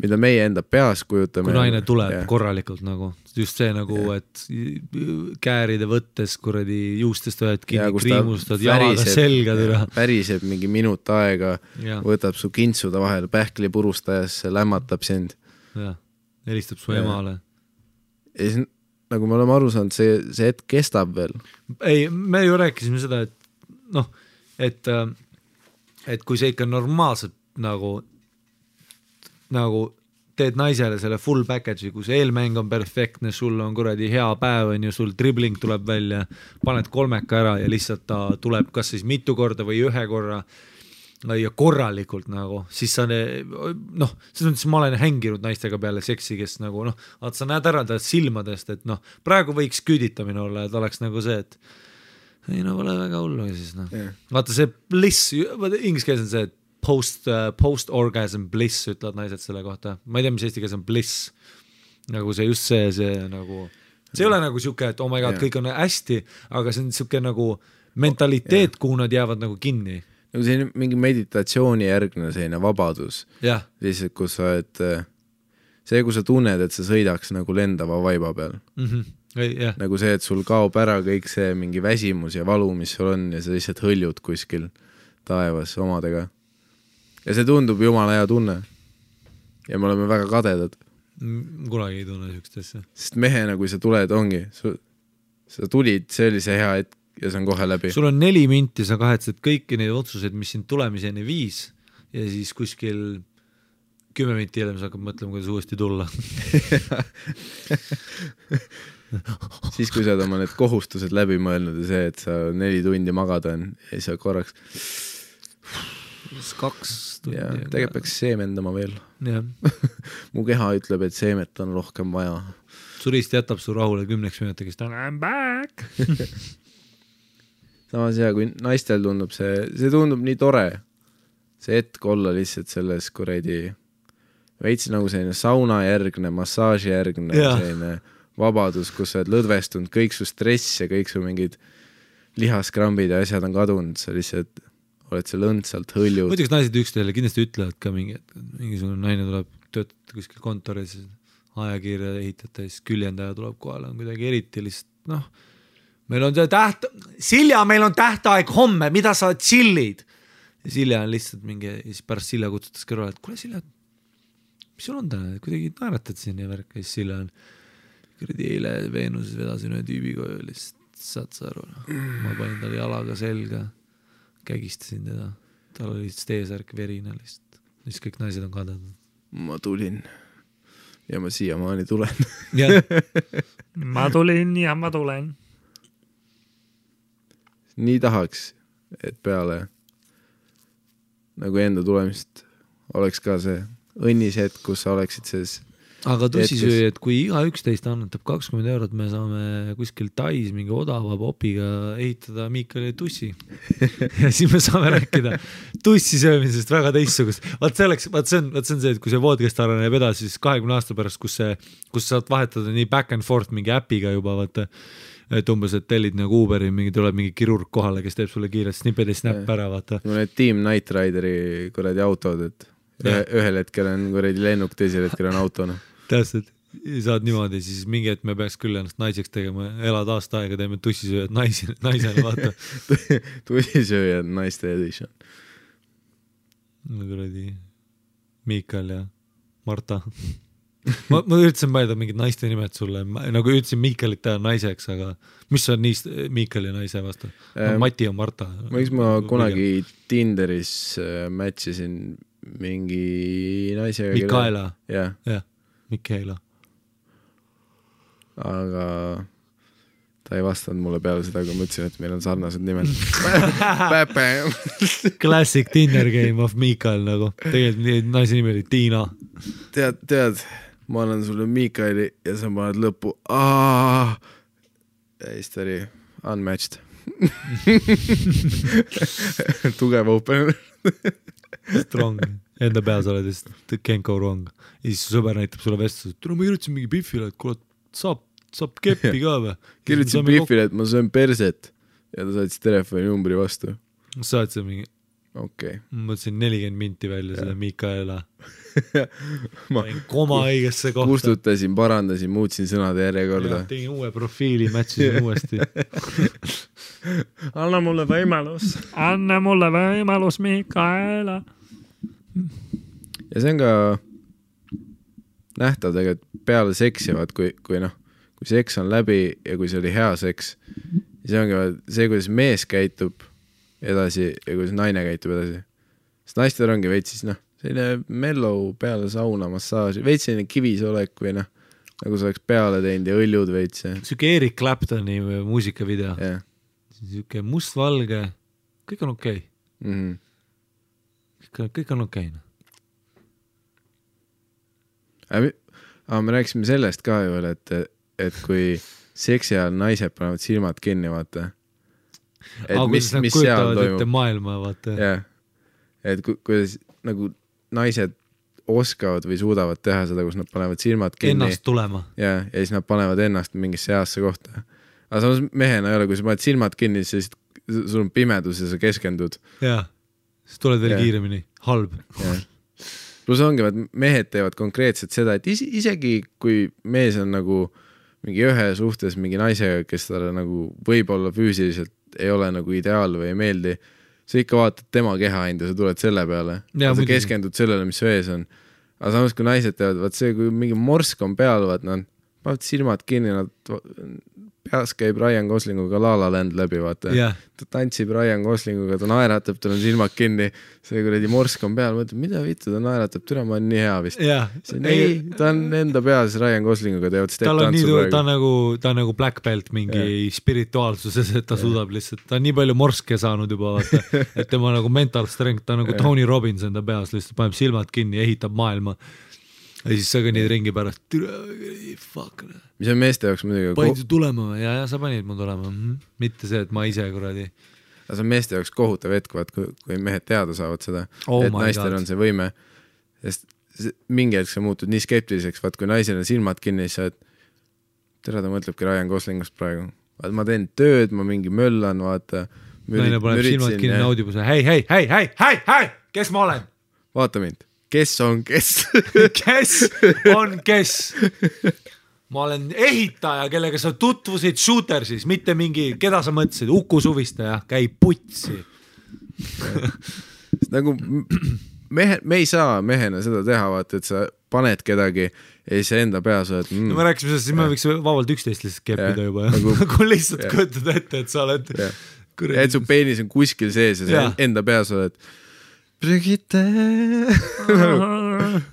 mida meie enda peas kujutame. Kui naine tuleb korralikult nagu, just see nagu, et kääride võttes kuradi juustest võed kinni, kriimustad, jalada selga türa. Päriseb mingi minut aega, võtab su kintsuda vahel pähkli purustajasse, lämmatab sind. Ja, helistab su emale. Ja siis nagu me oleme aru saanud, see hetk kestab veel. Ei, me ju rääkisime seda, et et kui see ikka normaalselt nagu teed naisele selle full package'i, kui see eelmäng on perfektne, sul on kuradi hea päev, on ju, sul dribling tuleb välja, paned 3 ära ja lihtsalt ta tuleb kas siis mitu korda või 1 korra ja korralikult nagu, siis sa selles mõttes ma olen hänginud naistega peale seksi, kes nagu sa näed ära ta silmadest, et praegu võiks küüditamine olla, et oleks nagu see, et ei no pole väga hullu siis noh vaata see bliss inglise keeles on see post-orgasm bliss ütlevad naised selle kohta ma ei tea mis eesti keeles on bliss nagu see just see nagu see ei ole nagu siuke et oh my god kõik on hästi aga see on siuke nagu mentaliteet kuhu nad jäävad nagu kinni nagu see mingi meditatsiooni järgne selline vabadus lihtsalt kus sa oled see kui sa tunned et sa sõidaks nagu lendava vaiba peal nagu see et sul kaob ära kõik see mingi väsimus ja valu mis sul on ja sa lihtsalt hõljud kuskil taevas omadega ja see tundub jumala hea tunne ja me oleme väga kadedad kunagi ei tunne siukest asja sest mehena kui sa tuled ongi sa tulid see oli see hea hetk ja see on kohe läbi. Sul on 4 minti, sa kahetsed kõiki neid otsuseid, mis sind tulemiseni viis ja siis kuskil 10 minti hiljem sa hakkad mõtlema, kuidas uuesti tulla. siis kui sa oled oma need kohustused läbi mõelnud ja see, et sa 4 tundi magada on ja siis sa korraks 2 tundi. Tegelikult peaks seemendama veel. Mu keha ütleb, et seemet on rohkem vaja. Surist jätab su rahule 10 minutiks, I'm back! Samas hea, kui naistel tundub see tundub nii tore. See hetk olla lihtsalt selles kuredi veits nagu selline sauna järgne, massaaži järgne, selline vabadus, kus sa oled lõdvestunud, kõik su stress ja kõik su mingid lihaskrambid ja asjad on kadunud, sa lihtsalt oled seal õndsalt hõljud. Muidugi naised üksteisele kindlasti ütlevad ka mingisugune naine tuleb töötada kuskil kontoris, ajakirja ehitada ja siis küljendaja tuleb kohale, on kuidagi eriti lihtsalt, meil on Silja, meil on tähtaeg homme, mida sa chillid? Ja Silja on lihtsalt mingi, ja siis pärast Silja kutsutas kõrvale, et kuule Silja, mis sul on täna, kuidagi naeratad siin ja värk, ja siis Silja on kuradi eile Veenuses vedasin ühe tüübiga ja lihtsalt saad sa aru, ma panin talle jalaga selga, kägistasin teda, tal oli lihtsalt eesärk verine lihtsalt, siis kõik naised on kadad. Ma tulin ja ma siiamaani tulen. Ma tulin ja ma tulen. Nii tahaks, et peale nagu enda tulemist oleks ka see õnnis hetk, kus sa oleksid sees. Aga tussisööja, et kui iga 11 annetab 20 €, me saame kuskil Tais mingi odava popiga ehitada Miikali tussi. Ja siis me saame rääkida tussisöömisest väga teissugust. Vaat see on see, et kui see podcast areneb edasi, siis 20 aasta pärast, kus saad vahetada nii back and forth mingi äpiga juba, vaata, et umbes, et tellid nagu Uberi, tuleb mingi kirurg kohale, kes teeb sulle kiirelt snipped ja snap ära, vaata. Need Team Night Rideri kuradi autod, et ühel hetkel on kuradi lennuk, teisel hetkel on autona. Täpselt, saad niimoodi, siis mingi hetk me peaks küll ennast naiseks tegema, elad aasta aega, teeme tussisööjad naisena, vaata. Tussisööjad naiste edition. Kuradi Miikal ja Marta. ma üritasin mõelda mingid naiste nimed sulle, nagu ütlesin Miikalit teha naiseks, aga mis on niist Miikali naise vastu? Mati ja Marta. Ma kunagi Tinderis matchisin mingi naisega. Mikaela. Jah. Mikaela. Aga ta ei vastanud mulle peale seda, kui ma ütlesin, et meil on sarnased nimed. Classic Tinder game of Mikael nagu. Tegelikult naise nimi oli Tiina. Tead, ma annan sulle Mikaeli ja sa paned lõppu. Ja siis ta oli unmatched. Tugev opener. Strong. Enda peas oled just can't go wrong. Ja siis su sõber näitab sulle vestlus, et ma kirjutasin mingi Biffile, et kuule, saab keppi ka või? Kirjutasin Biffile, et ma söön perset ja ta saatis telefoni numbri vastu. Saad see mingi? Okay. Ma mõtlesin 40 minti välja selle Mikaela. Ma koma õigesse kohta. Kustutasin, parandasin, muutsin sõnade järjekorda. Tegin uue profiili, matchisin uuesti. Anna mulle võimalus, Mikaela. Ja see on ka nähtav tegelikult peale seksivad, kui seks on läbi ja kui see oli hea seks, siis ongi see, kuidas mees käitub edasi ja kuidas naine käitub edasi. Sest naistel ongi veits siis selline mellow peale sauna, massaaži, veits selline kivisolek või nagu sa oleks peale teinud ja õljud veits. Siuke Eric Claptoni muusikavideo. Siuke mustvalge, kõik on okei. Kõik on okei. Me rääkisime sellest ka ju, et kui seksi ajal naised panevad silmad kinni, vaata. mis seal toimub. Maailma, vaata. Jah, et kuidas nagu naised oskavad või suudavad teha seda, kus nad panevad silmad kinni. Ennast tulema. Ja siis nad panevad ennast mingisse heasse kohta. Aga samas mehena ei ole, kui sa paned silmad kinni, siis sul on pimedus ja sa keskendud. Jaa, siis tuled veel kiiremini. Halb. Plus ongi, et mehed teevad konkreetselt seda, et isegi kui mees on nagu mingi ühe suhtes mingi naisega, kes talle nagu võib-olla füüsiliselt ei ole nagu ideaal või ei meeldi, sa ikka vaatad tema keha hinda, sa tuled selle peale. Ja sa keskendud sellele, mis su ees on. Aga samas, kui naised teevad, vaat see, kui mingi morsk on peal, vaat nad panevad silmad kinni, nad peas käib Ryan Goslinguga La La Land läbi, vaata. Ta tantsib Ryan Goslinguga, ta naeratab, tal on silmad kinni, see kuradi morsk on peal, mõtleb, mida vittu ta naeratab, türa ma on nii hea vist. Ei, ta on enda peas Ryan Goslinguga, teevad step-tantsu praegu. Ta on nagu black belt mingi spirituaalsuses, et ta suudab lihtsalt, ta on nii palju morske saanud juba, vaata, et tema nagu mental strength, ta on nagu Tony Robbins enda peas, lihtsalt paneb silmad kinni, ehitab maailma. Ja siis sa kõnnid ringi pärast, fuck. Mis on meeste jaoks muidugi? Panid su tulema või? Ja sa panid mu tulema. Mitte see, et ma ise kuradi. Aga see on meeste jaoks kohutav hetk, kui mehed teada saavad seda, et naistel on see võime. Sest mingi hetk sa muutud nii skeptiliseks, vaat kui naisel on silmad kinni, siis sa tere ta mõtlebki Ryan Goslingust praegu. Ma teen tööd, ma mingi möllan, vaata. Naine paneb silmad kinni, naudib hei, kes ma olen? Vaata mind. Kes on kes? Kes on kes? Ma olen ehitaja, kellega sa tutvusid Shootersis, mitte mingi, keda sa mõtlesid, Uku Suvistaja, käib putsi. Nagu me ei saa mehena seda teha, vaata, et sa paned kedagi ja siis enda peas oled... No me rääkisime sellest, siis me võiks vabalt 11 lihtsalt keppida juba. Nagu lihtsalt kujutad ette, et sa oled... Et su peenis on kuskil sees ja sa enda peas oled... Brigitte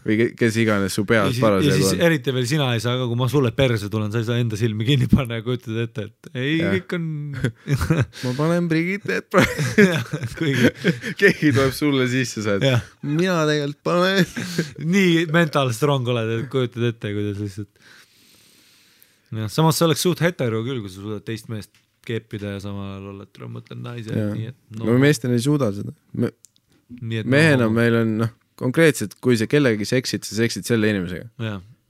või kes iganes su peas paras. Ja siis eriti veel sina ei saa, aga kui ma sulle perse tulen, sa ei saa enda silmi kinni panna ja kujutad ette, et ei, kõik on... ma panen Brigitte, keegi tuleb sulle sisse, sa et mina tegelikult panen. Nii mental strong oled, et kujutad ette, kuidas lihtsalt. Samas see oleks suht hetero küll, kui sa suudad teist meest keppida ja samal ajal olla, et mõtlen naise. No meestel ei suuda seda. Mehena meil on konkreetselt, kui sa kellegi seksid, sa seksid selle inimesega.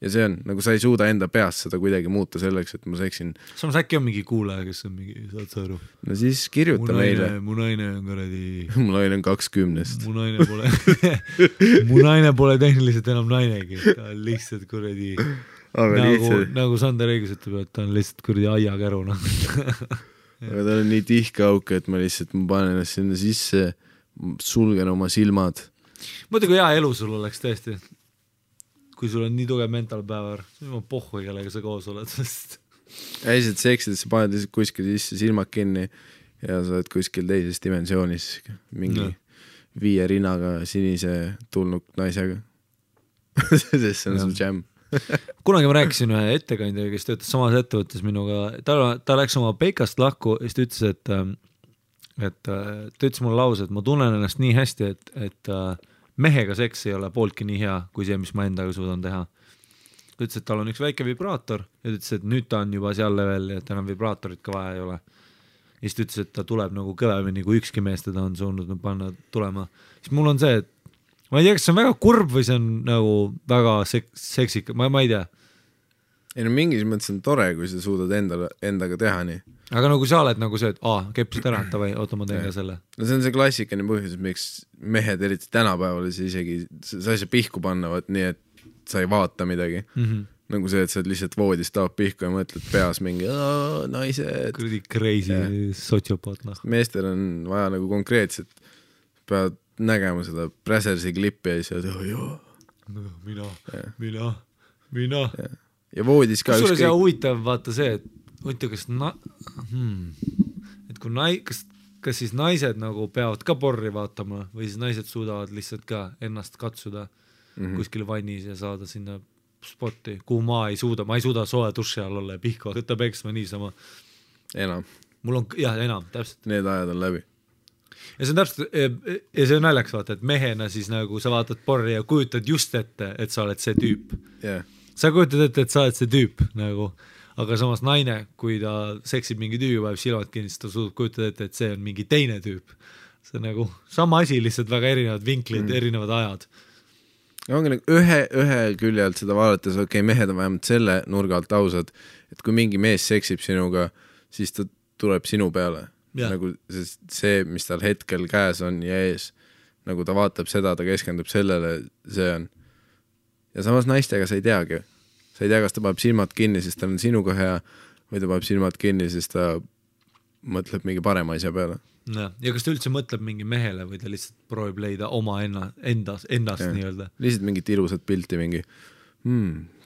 Ja see on, nagu sa ei suuda enda peas seda kuidagi muuta selleks, et ma seksin. Samas äkki on mingi kuulaja, kes on mingi, saad sa aru? No siis kirjuta meile. Mu naine on kuradi... Mu naine on 20. Mu naine pole tehniliselt enam nainegi. Ta on lihtsalt kuradi... Nagu Sander õigus ütleb, et ta on lihtsalt kuradi aiakäru. Aga ta on nii tihke auk, et ma lihtsalt panen ennast sinna sisse... sulgen oma silmad. Mõtlen, kui hea elu sul oleks tõesti. Kui sul on nii tugev mental päevar, siis on pohhu, kellega sa koos oled. Ja lihtsalt seksid, et sa paned lihtsalt kuskil sisse silmad kinni ja sa oled kuskil teises dimensioonis mingi 5 rinnaga sinise tulnud naisega. Sest see on sul jam. Kunagi ma rääkisin ühe ettekandjaga, kes töötas samas ettevõttes minuga. Ta läks oma peikast lahku ja siis ta ütles, et ta ütles mulle lause, et ma tunnen ennast nii hästi, et mehega seks ei ole pooltki nii hea, kui see, mis ma endaga suudan teha. Ta ütles, et tal on üks väike vibraator ja ütles, et nüüd ta on juba seal level, et enam vibraatorit ka vaja ei ole. Ja siis ta ütles, et ta tuleb nagu kõvemini, kui ükski mees teda on suunud panna tulema. Siis mul on see, et ma ei tea, kas see on väga kurb või see on nagu väga seksik, ma ei tea. Ei no mingis mõttes on tore, kui sa suudad endaga teha nii. Aga nagu sa oled nagu see, et kepsid ära, või oota ma teen ka selle. No see on see klassikaline põhjus, miks mehed eriti tänapäeval isegi sa ei saa pihku panna, nii et sa ei vaata midagi. Nagu see, et sa lihtsalt voodist taab pihku ja mõtled peas mingi naised. Kuradi crazy sotsiopaat. Meestel on vaja nagu konkreetselt, peavad nägema seda Brazersi klippi ja siis mina. Ja voodis ka ükskõik. See huvitav vaata see, et huvitav, kas siis naised nagu peavad ka porri vaatama või siis naised suudavad lihtsalt ka ennast katsuda kuskil vannis ja saada sinna spotti, kuhu ma ei suuda soe duši all olla ja pihku võtta peksma niisama. Enam. Mul on, enam, täpselt. Need ajad on läbi. Ja see on täpselt, ja see on naljaks vaata, et mehena siis nagu sa vaatad porri ja kujutad just ette, et sa oled see tüüp. Sa kujutad ette, et sa oled see tüüp nagu, aga samas naine, kui ta seksib mingi tüübi, vajab silmad kinni, siis ta suudab kujutada ette, et see on mingi teine tüüp. See on nagu sama asi, lihtsalt väga erinevad vinklid, erinevad ajad. Ongi nagu ühe külje alt seda vaadates, mehed on vähemalt selle nurga alt ausad, et kui mingi mees seksib sinuga, siis ta tuleb sinu peale. Nagu see, mis tal hetkel käes on ja ees, nagu ta vaatab seda, ta keskendub sellele, see on. Ja samas naistega sa ei teagi. Sa ei tea, kas ta paneb silmad kinni, sest ta on sinuga hea, või ta paneb silmad kinni, sest ta mõtleb mingi parema asja peale. Ja kas ta üldse mõtleb mingi mehele või ta lihtsalt proovib leida oma endast nii-öelda? Lihtsalt mingit ilusat pilti, mingi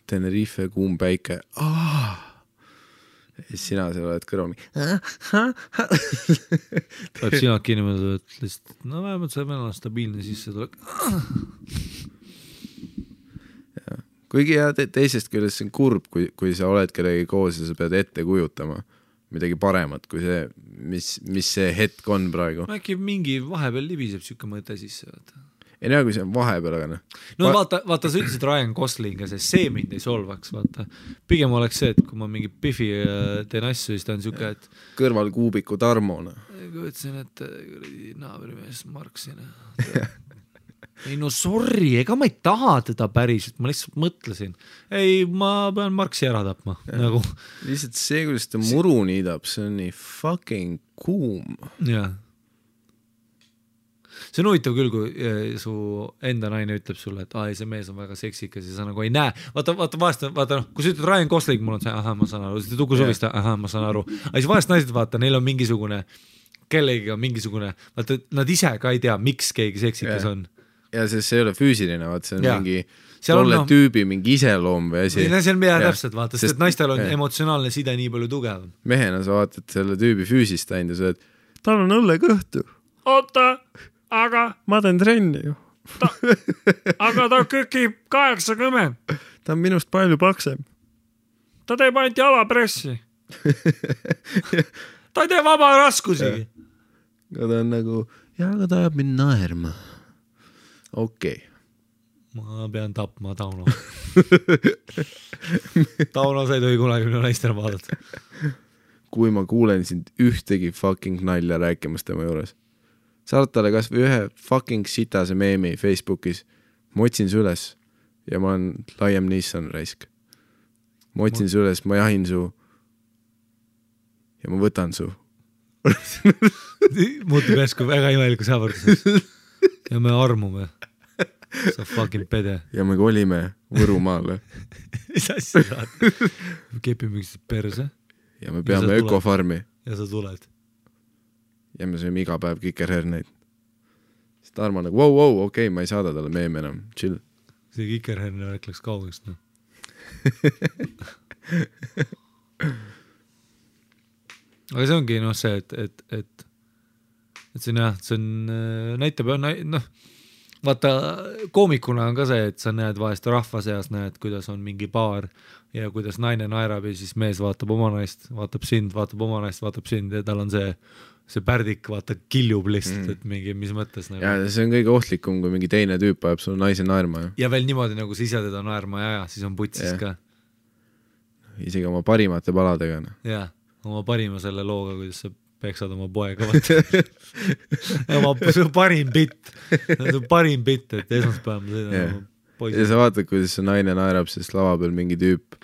Tenerife, kuum päike. Ja sina seal oled kõrval Päeb silmad kinni mõelda, et lihtsalt, no vähemalt see meil on stabiilne sisse tuleb. Kuigi teisest küljest see on kurb, kui sa oled kellegi koos ja sa pead ette kujutama midagi paremat kui see, mis see hetk on praegu. Äkki mingi vahepeal libiseb siuke mõte sisse. Ei näe, kui see on vahepeal, aga no vaata, sa ütlesid Ryan Gosling ja see mind ei solvaks, vaata. Pigem oleks see, et kui ma mingi Biffi teen asju, siis ta on siuke, et kõrval kuubiku Tarmona. Kui ütlesin, et naabrimees Marksina. Ei no sorry, ega ma ei taha teda päriselt, ma lihtsalt mõtlesin. Ei, ma pean Marksi ära tapma. Nagu. Lihtsalt see, kuidas ta muru niidab, see on nii fucking kuum. Jah. See on huvitav küll, kui su enda naine ütleb sulle, et see mees on väga seksikas ja sa nagu ei näe. Vaata, kui sa ütled Ryan Gosling, mul on see, ma saan aru, siis Tuku Suvista, ma saan aru. Aga siis vahest naised vaata, neil on mingisugune, kellegiga mingisugune, vaata, nad ise ka ei tea, miks keegi seksikas on. Ja see ei ole füüsiline, vaata, see on mingi tolle tüübi mingi iseloom või asi. See on mida täpselt, vaata, sest naistel on emotsionaalne side nii palju tugev. Mehena sa vaatad selle tüübi füüsist ainult ja sa oled, tal on õlle kõhtu. Oota! Aga ma teen trenni ju. Aga ta kükib 80. Ta on minust palju paksem. Ta teeb ainult jalapressi. Ta ei tee vaba raskusigi. Ja ta on nagu, aga ta ajab mind naerma. Okei. Ma pean tapma Tauno. Tauno sa ei tohi kunagi minu naistele vaadata. Kui ma kuulen sind ühtegi fucking nalja rääkimas tema juures. Saad talle kas või ühe fucking sitase meemi Facebookis. Ma otsin su üles ja ma olen Liam Neeson raisk. Ma otsin su üles, ma jahin su ja ma võtan su. Muutub järsku väga imeliku saavarduseks. Ja me armume. Sa fucking pede. Ja me kolime Võrumaale. Mis asja saad? Me kepime üksteist perse. Ja me peame ökofarmi. Ja sa tuled. Ja me sööme iga päev kikerherneid. Siis Tarmo nagu, wow, okei, ma ei saada talle meeme enam, chill. See kikerherne värk läks kaugest, no. Aga see ongi see, et see on jah, see on, näitab, vaata, koomikuna on ka see, et sa näed vahest rahva seas, näed, kuidas on mingi paar ja kuidas naine naerab ja siis mees vaatab oma naist, vaatab sind, vaatab oma naist, vaatab sind ja tal on see pärdik, vaata, kiljub lihtsalt, et mingi, mis mõttes nagu. Ja see on kõige ohtlikum, kui mingi teine tüüp ajab sul naise naerma. Ja veel niimoodi, nagu sa ise teda naerma ja siis on putsis ka. Isegi oma parimate paladega. Jah, oma parima selle looga, kuidas sa peksad oma poega. Oma parim bitt, et esmaspäev ma sõidan oma poisi. Ja sa vaatad, kuidas see naine naerab, sest lava peal mingi tüüp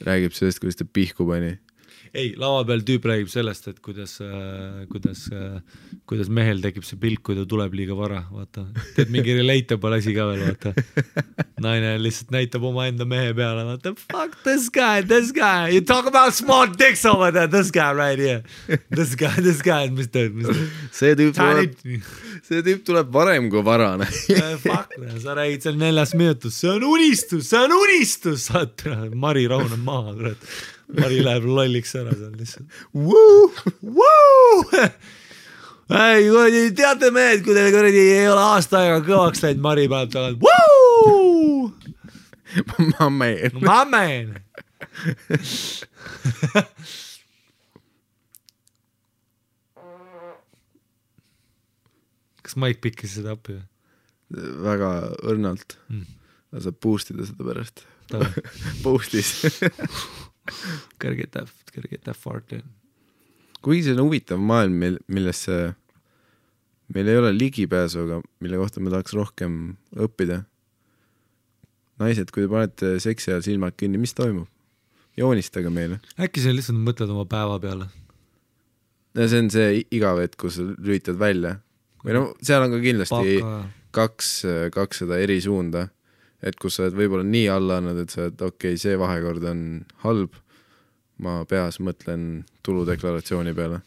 räägib sellest, kuidas ta pihku pani. Ei, lava peal tüüp räägib sellest, et kuidas mehel tekib see pilk, kui ta tuleb liiga vara, vaata. Teed mingi relatable asi ka veel, vaata. Naine lihtsalt näitab oma enda mehe peale, vaata, fuck this guy, you talk about small dicks over there, this guy right here. This guy, mis teed? See tüüp tuleb varem kui varane. Fuck, sa räägid seal 4 minutus, see on unistus, saad, Mari rahuneb maha, kurat. Mari läheb lolliks ära seal lihtsalt. Ei, teate mehed, kui teil ei ole aasta aega kõvaks läinud, Mari paneb tagant. Ma man. Kas Mike pikkis seda appi? Väga õrnalt. Sa boostida seda pärast. Boostis. Gotta get that fart in. Kuigi see on huvitav maailm, millesse meil ei ole ligipääsu, aga mille kohta me tahaks rohkem õppida. Naised, kui te panete seksi ajal silmad kinni, mis toimub? Joonistage meile. Äkki sa lihtsalt mõtled oma päeva peale? No see on see igav, et kus lülitad välja. Või no, seal on ka kindlasti kaks seda eri suunda. Et kus sa oled võib-olla nii alla annad, et sa oled okei, see vahekord on halb. Ma peas mõtlen tuludeklaratsiooni peale.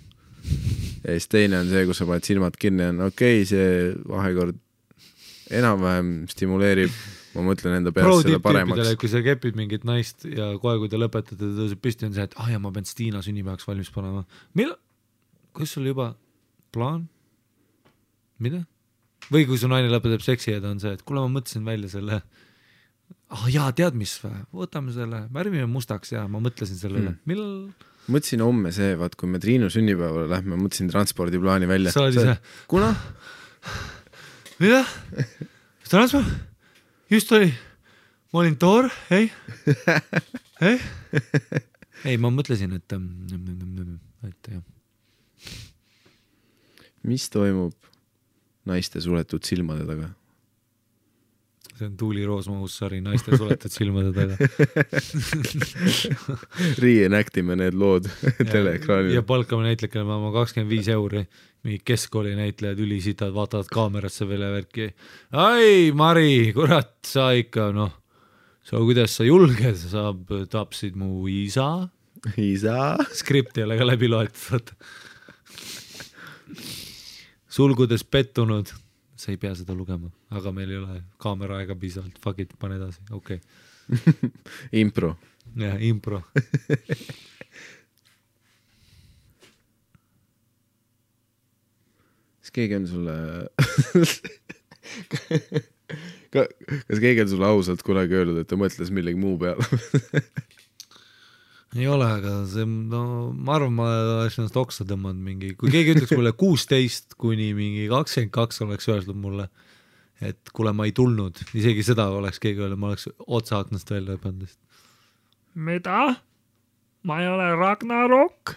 Ja siis teine on see, kus sa paned silmad kinni, on okei, see vahekord enam-vähem stimuleerib. Ma mõtlen enda peas selle paremaks. Kui sa kepid mingit naist ja kohe, kui te lõpetate, ta tõuseb püsti, on see, et ja ma pean Stiina sünnipäevaks valmis panema. Kus sul juba plaan? Mida? Või kui su naine lõpetab seksi ja ta on see, et kuule, ma mõtlesin välja selle jaa, tead mis või? Võtame selle, värvime mustaks ja ma mõtlesin sellele. Millal? Mõtlesin homme see, vaat kui me Triinu sünnipäevale lähme, mõtlesin transpordiplaani välja. Sa oli see? Kuna? Mida? Transport? Just oli. Ma olin toor, ei? Ei, ma mõtlesin, et jah. Mis toimub naiste suletud silmade taga? See on Tuuli Roosmahus-sari naiste suletud silmade taga. Reenactime need lood teleekraanil. Ja palkame näitlekele ma 25 €. Mingi keskkooli näitlejad ülisitad, vaatavad kaamerasse veel ja värki. Ai, Mari, kurat, sa ikka, kuidas sa julged, sa tapsid mu isa. Isa? Skripti ei ole ka läbi loetud. Sulgudes pettunud. Sa ei pea seda lugema, aga meil ei ole kaamera aega piisavalt. Fuck it, pane edasi, okei. Impro. Jah, impro. Kas keegi on sulle... Kas keegi on sulle ausalt kunagi öelnud, et ta mõtles millegi muu peale? Ei ole, aga see, ma arvan, ma oleks ennast oksa tõmmanud mingi, kui keegi ütleks mulle 16 kuni mingi 22 oleks öeldud mulle, et kuule, ma ei tulnud, isegi seda oleks keegi öelnud, ma oleks otsa aknast välja õpanud. Mida? Ma ei ole Ragnarok?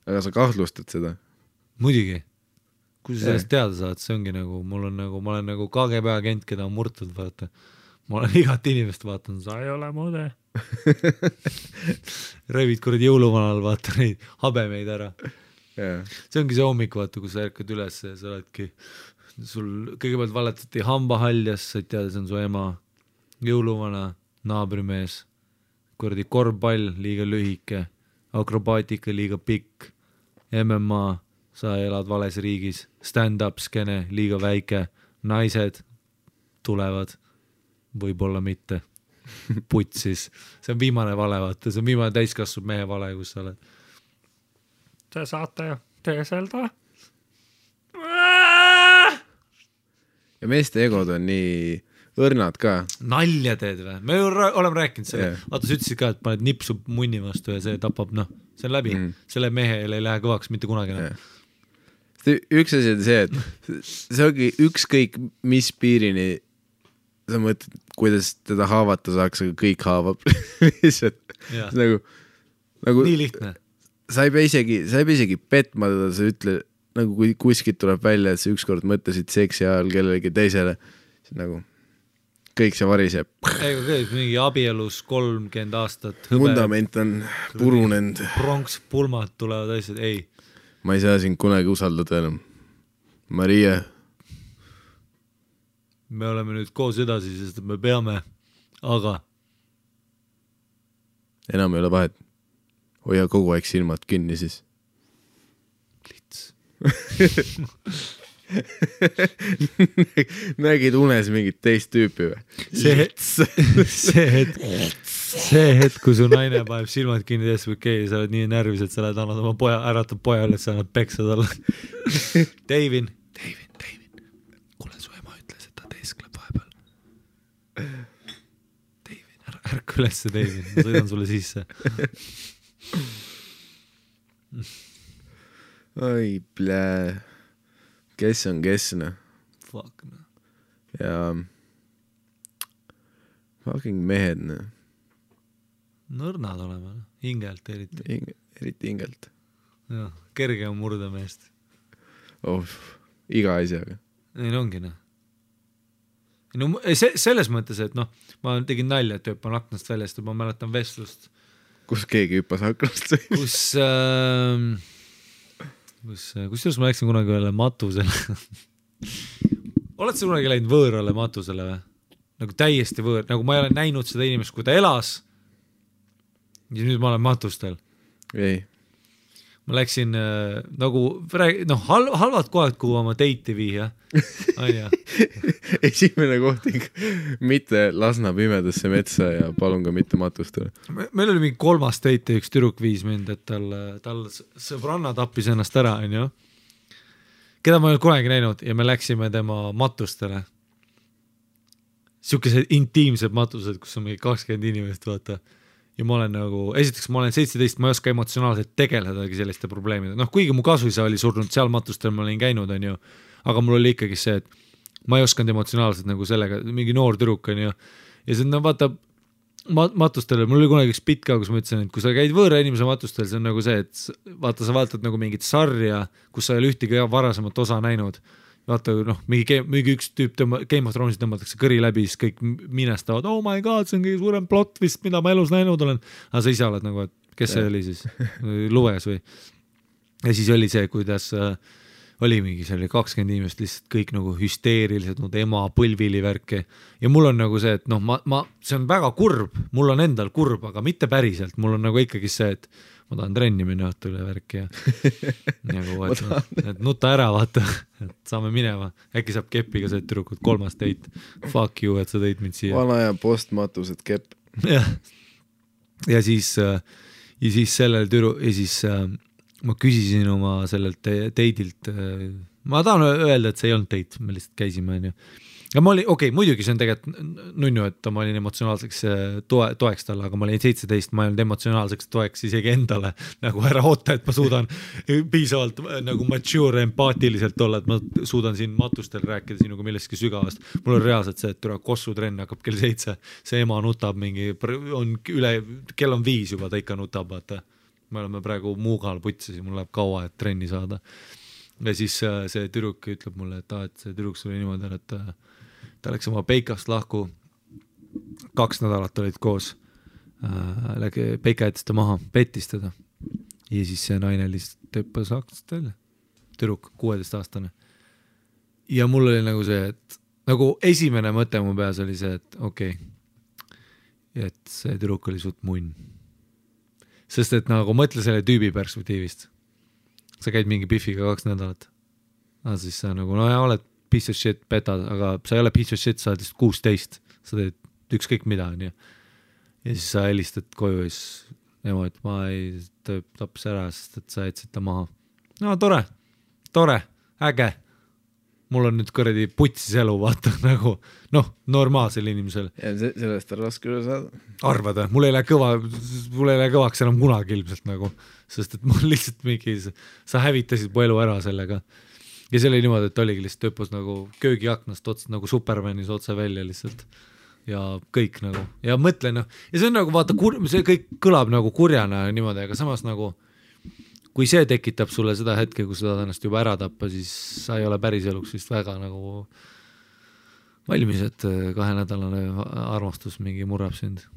Aga sa kahtlustad seda? Muidugi. Kui sa sellest teada saad, see ongi nagu, ma olen nagu KGB agent, keda on murtud, vaata. Ma olen igat inimest vaatan, sa ei ole mude. Revid kuradi jõuluvanal, vaata neid habemeid ära. Yeah. See ongi see hommik, vaata, kui sa ärkad üles ja sa oledki, sul kõigepealt valetati hambahaljas, sa ei teada, see on su ema, jõuluvana, naabrimees, kuradi korvpall, liiga lühike, akrobaatika, liiga pikk, MMA, sa elad vales riigis, stand-up skene, liiga väike, naised tulevad, võib-olla mitte, putsis, see on viimane vale, vaata, see on viimane täiskasvab mehe vale, kus sa oled. Te saate teeselda? Ja meeste egod on nii õrnad ka. Nalja teed või? Me oleme rääkinud selle, vaata sa ütlesid ka, et paned nipsu munni vastu ja see tapab, see on läbi, selle mehele ei lähe kõvaks mitte kunagi. Üks asi on see, et see ongi ükskõik mis piirini sa mõtled, kuidas teda haavata saaks, aga kõik haavab lihtsalt. Nagu, nii lihtne. Sa ei pea isegi petma teda, sa ütle, nagu kui kuskilt tuleb välja, et sa ükskord mõtlesid seksi ajal kellelegi teisele, nagu kõik see variseb. Ega kõik, mingi abielus 30 aastat. Fundament on purunenud. Pronkspulmad tulevad asjad, ei. Ma ei saa sind kunagi usaldada enam. Maria. Me oleme nüüd koos edasi, sest me peame, aga enam ei ole vahet. Hoia kogu aeg silmad kinni siis. Lits. Nägid unes mingit teist tüüpi või? See hetk, kui su naine paneb silmad kinni tees või kei, sa oled nii närvis, et sa lähed annad oma poja, äratad poja üles, sa annad peksa talle. Davin. Kuule, su ema ütles, et ta teeskleb vahepeal. Davin, ärka ülesse, Davin, ma sõidan sulle sisse. Oi, plää. Kes on? Fuck, no. Ja Fucking mehed, Nõrnad olema, hingelt eriti. Eriti hingelt. Jah, kerge on murda meest. Iga asjaga. Neil ongi, No, selles mõttes, et ma tegin nalja, et hüppan aknast väljast ja ma mäletan vestlust. Kus keegi hüppas aknast? Kusjuures ma läksin kunagi ühele matusele. Oled sa kunagi läinud võõrale matusele või? Nagu täiesti võõr, nagu ma ei ole näinud seda inimest, kui ta elas ja nüüd ma olen matustel. Ei. Ma läksin halvad kohad, kuhu oma teiti viia. Esimene koht mitte Lasna pimedasse metsa ja palun ka mitte matustele. Meil oli mingi 3. teit ja üks tüdruk viis mind, et tal sõbranna tappis ennast ära, keda ma ei olnud kunagi näinud ja me läksime tema matustele. Siukesed intiimsed matused, kus on mingi 20 inimest, vaata. Ja ma olen esiteks ma olen 17, ma ei oska emotsionaalselt tegeledagi selliste probleemide. Kuigi mu kasuisa oli surnud seal matustel, ma olin käinud, aga mul oli ikkagi see, et ma ei oskanud emotsionaalselt sellega, mingi noor tüdruk, ja see vaata matustel, mul oli kunagi üks bitt ka, kus ma ütlesin, et kui sa käid võõra inimese matustel, see on see, et vaata, sa vaatad mingit sarja, kus sa ei ole ühtegi varasemat osa näinud. Vaata, mingi üks tüüp Game of Thronesis tõmmatakse kõri läbi, siis kõik minestavad, oh my god, see on kõige suurem plot vist, mida ma elus näinud olen. Aga sa ise oled et kes see oli siis? Luges või? Ja siis oli see, kuidas oli mingi, see oli 20 inimest lihtsalt kõik hüsteerilised, ema põlvili värke. Ja mul on see, et see on väga kurb, mul on endal kurb, aga mitte päriselt. Mul on ikkagi see, et ma tahan trenni minna õhtule värki ja et nuta ära, vaata, et saame minema. Äkki saab kepiga see tüdrukud 3. teit. Fuck you, et sa tõid mind siia. Vana ja postmatused kepp. Ja siis sellel ja siis ma küsisin oma sellelt teidilt, ma tahan öelda, et see ei olnud teit, me lihtsalt käisime, ja ma olin, muidugi see on tegelikult nunnu, et ma olin emotsionaalseks toeks talle, aga ma olin 17, ma ei olnud emotsionaalseks toeks isegi endale, ära oota, et ma suudan piisavalt mature, empaatiliselt olla, et ma suudan siin matustel rääkida sinuga millestki sügavast. Mul on reaalselt see, et kossutrenn hakkab kell 7, see ema nutab kell on 5 juba, ta ikka nutab, vaata. Me oleme praegu Muugal putsis ja mul läheb kaua, et trenni saada. Ja siis see tüdruk ütleb mulle, et see tüdruk oli niimoodi, et ta läks oma peikast lahku, 2 nädalat olid koos, peika jättis ta maha, pettis teda ja siis see naine lihtsalt tõppas aknast välja, tüdruk, 16-aastane. Ja mul oli see, et esimene mõte mu peas oli see, et et see tüdruk oli suht munn. Sest et mõtle selle tüübi perspektiivist. Sa käid mingi Biffiga 2 nädalat. Aga siis sa oled piece of shit, petad, aga sa ei ole piece of shit, sa oled 16. Sa teed ükskõik mida. Ja siis sa helistad koju ja siis ema, et ma ei taps ära, sest et sa jätsid ta maha. No tore, äge. Mul on nüüd kõredi putsis elu, vaata, normaalsel inimesel. Ja sellest on raske üle saada. Arvada, mul ei lähe kõvaks enam kunagi ilmselt sest et mul lihtsalt mingi, sa hävitasid mu elu ära sellega. Ja see oli niimoodi, et oligi lihtsalt töppus köögiaknast otsa, Supermanis otse välja lihtsalt. Ja kõik ja mõtlen, ja see on vaata, see kõik kõlab kurjana niimoodi, aga samas kui see tekitab sulle seda hetke, kus sa tahad ennast juba ära tappa, siis sa ei ole päris eluks vist väga valmis, et 2-nädalane armastus mingi murrab sind.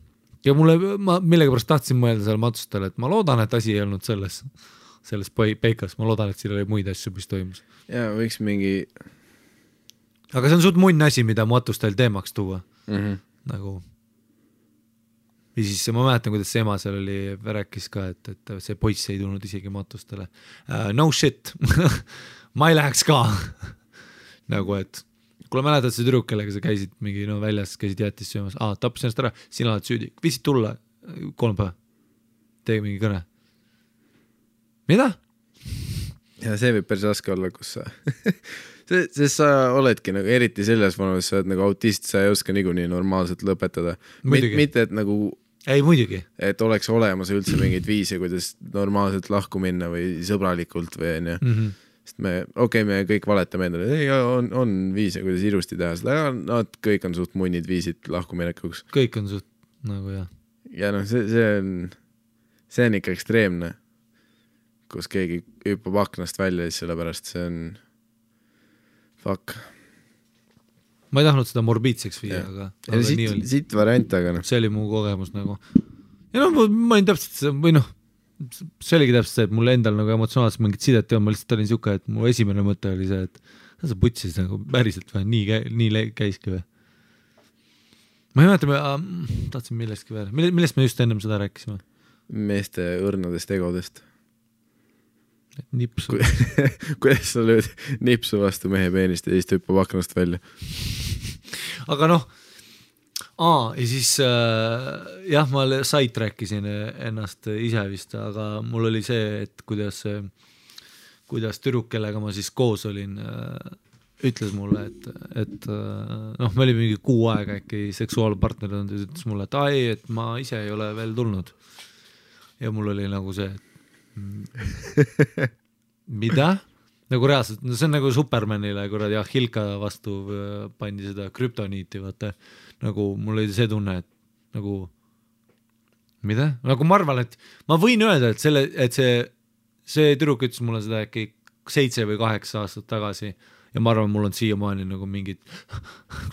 Ja ma millegipärast tahtsin mõelda seal matustel, et ma loodan, et asi ei olnud selles peikas, ma loodan, et siin oli muid asju, mis toimus. Ja võiks mingi... Aga see on suht munn asi, mida matustel teemaks tuua. Ja siis ma mäletan, kuidas see ema seal rääkis ka, et see poiss ei tulnud isegi matustele. No shit, ma ei läheks ka. Et kuule mäletad see tüdruk, kellega sa käisid mingi väljas, käisid jättis söömas, tappis ennast ära, sina oled süüdi, viisid tulla 3 päeva, tegi mingi kõne. Mida? Ja see võib päris raske olla, kus sa sest sa oledki eriti selles vanus, sa oled autist, sa ei oska niikuinii normaalselt lõpetada. Mitte, et ei, muidugi. Et oleks olemas üldse mingid viise, kuidas normaalselt lahku minna või sõbralikult või sest me kõik valetame endale, ei, on viise, kuidas ilusti teha seda, aga nad kõik on suht munnid viisid lahkuminekuks. Kõik on suht nagu jah. Ja noh, see on ikka ekstreemne, kus keegi hüppab aknast välja, siis sellepärast see on fuck. Ma ei tahtnud seda morbiidseks viia, aga nii oli. Siit variant, aga noh. See oli mu kogemus nagu. Ja no ma olin täpselt või noh, see oligi täpselt see, et mul endal nagu emotsionaalselt mingit sidet ja ma lihtsalt olin siuke, et mu esimene mõte oli see, et sa putsis nagu päriselt või nii käiski või. Ma ei mäleta, tahtsin millestki veel. Millest me just ennem seda rääkisime? Meeste õrnadest egodest. Nipsu. Kuidas sa lööd nipsu vastu mehe peenist ja siis hüppab aknast välja? Aga noh, ja siis jah, ma sait rääkisin ennast ise vist, aga mul oli see, et kuidas tüdruk, kellega ma siis koos olin, ütles mulle, et noh, me olime mingi 6 aega äkki seksuaalpartner ja ütles mulle, et et ma ise ei ole veel tulnud. Ja mul oli nagu see, mida? Nagu reaalselt, no see on nagu Supermanile, kuradi Hilka vastu pandi seda krüptoniiti, vaata. Nagu mul oli see tunne, et nagu mida? Nagu ma arvan, et ma võin öelda, et see tüdruk ütles mulle seda äkki 7 või 8 aastat tagasi ja ma arvan, mul on siiamaani nagu mingid,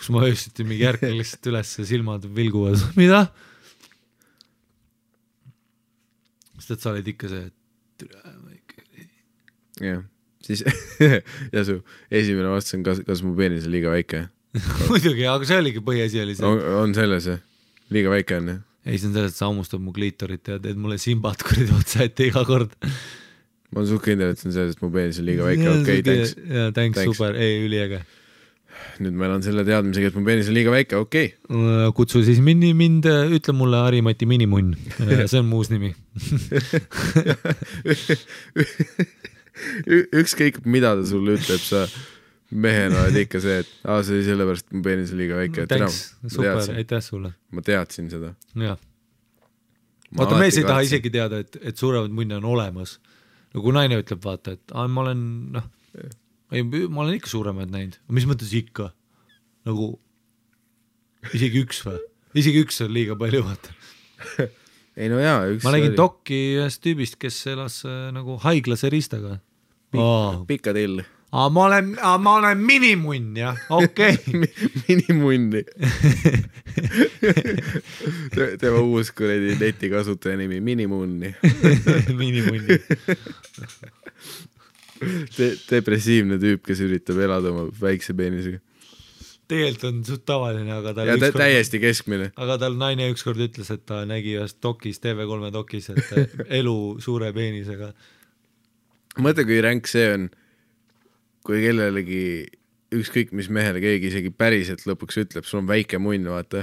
kus ma öösiti mingi järgmine lihtsalt üles ja silmad vilguvad. Mida? Sest et sa olid ikka see, et jah, siis ja su esimene vastus on, kas mu peenis on liiga väike? Muidugi, aga see oligi põhiasi oli see. On selles, liiga väike on, jah? Ei, see on selles, et sa ammustab mu kliitorit ja teed mulle simbat kuridi otsa ette iga kord. Ma olen suht kindel, et see on selles, et mu peenis on liiga väike. Okei, thanks. Ja, thanks, super, üliäge. Nüüd ma elan selle teadmisega, et mu peenis on liiga väike, okei. Kutsu siis mind, ütle mulle Harimati minimunn. See on muus nimi. Ükskõik, mida ta sulle ütleb, sa mehena oled ikka see, et see oli sellepärast, et mu peenis on liiga väike. Thanks, super, aitäh sulle. Ma teadsin seda. Jah. Vaata, mees ei taha isegi teada, et suuremad munne on olemas. No kui naine ütleb, vaata, et ma olen ikka suuremaid näinud. Mis mõttes ikka? Nagu isegi üks või? Isegi üks on liiga palju, vaata. Ei no jaa, ma nägin dokki ühest tüübist, kes elas nagu haiglase ristaga. Pika till. Ma olen minimunn, jah, okei. Minimunni. Tema uus kuredi netikasutaja nimi, minimunni. Minimunni. Depressiivne tüüp, kes üritab elada oma väikse peenisega. Tegelikult on suht tavaline, aga tal täiesti keskmine. Aga tal naine ükskord ütles, et ta nägi ühest dokis, TV3 dokis, et elu suure peenisega. Mõtle, kui ränk see on, kui kellelegi ükskõik mis mehele keegi isegi päriselt lõpuks ütleb, sul on väike munn, vaata.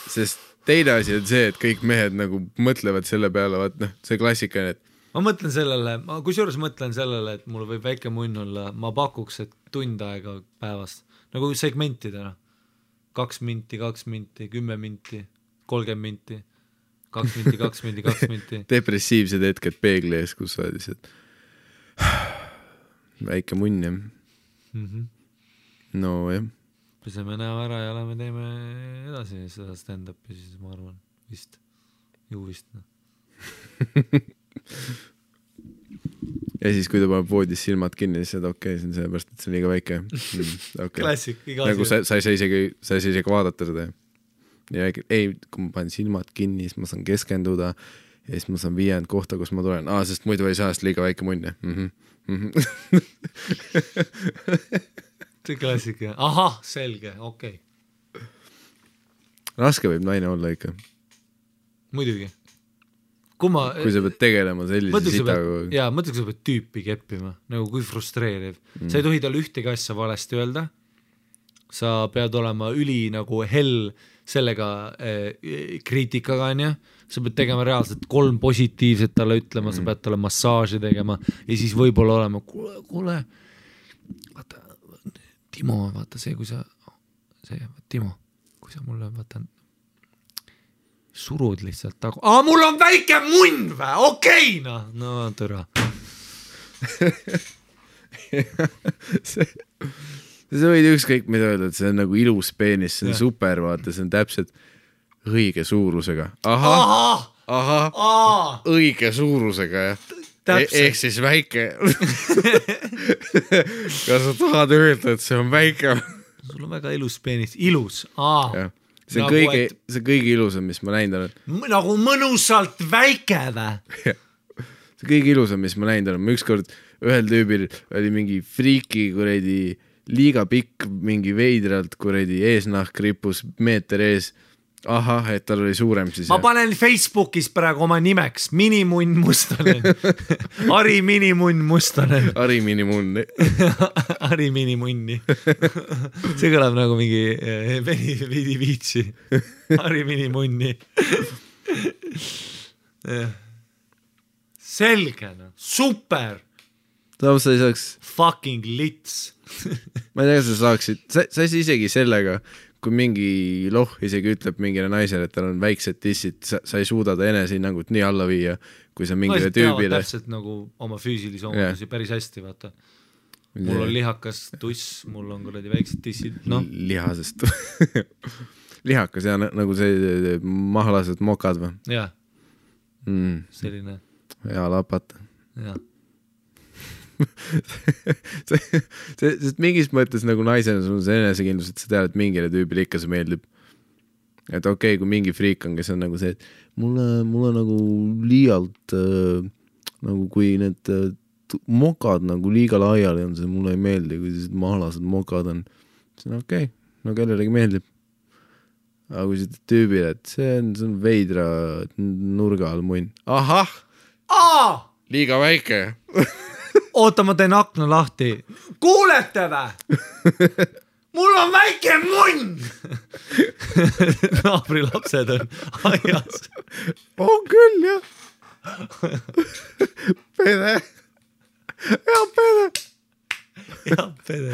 Sest teine asi on see, et kõik mehed nagu mõtlevad selle peale, vaata, see klassika, et ma mõtlen sellele, kusjuures mõtlen sellele, et mul võib väike munn olla, ma pakuks, et tund aega päevast, nagu segmentidena, 2 minti, 10 minti, 30 minti, 2 minti, 2 minti, 2 minti. Depressiivsed hetked peegli ees, kus sa olid, väike munn, jah. No, jah. Peseme näo ära ja lähme teeme edasi seda stand-upi, siis ma arvan, vist, ju vist. Ja siis, kui ta paneb voodis silmad kinni, siis seda okei, see on sellepärast, et see on liiga väike. Okay. Klassik, iga nagu sa ei saa isegi vaadata seda. Ja ei, kui ma panen silmad kinni, siis ma saan keskenduda ja siis ma saan viiend kohta, kus ma tulen. Sest muidu ei saa, sest liiga väike munn. See klassik, jah. Ahah, selge, okei. Raske võib naine olla ikka. Muidugi. Kui sa pead tegelema sellise sitaga. Jaa, mõtle, kui sa pead tüüpi keppima, nagu kui frustreeriv. Sa ei tohi tal ühtegi asja valesti öelda. Sa pead olema üli nagu hell sellega kriitikaga, on ja? Sa pead tegema reaalselt 3 positiivset talle ütlema, sa pead talle massaaži tegema ja siis võib-olla olema, kuule, vaata, Timo, vaata see, kui sa mulle vaata surud lihtsalt tagu. Mul on väike munn või? Okei, no tõra. sa võid ükskõik mida öelda, et see on nagu ilus peenis, see on super, vaata, see on täpselt õige suurusega. Ahah, õige suurusega, jah. Ehk siis väike. Kas sa tahad öelda, et see on väike? Sul on väga ilus peenis. Ilus. See on nagu kõige ilusam, mis ma näinud olen. Nagu mõnusalt väike vä? See kõige ilusam, mis ma näinud olen. Ma ükskord ühel tüübil oli mingi friiki kuredi liiga pikk, mingi veidralt kuredi eesnahk rippus meeter ees. Ahah, et tal oli suurem siis. Ma panen Facebookis praegu oma nimeks Minimunn Mustonen. Ari Minimunn Mustonen. Ari Minimunn. Ari Minimunni. See kõlab nagu mingi vidi viitsi. Ari Minimunni. Selge, no. Super. Sa ei saaks... Fucking lits. Ma ei tea, sa saaksid... Sa isegi sellega... kui mingi isegi ütleb mingile naisele, et tal on väiksed tissid, sa ei suuda ta enesehinnangut nii alla viia, kui sa mingile tüübile. Täpselt nagu oma füüsilisi omadusi päris hästi, vaata. Mul on lihakas tuss, mul on kuradi väiksed tissid, noh. Lihasest. Lihakas, ja nagu see mahlased mokad või? Jah. Selline. Ja lapata. Jah. Sest mingis mõttes nagu naisena sul on see enesekindlus, et sa tead, et mingile tüübile ikka see meeldib. Et okei, kui mingi friik on, kes on nagu see, et mulle nagu liialt nagu kui need mokad nagu liiga laiali on, see mulle ei meeldi, kui sellised mahlased mokad on. See on okei, no kellelegi meeldib. Aga kui see tüübile, et see on veidra nurga all munn. Ahah! Liiga väike. Oota, ma teen akna lahti. Kuulete vä? Mul on väike munn! Naabri lapsed on aias. On küll, jah. Pede. Ja, pede. Ja, pede.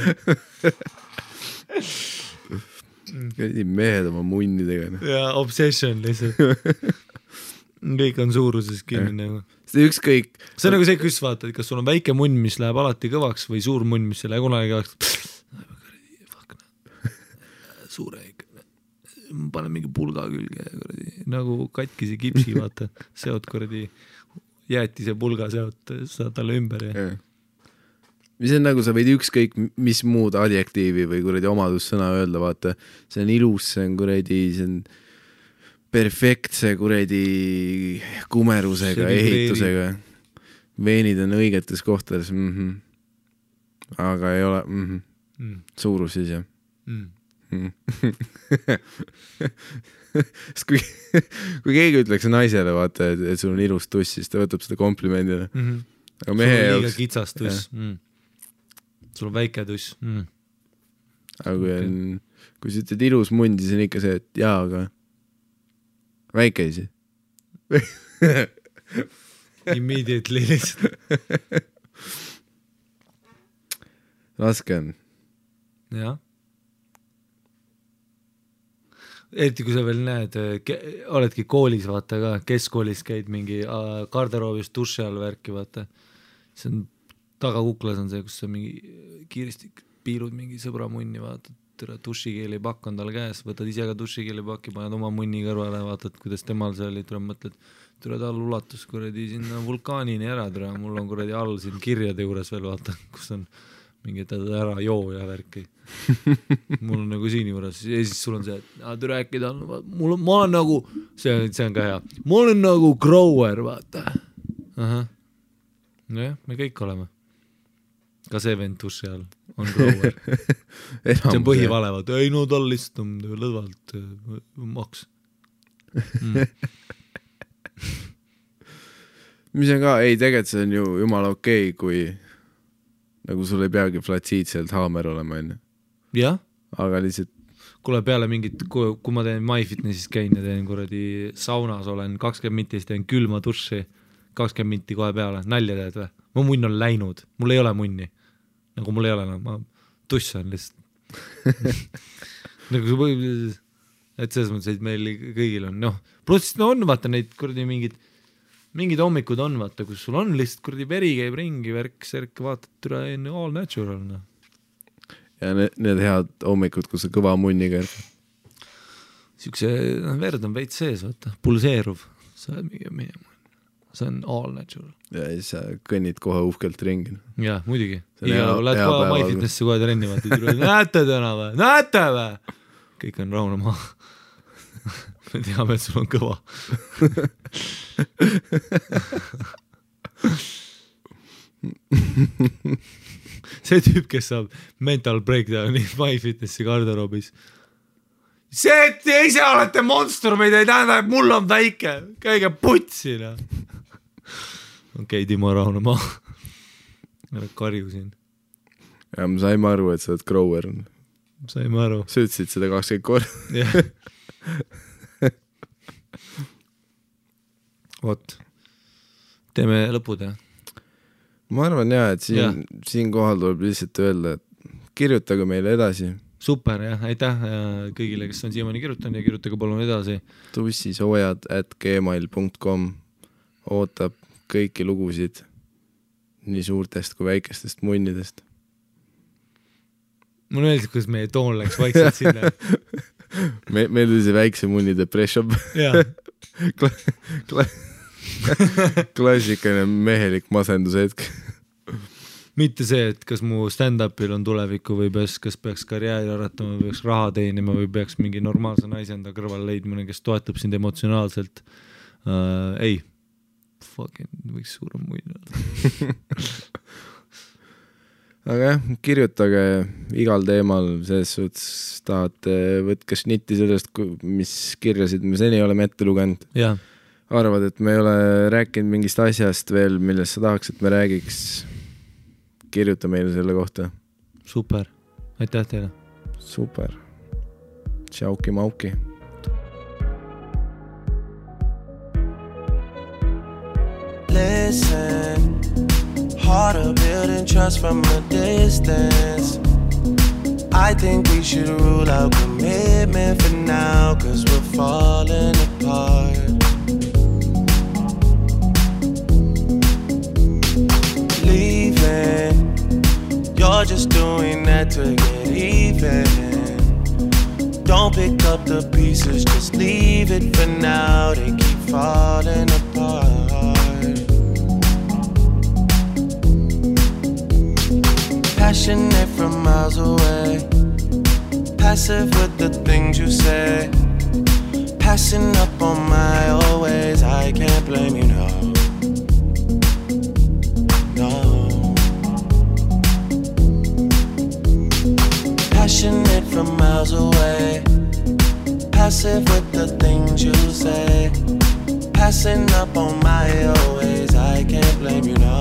Mehed oma munnidega. Ja, obsession lihtsalt. Kõik on suuruses kinni nagu. See ükskõik. See on nagu see, kus vaatad, kas sul on väike munn, mis läheb alati kõvaks või suur munn, mis ei lähe kunagi kõvaks. Suure ikka. Panen mingi pulga külge. Nagu katkisi kipsi, vaata. Seot kuradi jäätise pulga seot, saad talle ümber. Ja. Mis on nagu, sa võid ükskõik mis muud adjektiivi või kuradi omadussõna öelda, vaata. See on ilus, see on kuradi, see on perfektse kuredi kumerusega, ehitusega. Veenid on õigetes kohtades. Aga ei ole. Suurus siis, jah. Kui keegi ütleks naisele, vaata, et sul on ilus tuss, siis ta võtab seda komplimendina. Aga mehe sul on liiga kitsas tuss. Sul on väike tuss. Aga kui sa ütled ilus mund, siis on ikka see, et jaa, aga väike isi. Immediately lihtsalt. Raske on. Jah. Eriti kui sa veel näed, oledki koolis, vaata ka, keskkoolis käid mingi garderoobis duši all värki, vaata. See on tagakuklas on see, kus sa mingi kiiresti piilud mingi sõbra munni, vaatad. Dušikeelipakk on tal käes, võtad ise ka dušikeelipakki, paned oma munni kõrvale, vaatad, kuidas temal see oli, tuleb mõtled, tule tal ulatus kuradi sinna vulkaanini ära, mul on kuradi all siin kirjade juures veel, vaata, kus on mingi ära joo ja värki. Mul on nagu siin juures, ja siis sul on see, et rääkida on, ma olen nagu, see on ka hea, ma olen nagu grower, vaata. Nojah, me kõik oleme. Ka see vend duši all on grower. See on põhivale, vaata, ei no tal lihtsalt on lõdvalt maks. Mis on ka, ei tegelikult see on ju jumala okei, kui nagu sul ei peagi flatsiidselt haamer olema enne. Jah. Aga lihtsalt kuule peale mingit, kui ma teen MyFitnessis käin ja teen kuradi saunas olen 20 mintis, teen külma duši 20 minti kohe peale, nalja teed või? Mu munn on läinud, mul ei ole munni. Nagu mul ei ole, ma tussan lihtsalt. Nagu et selles mõttes, et meil kõigil on, noh, pluss on vaata neid kuradi mingid mingid hommikud on, vaata, kus sul on lihtsalt kuradi veri käib ringi, värk, vaatad üle all natural, noh. Ja need head hommikud, kus see kõva munniga siukse verd on veits sees, vaata, pulseeruv, sa oled mingi see on all natural. Ja siis sa kõnnid kohe uhkelt ringi. Jah, muidugi. Lähed kohe MyFitnessi kohe trenni, vaata, näete täna või? Näete või? Kõik on rahune maha. Me teame, et sul on kõva. See tüüp, kes saab mental breakdowni MyFitnessi garderoobis. See, et te ise olete monstrumid, ei tähenda, et mul on väike. Käige putsina. Okei, Timo, rahune maha. Ära karju siin. Ja ma saime aru, et sa oled grower. Saime aru. Sa ütlesid seda 20 korda. Jah. Vot. Teeme lõpud, jah? Ma arvan, jah, et siin kohal tuleb lihtsalt öelda, et kirjutage meile edasi. Super, jah, aitäh kõigile, kes on siiamaani kirjutanud ja kirjutage palun edasi. tussisoojad@gmail.com ootab kõiki lugusid nii suurtest kui väikestest munnidest. Mulle meeldib, kuidas meie toon läks vaikselt sinna. Meil oli see väikse munni depression. Klassikaline mehelik masenduse hetk. Mitte see, et kas mu stand-upil on tulevikku või kas peaks karjääri aratama või peaks raha teenima või peaks mingi normaalse naise enda kõrval leidmine, kes toetab sind emotsionaalselt. Ei. Fucking võiks suurem muid olla. Aga jah, kirjutage igal teemal, selles suhtes tahate võtke šnitti sellest, mis kirjasid me seni oleme ette lugenud. Ja. Arvad, et me ei ole rääkinud mingist asjast veel, millest sa tahaks, et me räägiks. Kirjuta meile selle kohta. Super. Aitäh teile. Super. Tšauki mauki. Listen, harder building trust from a distance. I think we should rule out commitment for now, 'cause we're falling apart. Leaving, you're just doing that to get even. Don't pick up the pieces, just leave it for now. They keep falling apart. Passionate from miles away, passive with the things you say, passing up on my always. I can't blame you, no. Passionate from miles away, passive with the things you say, passing up on my always. I can't blame you, no.